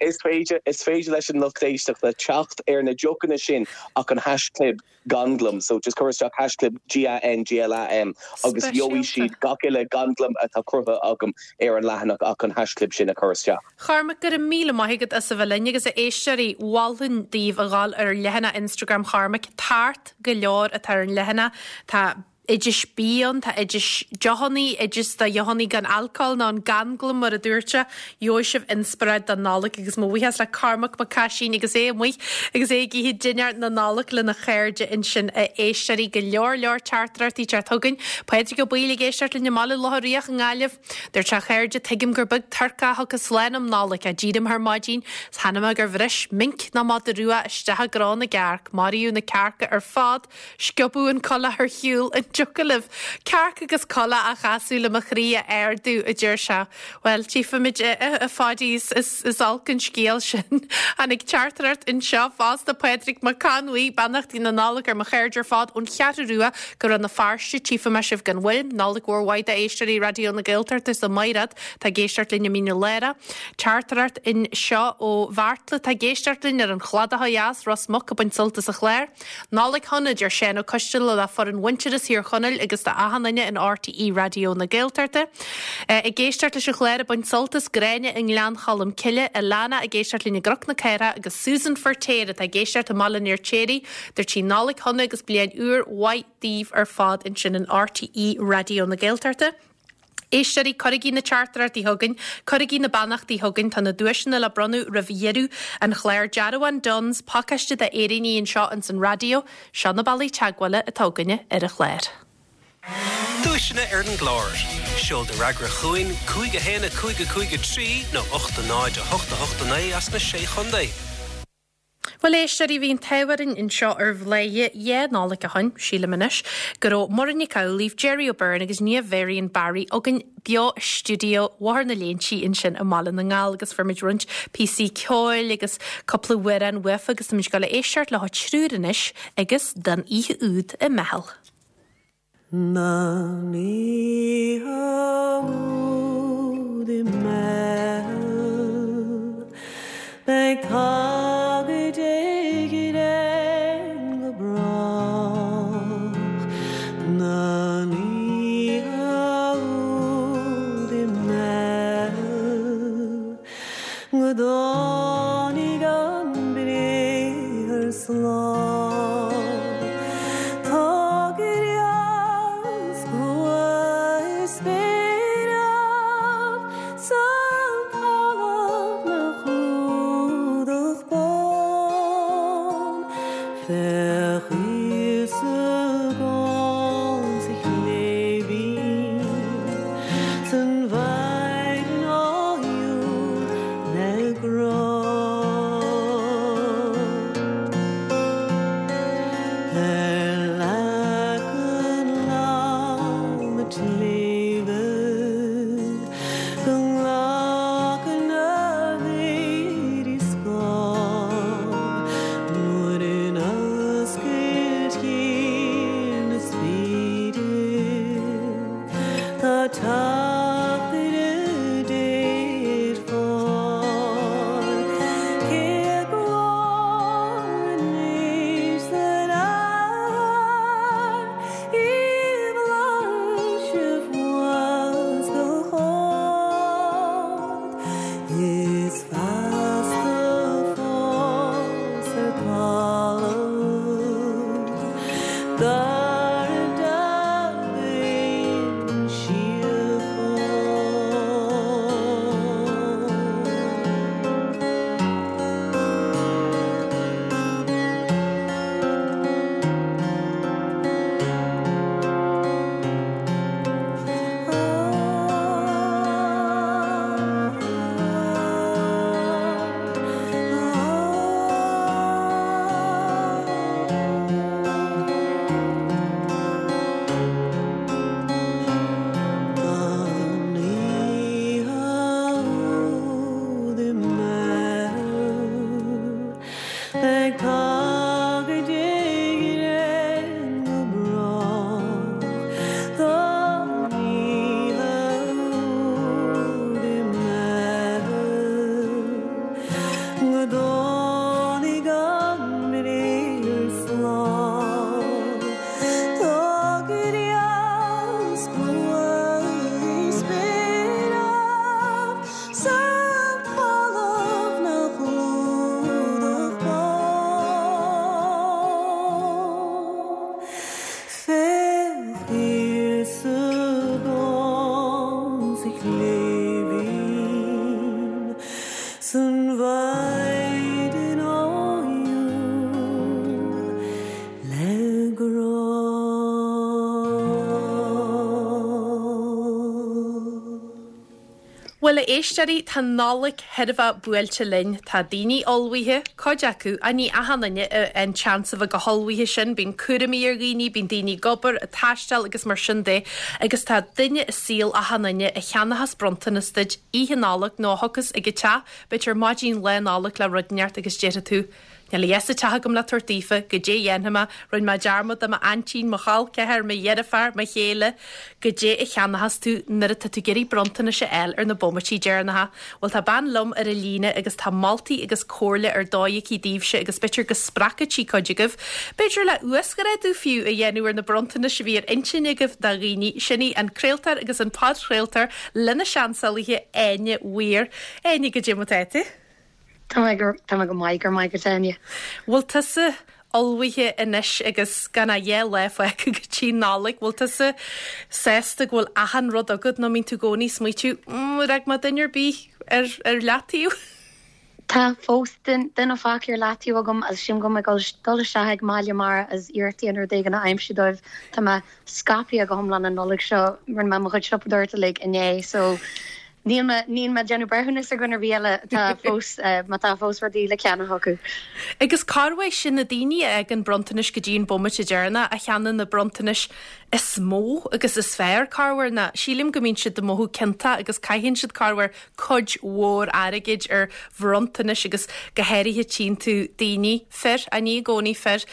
is féidir is féidir leis an lucht éisteachta teacht ar na deochanna sin ach an haischlib ganglam, so just cuir isteach haischlib G-A-N-G-L-A-M agus gheobhaidh siad gach uile ganglam atá cruthaithe agam ar an leathanach ach an haischlib sin a chur isteach. Chormaic, go raibh míle maith agat as a bheith linn agus a éisteoirí, mholfainn daoibh a dhul ar leathanach Instagram Chormaic, tart go leor atá ar an leathanach, tá oidis bia ann, tá oidis deochannaí, oideas do dheochannaí gan alcól nó an ganglam mar a dúirt sé. Gheobhaidh sibh inspioráid don Nollaig agus mo bhuíochas le Cormac Mac Caisín agus é amuigh agus é ag ithe dinnéar na Nollag lena chairde ansin a éisteoirí. Go leor leor teachtaireachtaí ag teacht chugainn. Pádraig Ó Baoill ag éisteacht linn i mBaile Locha Riach i nGaillimh. Dúirt sé a chairde, tuigim gur beag turcach a thiocfas slán um Nollaig, ach d'éirigh mé ar maidin 's chonaic mé gur bhris minc nó madadh rua isteach i gcró na gcearc. Maraíodh na cearca ar fad. Sciobadh an coileach ar shiúl, an dtiocfadh libh cearc agus coileach a chasadh le mo chroí a ardú, a deir sé. Bhuel, tchífimid, a Pháidí, is olc an scéal sin. Tháinig teachtaireacht anseo fosta, Pádraig Mac Con Bhuí, beannachtaí na Nollag ar mo chairde ar fad ón Cheathrú Rua go Rann na Feirste, tchífidh mé sibh gan mhoill. Nollaig mhór mhaith d'éisteoirí Raidió na Gaeltachta is do Mhaighread atá ag éisteacht linn i Mín an Lárach. Teachtaireacht anseo ó Bheartla atá ag éisteacht linn ar an Chladach ó dheas, Ros Muc ag baint sult as an chlár. Nollaig shona, a deir Seán Ó Coisteala le foireann Mhuintearas Thír Chonaill agus do achan duine in RTÉ Raidió na Gaeltachta. Ag éisteacht leis an chlár ag baint sult as Gráinne i nGleann Cholm Cille, Alana ag éisteacht linn i gCnoc na Cathrach agus Susan Feirtéar atá ag éisteacht i mBaile an Fheirtéaraigh. Dúirt sí Nollaig shona agus bliain úr mhaith daoibh ar fad ansin in RTÉ Raidió na Gaeltachta. Éisteoirí, cuirigí na teachtaireachtaí chugainn, cuirigí na beannachtaí chugainn, tá na duaiseanna le bronnadh roimh dheireadh an chláir. Dearbhán Dunnes, pacáiste d'fhéiríní anseo ins an raidió. Seo na bealaí teagmhála atá againne ar an chlár. Duaiseanna ar an gclár. Seol do fhreagra chugainn, 5 1 5 5 3 nó 8 0 8 8 9 as na Sé Chontae. Bhuel, éisteoirí, bhí an t-ádh orainn anseo ar Bhladhaire dhá Nollaig ó shoin, sílim anois, go raibh Muireann Nic Amhlaoibh, Gerry O'Beirne agus Niamh Varian Barry againn beo i stiúideo Bhóthar na Léinsí ansin i mBaile na nGall agus fuair muid roinnt píosaí ceoil agus cúpla amhrán uafa agus táimid ag dul a éisteacht leo triúr anois agus Don Oíche Úd i mBeithil. Don oíche úd i mBeithil beidh tagairt ag Éirinn go brách. Don oíche úd i mBeithil go dtáinig an briathar slán. Tá grian 's grua ar spéiribh 's an talamh 'na chlúdach bán. Ar leac an láma tsléibhe go nglacann na héadaí scáth nuair in oscailt chill na spéire tá teachtaire Dé ar fáil. Cé a ghlór anois san aer i bhflaitheas fós go hard is feasta fós ar talamh darbh d'aon síocháin. Don oíche úd i mBeithil beidh tagairt Éireann go brách. Don oíche úd i mBeithil go dtáinig an briathar slán. Tá gréas buan spéire san talamh nach clúdach bán. Féach thiar sa gcom sa chléibhín san mhaighdean áilleann le grá. Bhuel, a éisteoirí, tá Nollaig chairbheach buailte linn. Tá daoine ullmhaithe, cuid acu, ach ní achan duine a fhaigheann seans a bheith chomh hullmhaithe sin. Bíonn cúraimí ar dhaoine, bíonn daoine ag obair, ag taisteal agus mar sin de. Agus tá duine i saol achan duine a cheannóchas bronntanas duit Oíche Nollag nó a thiocfas ag an teach, b'fhéidir maidin Lá Nollag le rud inteacht agus déarfaidh tú, Níl a fhios sa teach agam le tabhairt daofa, goidé a dhéanfaidh mé, rinne mé dearmad de m'aintín, mo chol ceathar, mo dheirfiúr, mo chéile. Goidé a cheannóchas tú nuair atá tú ag iarraidh bronntanais a fháil ar na bomaití deireanacha. Bhuel tá bean liom ar an líne agus tá moltaí agus comhairle ar dóigh aici daoibhse agus b'fhéidir go spreagfaidh sí cuid agaibh, b'fhéidir le uasghrádú fiú a dhéanamh ar na bronntanais a bhí ar intinn agaibh do dhaoine. Sin í an craoltóir agus an podchraoltóir lena seansálaithe Áine Weir. Áine, goidé mar atá tú? Tá mé go, tá mé go maith, go raibh maith agat Áine. Bhfuil tusa ullmhaithe anois agus gan ach 2 lá fágtha go dtí Nollaig, bhfuil tusa sásta go bhfuil achan rud agat nó mbíonn tú i gcónaí ag smaoitiú, mm, ar fhág mé duine ar bith ar, ar leataobh? Tá fós duine fágtha ar leataobh agam agus sílim go mbeidh mé ag dul isteach ag mBaile Mara agus iarracht a dhéanamh rud éigin a aimsiú dóibh. Tá mé scaipthe go hiomlán an Nollaig seo, rinne mé mo chuid siopadóireachta uilig inné so Níl mé, níl mé ag déanamh breithiúnas ar dhuine ar bith eile atá fós, má tá fós rudaí le ceannach acu. Agus corruair sin na daoine a fhágann bronntanais go dtí an bomaite deireanach, a cheannaíonn na bronntanais is mó agus is fearr, corruair, ná sílim go mbíonn siad ag mothú ciontach agus caitheann siad corruair cuid mhór airgid ar bhronntanais agus go háirithe tchíonn tú daoine, fir, ach ní i gcónaí fir,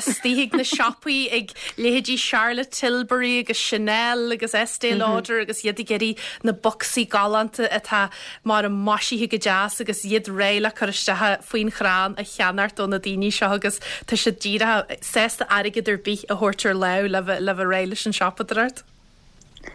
istigh ag na siopaí ag leithéidí Charlotte Tilbury agus Chanel agus Estée Lauder agus iad ag iarraidh na bocsaí galánta atá mar maisithe go deas agus iad réidh le cur isteach faoin chrann a cheannacht ó na daoine seo agus tá siad díreach sásta airgead ar bith a thabhairt ar láimh le bheith réidh leis an siopadóireacht.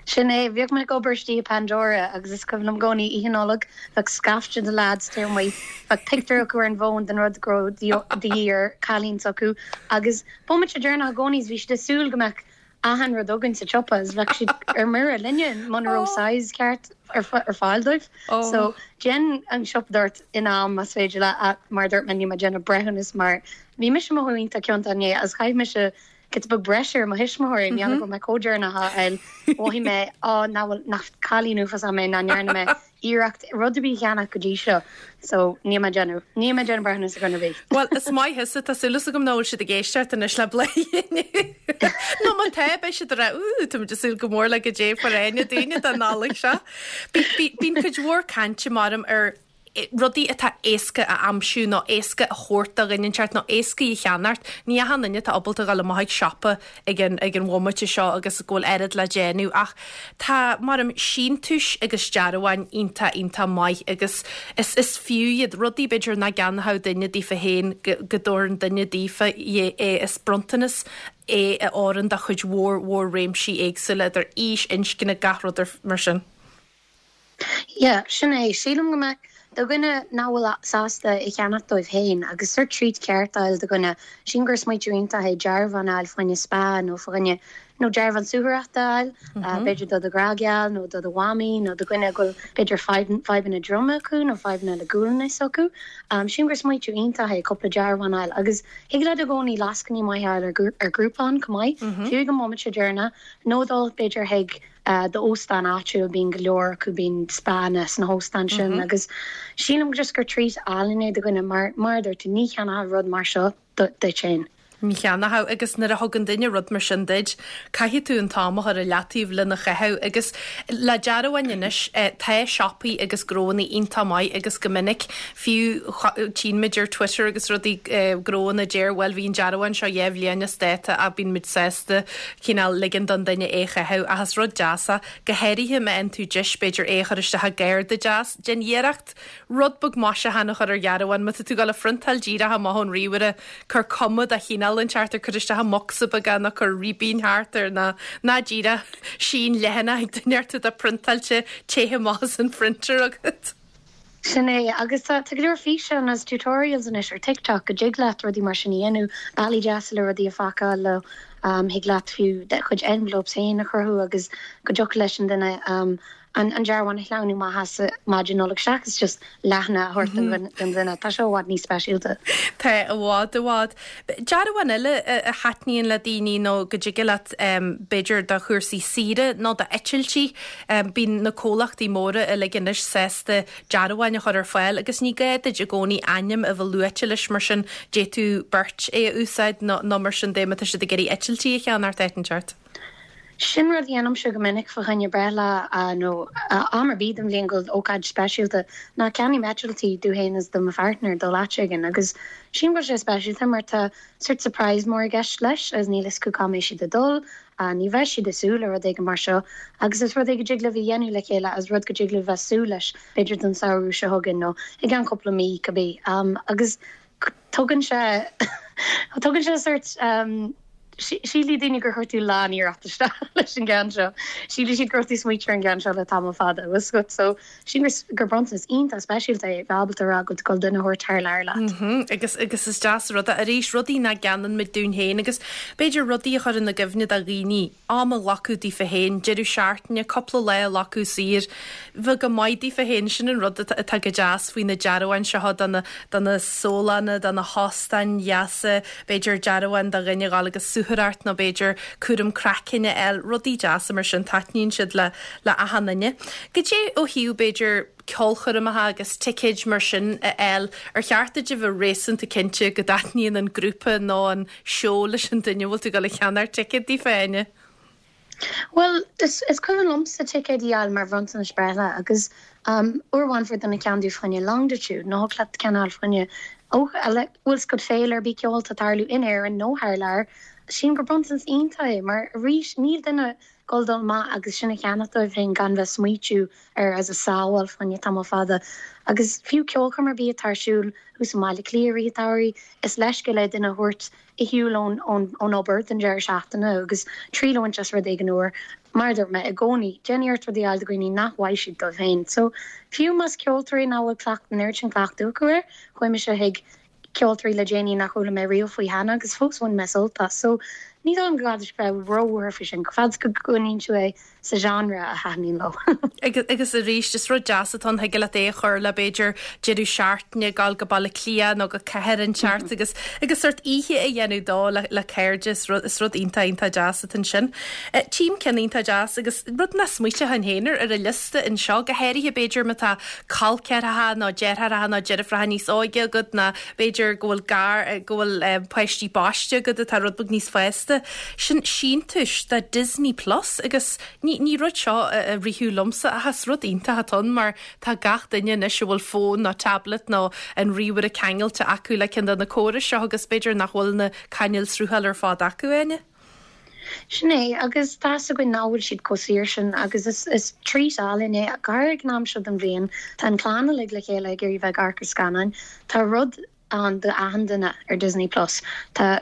Sin é. Bhíodh mé ag obair istigh i Pandora agus is cuimhin liom i gcónaí Oíche Nollag, bheadh scaifte de leaids taobh amuigh, bheadh pictiúr acu ar an bhfón den rud go raibh de dhíth ar chailín s'acu agus bomaite deireanach i gcónaí is bhí siad ag súil go mbeadh achan rud againn sa tsiopa is bheadh siad ar mire linne muna raibh size ceart ar fáil dóibh. So déan an siopadóireacht in am más féidir leat ach mar a dúirt mé níl mé ag déanamh breithiúnas mar bhí mise ag mothú iontach ciontach inné agus chaith mise. giota beag breise ar mo thuismitheoirí, mar gheall go raibh mé chomh deireanach á fháil, mhothaigh mé, á, nach bhfuil, nach cailín uafásach mé nach ndearna mé iarracht rud ar bith a cheannach go dtí seo. So, níl mé ag déanamh, níl mé ag déanamh breithiúnas ar dhuine ar bith. Bhuel, is maith thusa, tá súil agam nach bhfuil siad ag éisteacht anois le Bladhaire inniu. Nó má tá, beidh siad ag rá, Úúú, táimid ag súil go mór le goidé a fuair Áine dúinne don Nollaig seo. Bíonn cuid mhór cainte maram ar rudaí atá éasca a aimsiú nó éasca a thabhairt do dhuine inteacht nó éasca a cheannacht. Ní achan duine atá ábalta dhul amach ag siopa ag an ag an bhomaite seo agus go bhfuil oiread le déanamh ach tá, maram, síntiúis agus dearbháin iontach iontach maith agus is is fiú iad, rudaí b'fhéidir nach gceannódh duine daofa féin go go dtabharann duine daofa é is bronntanas é a oireann do chuid mhór mhór réimsí éagsúla idir aois, inscne, gach rud mar sin. Yeah, sin é. Sílim go mbeadh, do dhuine nach bhfuil sásta é cheannach dóibh féin agus sórt treat ceart a fháil do dhuine, sílim gur smaoitiú iontach é dearbhán a fháil fá choinne spa nó fá choinne, nó dearbhán suathaireachta a fháil, b'fhéidir do do ghrá geal nó do do mhamaí nó do dhuine go bhfuil b'fhéidir fadhbanna droma acu nó fadhbanna le gualainn s'acu. Sílim gur smaoitiú iontach é cúpla dearbhán a fháil agus thig leat i gcónaí lascainí maithe a fháil ar Groupon chomh maith, fiú ag an mbomaite deireanach, nó dul b'fhéidir chuig d'óstán áitiúil, bíonn go leor acu, bíonn spánna sna hóstáin sin agus sílim just gur treat álainn é do dhuine mar, mar a dúirt tú, ní cheannófá rud mar seo duit féin. Ní cheannófá agus nuair a thugann duine rud mar sin duit, caithfidh tú an t-am a chur i leataobh lena chaitheamh agus le dearbháin anois, tá siopaí agus gnóanna iontach maith agus go minic, fiú tchíonn muid ar Twitter agus rudaí, gnóanna a deir bhuel bhí an dearbhán seo 2 bhliain as dáta ach bíonn muid sásta cineál ligean don duine é a chaitheamh ach is rud deas é, go háirithe má fhaigheann tú deis b'fhéidir é a chur isteach i gcárta deas. Déan iarracht rud beag maisiúcháin a chur ar dhearbhán. Má tá tú ag dul a phriontáil díreach amach ón ríomhaire, cuir cuma de chineál inteacht air, cuir isteach i mbocsa beag é nó cuir ribín thart air nó ná díreach sín leathanach ag duine ort atá priontáilte, téithe amach as an phrinter agat. Sin é, agus tá go leor físeán agus tutorials anois ar TikTok go dtig leat rudaí mar sin a dhéanamh, bealaí deasa le rudaí a phacáil leo, thig leat fiú do chuid envelopes féin a chruthú agus go dtiocfadh leis an duine an dearbhán a shleamhnú amach as maidin Nollag seachas just leathanach a thabhairt don duine. Tá seo i bhfad níos speisialta. Tá, i bhfad, i bhfad. Dearbhán eile a thaitníonn le daoine nó go dtig leat b'fhéidir do chúrsaí saoire nó d'eitiltí, Bíonn na comhlachtaí móra uilig anois sásta dearbháin a chur ar fáil agus ní gá duit i gcónaí ainm a bheith luaite leis mar sin d'fhéadfadh beirt é a úsáid nó mar sin de má tá siad ag iarraidh eitiltí a cheannacht áit inteacht. Sin rud a dhéanaimse go minic fá choinne breithlá nó am ar bith den bhliain go bhfuil ócáid speisialta ná ceannaím eitiltí domh féin is do mo pháirtneir dul áit éigin agus sílim go bhfuil sé speisialta mar tá sórt surprise mór i gceist leis agus níl fhios acu cá mbeidh siad ag dul Ní bheidh siad ag súil le rud éigin mar seo agus is rud é go dtig libh a dhéanamh le chéile agus rud go dtig libh bheith súil leis b'fhéidir don samhradh seo chugainn nó i gceann cúpla mí, cibé. Agus tugann sé, tugann sé sórt, sílfidh daoine gur chuir tú lán-iarracht isteach leis an gceann seo. Sílfidh siad go raibh tú ag smaoitiú ar an gceann seo le tamall fada, bhfuil 's agat. So. Sílim gur bronntanas iontach speisialta é bheith ábalta a rá go bhfuil tú ag dul duine a thabhairt thar lear leat. Agus agus is deas an rud é arís, rudaí nach gceannaíonn muid dúinn féin agus b'fhéidir rudaí a chuireann i gcuimhne do dhaoine, am a ghlacadh daofa féin, deireadh seachtaine, cúpla lá a ghlacadh saor, bheith go maith daofa féin, sin an rud atá go deas faoi na dearbháin seo do na do na sólanna, do na hóstáin dheasa, b'fhéidir dearbhán do dhuine a dhul agus suathaireacht nó b'fhéidir cúram craicinn a fháil, rudaí deasa mar sin, taitníonn siad le le achan duine. Goidé ó thaobh, b'fhéidir, ceolchoirmeacha agus ticéid mar sin a fháil, ar cheart duit a bheith réasúnta cinnte go dtaitníonn an grúpa nó an seó leis an duine a bhfuil tú ag dul a cheannacht ticéad daofa, Áine? Bhuel, is cuimhin liomsa ticéid a fháil mar bhronntanais breithlá agus uair amháin fuair duine ceann domh fá choinne Longitude, nó thig leat ceann a fháil fá choinne bhfuil 's agat féile ar bith ceoil atá ag tarlú in Éirinn nó thar lear. Sílim gur bronntanas iontach é mar arís níl duine dul dul amach agus sin a cheannach dóibh féin gan bheith smaoitiú air agus a sábháil fá choinne tamall fada. Agus fiú ceolchoirm ar bith atá ar siúl thuas i mBaile Átha Cliath i rith an tsamhraidh, is leithscéal é duine a thabhairt ar shiúl ón ón obair don deireadh seachtaine agus triail a bhaint as rud éigin úr. Mar a dúirt mé, i gcónaí, déan iarracht rudaí a fháil do dhaoine nach bhfaighidh siad dóibh féin. So, fiú más ceoltóirí nach bhfuil cleacht an oiread sin cleachtadh acu air, chuaigh mise chuig ceoltóirí le déanaí nach chuala mé riamh faoi cheana agus fós bhain mé sult as. So. Ní dóigh liom go gcaithfidh bheith róbhuartha faoi sin, fad is go gcoinníonn tú é sa genre a thaitníonn leo. Agus arís, is rud deas atá ann, thig leat é a chur le b'fhéidir deireadh seachtaine, gabháil go Baile Átha Cliath nó go cathair inteacht agus agus sórt oíche a dhéanamh dó le le cairde, is rud is rud iontach iontach deas atá ansin. Tchím ceann iontach deas agus rud nach smaoiteochainn féin ar ar an liosta anseo, go háirithe b'fhéidir má tá col ceathracha nó deartháireacha nó deirfiúracha níos óige agat nó b'fhéidir go bhfuil gar go bhfuil páistí baiste agat atá rud beag níos fásta. Sin síntiús do Disney Plus agus ní ní rud seo a ritheadh liomsa ach is rud iontach atá ann mar tá gach duine anois a bhfuil fón nó tablet nó an ríomhaire ceangailte acu le ceann de na córais seo agus b'fhéidir nach bhfuil na cainéil sruthála ar fad acu, Áine. Sin é, agus tá 'fhios againn nach bhfuil siad chomh saor sin agus is is treat álainn é, go háirithe ag an am seo den bhliain. Tá an chlann uilig le chéile ag iarraidh bheith ag amharc ar scannáin. Tá rud ann do achan duine ar Disney Plus. Tá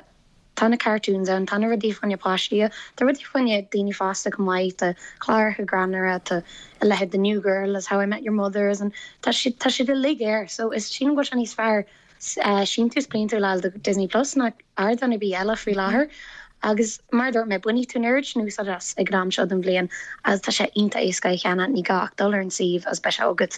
tá na cartoons ann, tá na rudaí fá choinne páistí, tá rudaí fá choinne daoine fásta chomh maith, tá cláracha greannmhara, tá a leithéid de New Girl is How I Met Your Mother is an tá siad tá siad uilig air. So is sílim go bhfuil sé níos fearr síntiús bliantúil a fháil do Disney Plus ná ardán ar bith eile faoi láthair agus mar a dúirt mé, bainfidh tú an oiread sin úsáid as ag an am seo den bhliain agus tá sé iontach éasca é a cheannach, ní gá ach dul ar an suíomh agus beidh sé agat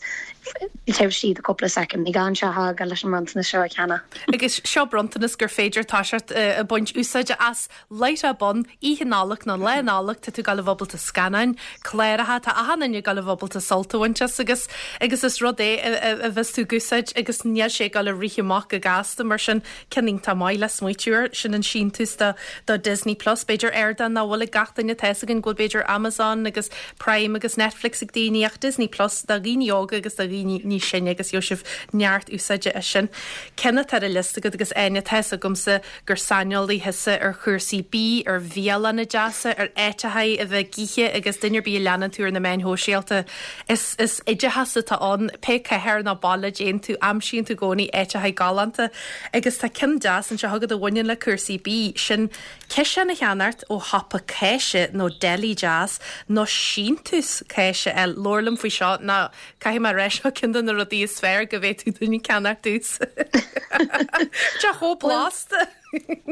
taobh istigh de cúpla soicind, ní gá an teach a fhágáil leis an mbronntanas seo a cheannach. Agus seo bronntanas gur féidir toiseacht ag baint úsáide as Light up on, Oíche Nollag nó Lá Nollag, tá tú ag gabháil a bheith ábalta scannáin, cláracha, tá achan duine ag gabháil a bheith ábalta sult a bhaint as agus agus is rud é a bheas tú ag úsáid agus níl sé ag gabháil a rith amach go gasta mar sin ceann iontach maith le smaoitiú air, sin an síntiús do do Disney Plus. B'fhéidir ardán nach bhfuil ag gach duine, tá fhios againn go bhfuil b'fhéidir Amazon agus Prime agus Netflix ag daoine ach Disney Plus do dhaoine óga agus do dhaoine níos sine agus gheobhaidh sibh neart úsáide as sin. Ceann atá ar an liosta agat agus Áine, tá fhios agamsa gur saineolaí thusa ar chúrsaí bídh, ar bhialanna deasa, ar áiteachaí a bheith ag ithe agus duine ar bith a leanann tú ar na meáin shóisialta, is is oideachas atá ann. Pé cathair nó baile a dtéann tú, aimsíonn tú i gcónaí áiteachaí galánta agus tá ceann deas anseo agat a bhaineann le cúrsaí bídh, sin ciseán a cheannacht ó shiopa cáise nó deli deas nó síntiús cáise a fháil. Labhair liom faoi seo nó Caithfidh mé a rá seo ceann de na rudaí is fearr go bhféadfadh duine ceannacht domhsa. Tá chomh blasta!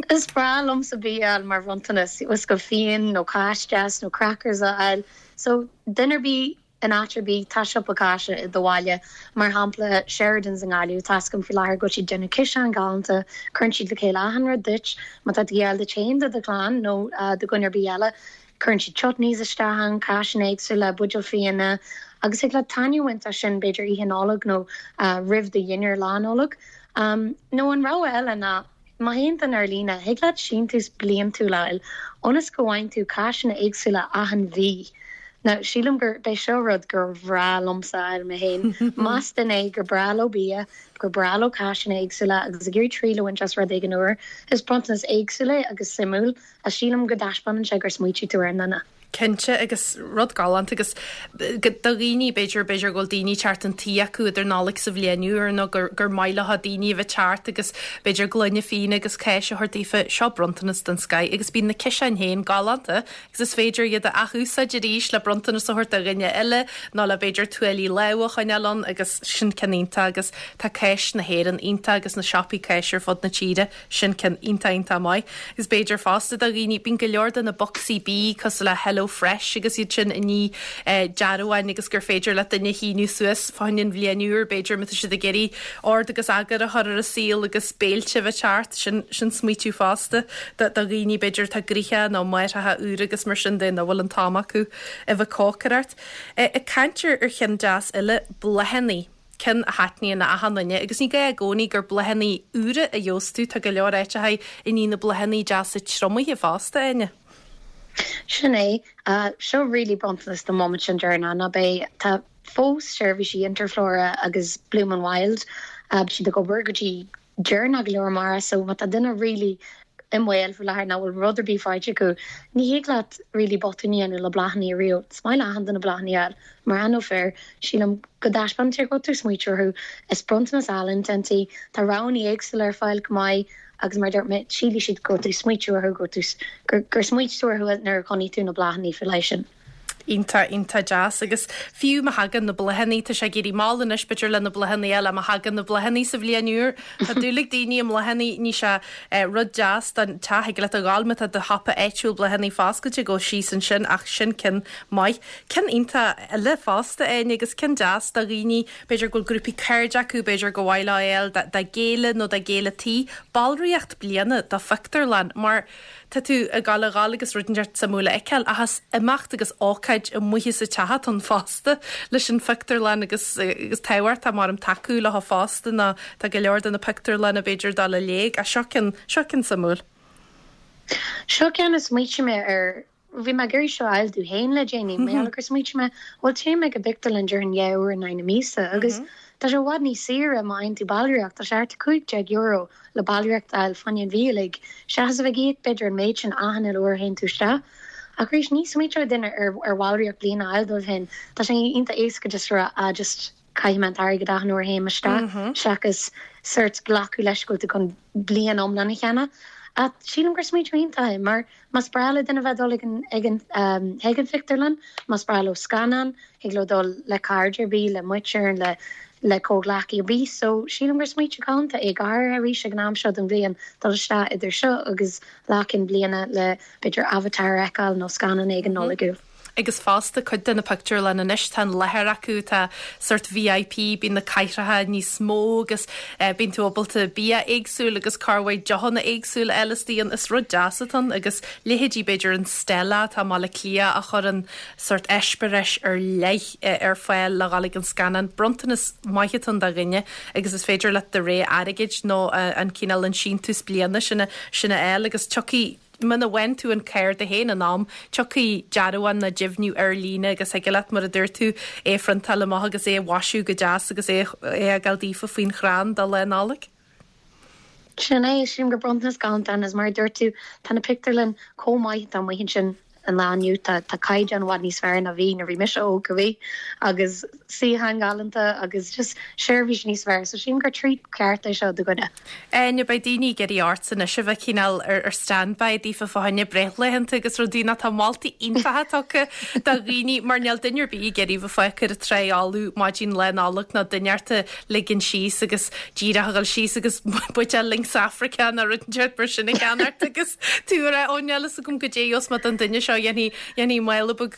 Is breá liomsa bia a fháil mar bhronntanas, uisce fíon nó cáis deas nó crackers a fháil. So, duine ar bith, in áit ar bith, tá siopa cáise i do bhaile. Mar shampla, Sheridan's i nGaillimh, tá 'fhios agam faoi láthair go bhfuil siad ag déanamh ciseáin galánta, cuireann siad le chéile achan rud duit. Má tá tú ag fáil duit féin, do do chlann nó do dhuine ar bith eile, Cuireann siad chutneys isteach ann, cáiseanna éagsúla, buidéil fíona agus thig leat taitneamh a bhaint as sin b'fhéidir oíche Nollag nó roimh do dhinnéar Lá Nollag. Nó an rogha eile ná má théann duine ar líne, thig leat síntiús bliantúil a fháil ionas go bhfaigheann tú cáiseanna éagsúla achan mhí. Now, sílim gurb é seo rud gur bhreá liomsa a fháil mé féin. Más duine é gur breá leo bia, gur breá leo cáiseanna éagsúla agus ag iarraidh triail a bhaint as rud éigin úr, is bronntanas éagsúil é agus suimiúil. Ach sílim go dtaispeánann sé gur smaoitigh tú ar an nduine. Cinnte, agus rud galánta agus do dhaoine, b'fhéidir, b'fhéidir go bhfuil daoine teacht chun tí acu idir Nollaig 's an Bhliain Úr nó gur, gur maith leo daoine a bheith teacht agus b'fhéidir gloine fíona agus cáis a thabhairt daofa, seo bronntanas den scoith agus bíonn na ciseáin féin galánta agus is féidir iad a athúsáid arís le bronntanas a thabhairt do dhuine eile nó le b'fhéidir tuáillí lámha a choinneáil ann agus sin ceann iontach agus tá cáis na hÉireann iontach agus na siopaí cáise ar fud na tíre. Sin ceann iontach iontach maith. Agus b'fhéidir fosta do dhaoine, bíonn go leor de na bocsaí bídh cosúil le Hello Fresh agus iad sin i ndiaidh dearbháin agus gur féidir le duine shíniú suas fá choinne an bhliain úr, b'fhéidir, má tá siad ag iarraidh ord agus eagar a chur ar a saol agus béilte a bheith teacht. Sin, sin smaoitiú fosta do dhaoine b'fhéidir atá gnoitheach nó máithreacha úra agus mar sin de nach bhfuil an t-am acu a bheith ag cócaireacht. Ag caint ar cheann deas eile, bláthannaí. ceann a thaitníonn le achan duine agus ní gá i gcónaí gur bláthannaí úra a gheobhas tú, tá go leor áiteachaí i ndiaidh na bláthannaí deasa triomaithe fosta, Áine. Sin é. Seo really bronntanas don mhomaint sin deireanach, ná beidh, tá fós seirbhísí Interflora agus Bloom and Wild, beidh siad ag obair go dtí deireanach go leor amárach so má tá duine really i mbaol faoi láthair nach bhfuil rud ar bith faighte acu, ní thig leat really botún a dhéanamh le bláthanna ariamh. Is maith le achan duine bláthanna a fháil, mná nó fir. Sílim go dtaispeánann sé go bhfuil tú ag smaoitiú orthu. Is bronntanas álainn atá ann. Tá roghanna éagsúla ar fáil go maith agus mar a dúirt mé, sílfidh siad go bhfuil tú ag smaoitiú orthu, go bhfuil tú, gur smaoitigh tú orthu nuair a chonaic tú na bláthanna faoi leith sin. Iontach, iontach deas. Agus fiú má thagann na bláthanna, tá sé ag éirí mall anois b'fhéidir le na bláthanna eile, má thagann na bláthanna sa bhliain úr, tá dúil ag daoine i mbláthanna, ní sé rud deas don teach, thig leat a ghabháil má tá do shiopa áitiúil bláthanna foscailte, gabh síos ansin ach sin ceann maith. Ceann iontach eile fosta, Áine, agus ceann deas do dhaoine, b'fhéidir go bhfuil grúpaí cairde acu, b'fhéidir gur mhaith leo é a fháil dá gcéile nó dá gcéile tí, ballraíocht bliana do phictiúrlann mar Tá tú ag gabháil a dhul agus rud inteacht suimiúil a fheiceáil ach is imeacht agus ócáid amuigh as an teach atá ann fosta leis an phictiúrlann agus agus tábhachtach maram tacú leo fosta nó tá go leor de na pictiúrlanna b'fhéidir ag dul i léig ach seo ceann, seo ceann suimiúil. Seo ceann a smaoitigh mé air, bhí mé ag iarraidh seo a fháil domh féin le déanaí, mar gheall gur smaoitigh mé, bhuel téim ag an bpictiúrlann déarfainn 2 uair in aghaidh na míosa agus tá sé i bhfad níos saoire má fhaigheann tú ballraíocht, tá sé thart ar €15 le ballraíocht a fháil fá choinne an mhí uilig, seachas a bheith ag íoc b'fhéidir an méid sin achan uile uair a théann tú isteach. Ach arís, ní smaointeodh duine ar ar bhallraíocht bliana a fháil dóibh féin. Tá sé iontach éasca just a rá ah just caithfidh mé an t-airgead achan uair a théim isteach seachas sórt glacadh leis go bhfuil tú chun bliain iomlán a cheannach. Ach sílim gur smaointiú iontach é mar más breá le duine bheith ag dul ag an ag an chuig an phictiúrlann, más breá leo scannán, Thig leo dul le cairde ar bith, le muintir, le le comhghleacaí ar bith. So sílim gur smaointiú galánta é, go háirithe arís ag an am seo den bhliain, dul isteach idir seo agus Lá Cinn Bliana le b'fhéidir Avatar a fheiceáil nó scannán éigin Nollaigiúil. Agus fosta cuid de na pictiúrlanna anois tá an láthair acu tá sórt VIP, bíonn na cathaoireacha níos mó agus bíonn tú ábalta bia éagsúil agus corrmhaith deochanna éagsúla a fháil istigh ann. Is rud deas atá ann agus leithéidí b'fhéidir an Stella atá i mBaile Átha Cliath a chuireann sórt eispéireas ar leith ar fáil le dhul ag an scannán. Bronntanas maith atá ann do dhuine agus is féidir leat do rogha airgid nó an cineál an síntiús bliana sin a sin a fháil agus tiocfaidh muna bhfaigheann tú an cárta féin in am, tiocfaidh dearbhán nó deimhniú ar líne agus thig leat, mar a dúirt tú, é a phriontáil amach agus é a mhaisiú go deas agus é a fhágáil daofa faoin chrann do Lá Nollag. Sin é, sílim gur bronntanas galánta é agus mar a dúirt tú, tá na pictiúrlann chomh maith atá amuigh ansin an lá inniu, tá tá caighdeán i bhfad níos fearr ná bhí nuair a bhí mise óg go bhí agus suíocháin ghalánta agus just seirbhís níos fearr so sílim gur treat ceart é seo do dhuine. Áine, beidh daoine ag iarraidh ortsa anois a bheith cineál ar ar standby daofa fá choinne breithlaethanta agus rudaí nó tá moltaí iontacha tugtha do dhaoine mar níl duine ar bith ag iarraidh bheith fágtha ar an trá fholamh maidin Lá Nollag nó duine ort a ligean síos agus díreach a dhul síos agus buidéal Lynx Africa nó rud inteacht mar sin a cheannacht agus tú ag rá ó níl fhios agam goidé a gheobhas mé don duine seo dhéanfaidh dhéanfaidh mála beag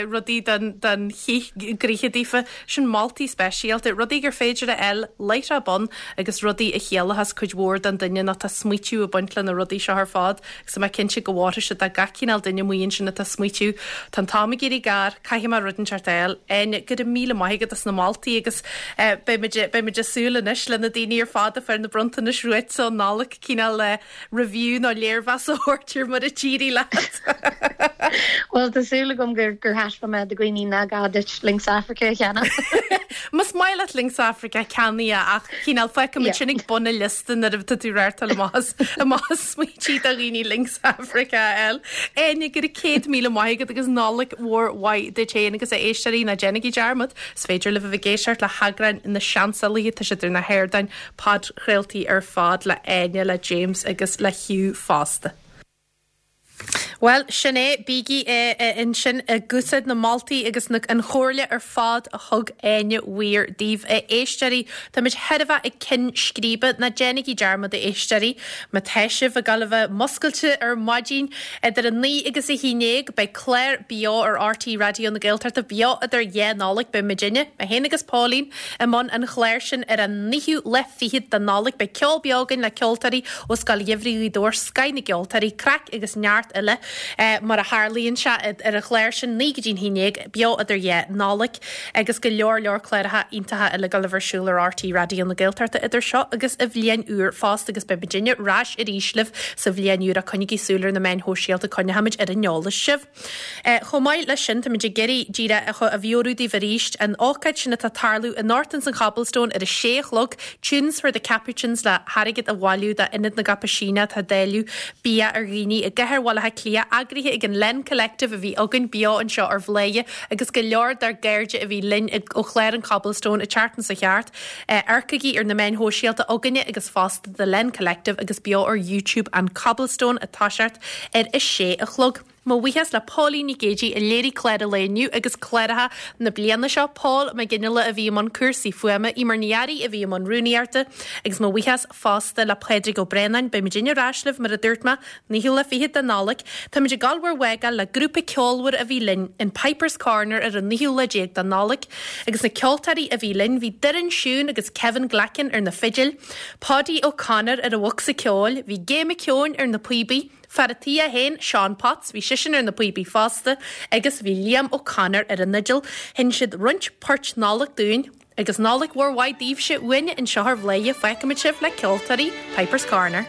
rudaí don don chith gnoithe daofa. Sin moltaí speisialta, rudaí gur féidir a fháil láithreach bonn agus rudaí a chiallóchas cuid mhór don duine nó tá smaoitiú ag baint le na rudaí seo ar fad agus tá mé cinnte go bhfóirfidh siad do gach cineál duine amuigh ansin atá ag smaoitiú. Tá an t-am ag éirí gar, caithfidh mé rud inteacht a fháil. Áine, go raibh míle maith agat as na moltaí agus beidh muid, beidh muid ag súil anois le na daoine ar fad a fuair na bronntanais uaitse um Nollaig cineál review nó léirmheas a thabhairt ar mar a d'éirigh leat. Bhuel, tá súil agam gur gur thaispeáin mé do dhaoine nach gá duit Lynx Africa a cheannach. Más maith leat Lynx Africa, ceannaigh é ach cineál fágfaimid sin ag bun an liosta nuair atá tú rártáil amach as amach as smaointí do dhaoine Lynx Africa a fháil. Áine, go raibh 100,000 maith agat agus Nollaig mhór mhaith duit féin agus a éisteoirí, ná déanaigí dearmad, is féidir libh a bheith ag éisteacht le heagráin na Seansálaithe, tá siad ar na hardáin podchraoltaí ar fad le Áine, le James agus le Hugh fosta. Bhuel, sin é, bígí ansin ag úsáid na moltaí agus na an chomhairle ar fad a thug Áine Weir daoibh, a éisteoirí. Táimid chóir a bheith ag ceann scríbe, ná déanaigí dearmad, a éisteoirí, má tá sibh ag dul a bheith muscailte ar maidin idir 9 agus 11, beidh clár beo ar RTÉ Raidió na Gaeltachta, beo idir dhá Nollaig, beidh muidinne, mé féin agus Pauline, i mbun an chláir sin ar an naoú lá fichead de Nollaig. Beidh ceol beo againn le ceoltóirí ó Scoil Gheimhridh Ghaoth Dobhair, scoth na gceoltóirí, craic agus neart eile mar a tharlaíonn sé ar an chlár sin, 9 go dtí'n 11, beo idir dhá Nollaig agus go leor leor cláracha iontacha eile ag dul a bheith ar siúl ar RTÉ Raidió na Gaeltachta idir seo agus an bhliain úr fosta agus beidh muidinne ar ais arís libh sa bhliain úr ach coinnigí súil ar na meáin shóisialta, coinneochaimid ar an eolas sibh. Chomh maith leis sin, táimid ag iarraidh díreach a mheabhrú daoibh arís an ócáid sin atá ag tarlú anocht ins an Cobblestone ar a sé a chlog, Tunes for the Capuchins le hairgead a bhailiú d'Ionad na gCaipisíneach atá ag dáileadh bia ar dhaoine i gcathair Bhaile Átha Cliath, eagraithe ag an Len Collective a bhí againn beo anseo ar Bhladhaire agus go leor dár gcairde a bhí linn ó chlár an Cobblestone an tseachtain seo thart. Amharcaigí ar na meáin shóisialta againne agus fosta The Len Collective agus beo ar YouTube an Cobblestone ag toiseacht ar a sé a chlog. Mo bhuíochas le Póilín Nic Géidigh a léirigh clár an lae inniu agus cláracha na bliana seo, Paul Mac Fhionnghaile a bhí i mbun cúrsaí fuaime, Eimear Ní Fhearraigh a bhí i mbun rúnaíochta agus mo bhuíochas fosta le Pádraig Ó Braonáin. Beidh muidinne ar ais libh, mar a dúirt mé, naoú lá fichead de Nollaig. Táimid ag gabháil bhur bhfágáil le grúpa ceolmhar a bhí linn in Piper's Corner ar an naoú lá déag de Nollaig agus na ceoltóirí a bhí linn, bhí Doireann Siún agus Kevin Glackin ar na fidil, Paudie O'Connor ar an bhocsa ceoil, bhí Gay McKeown ar na píobaí, Fear a' tí é féin, Seán Potts, bhí seisean ar na píobaí fosta agus bhí Liam O'Connor ar an fhidil. Sheinn siad roinnt poirt Nollag dúinn agus Nollaig mhór mhaith daoibhse uainne anseo ar Bhladhaire. Fágfaimid sibh le ceoltóirí Piper's Corner.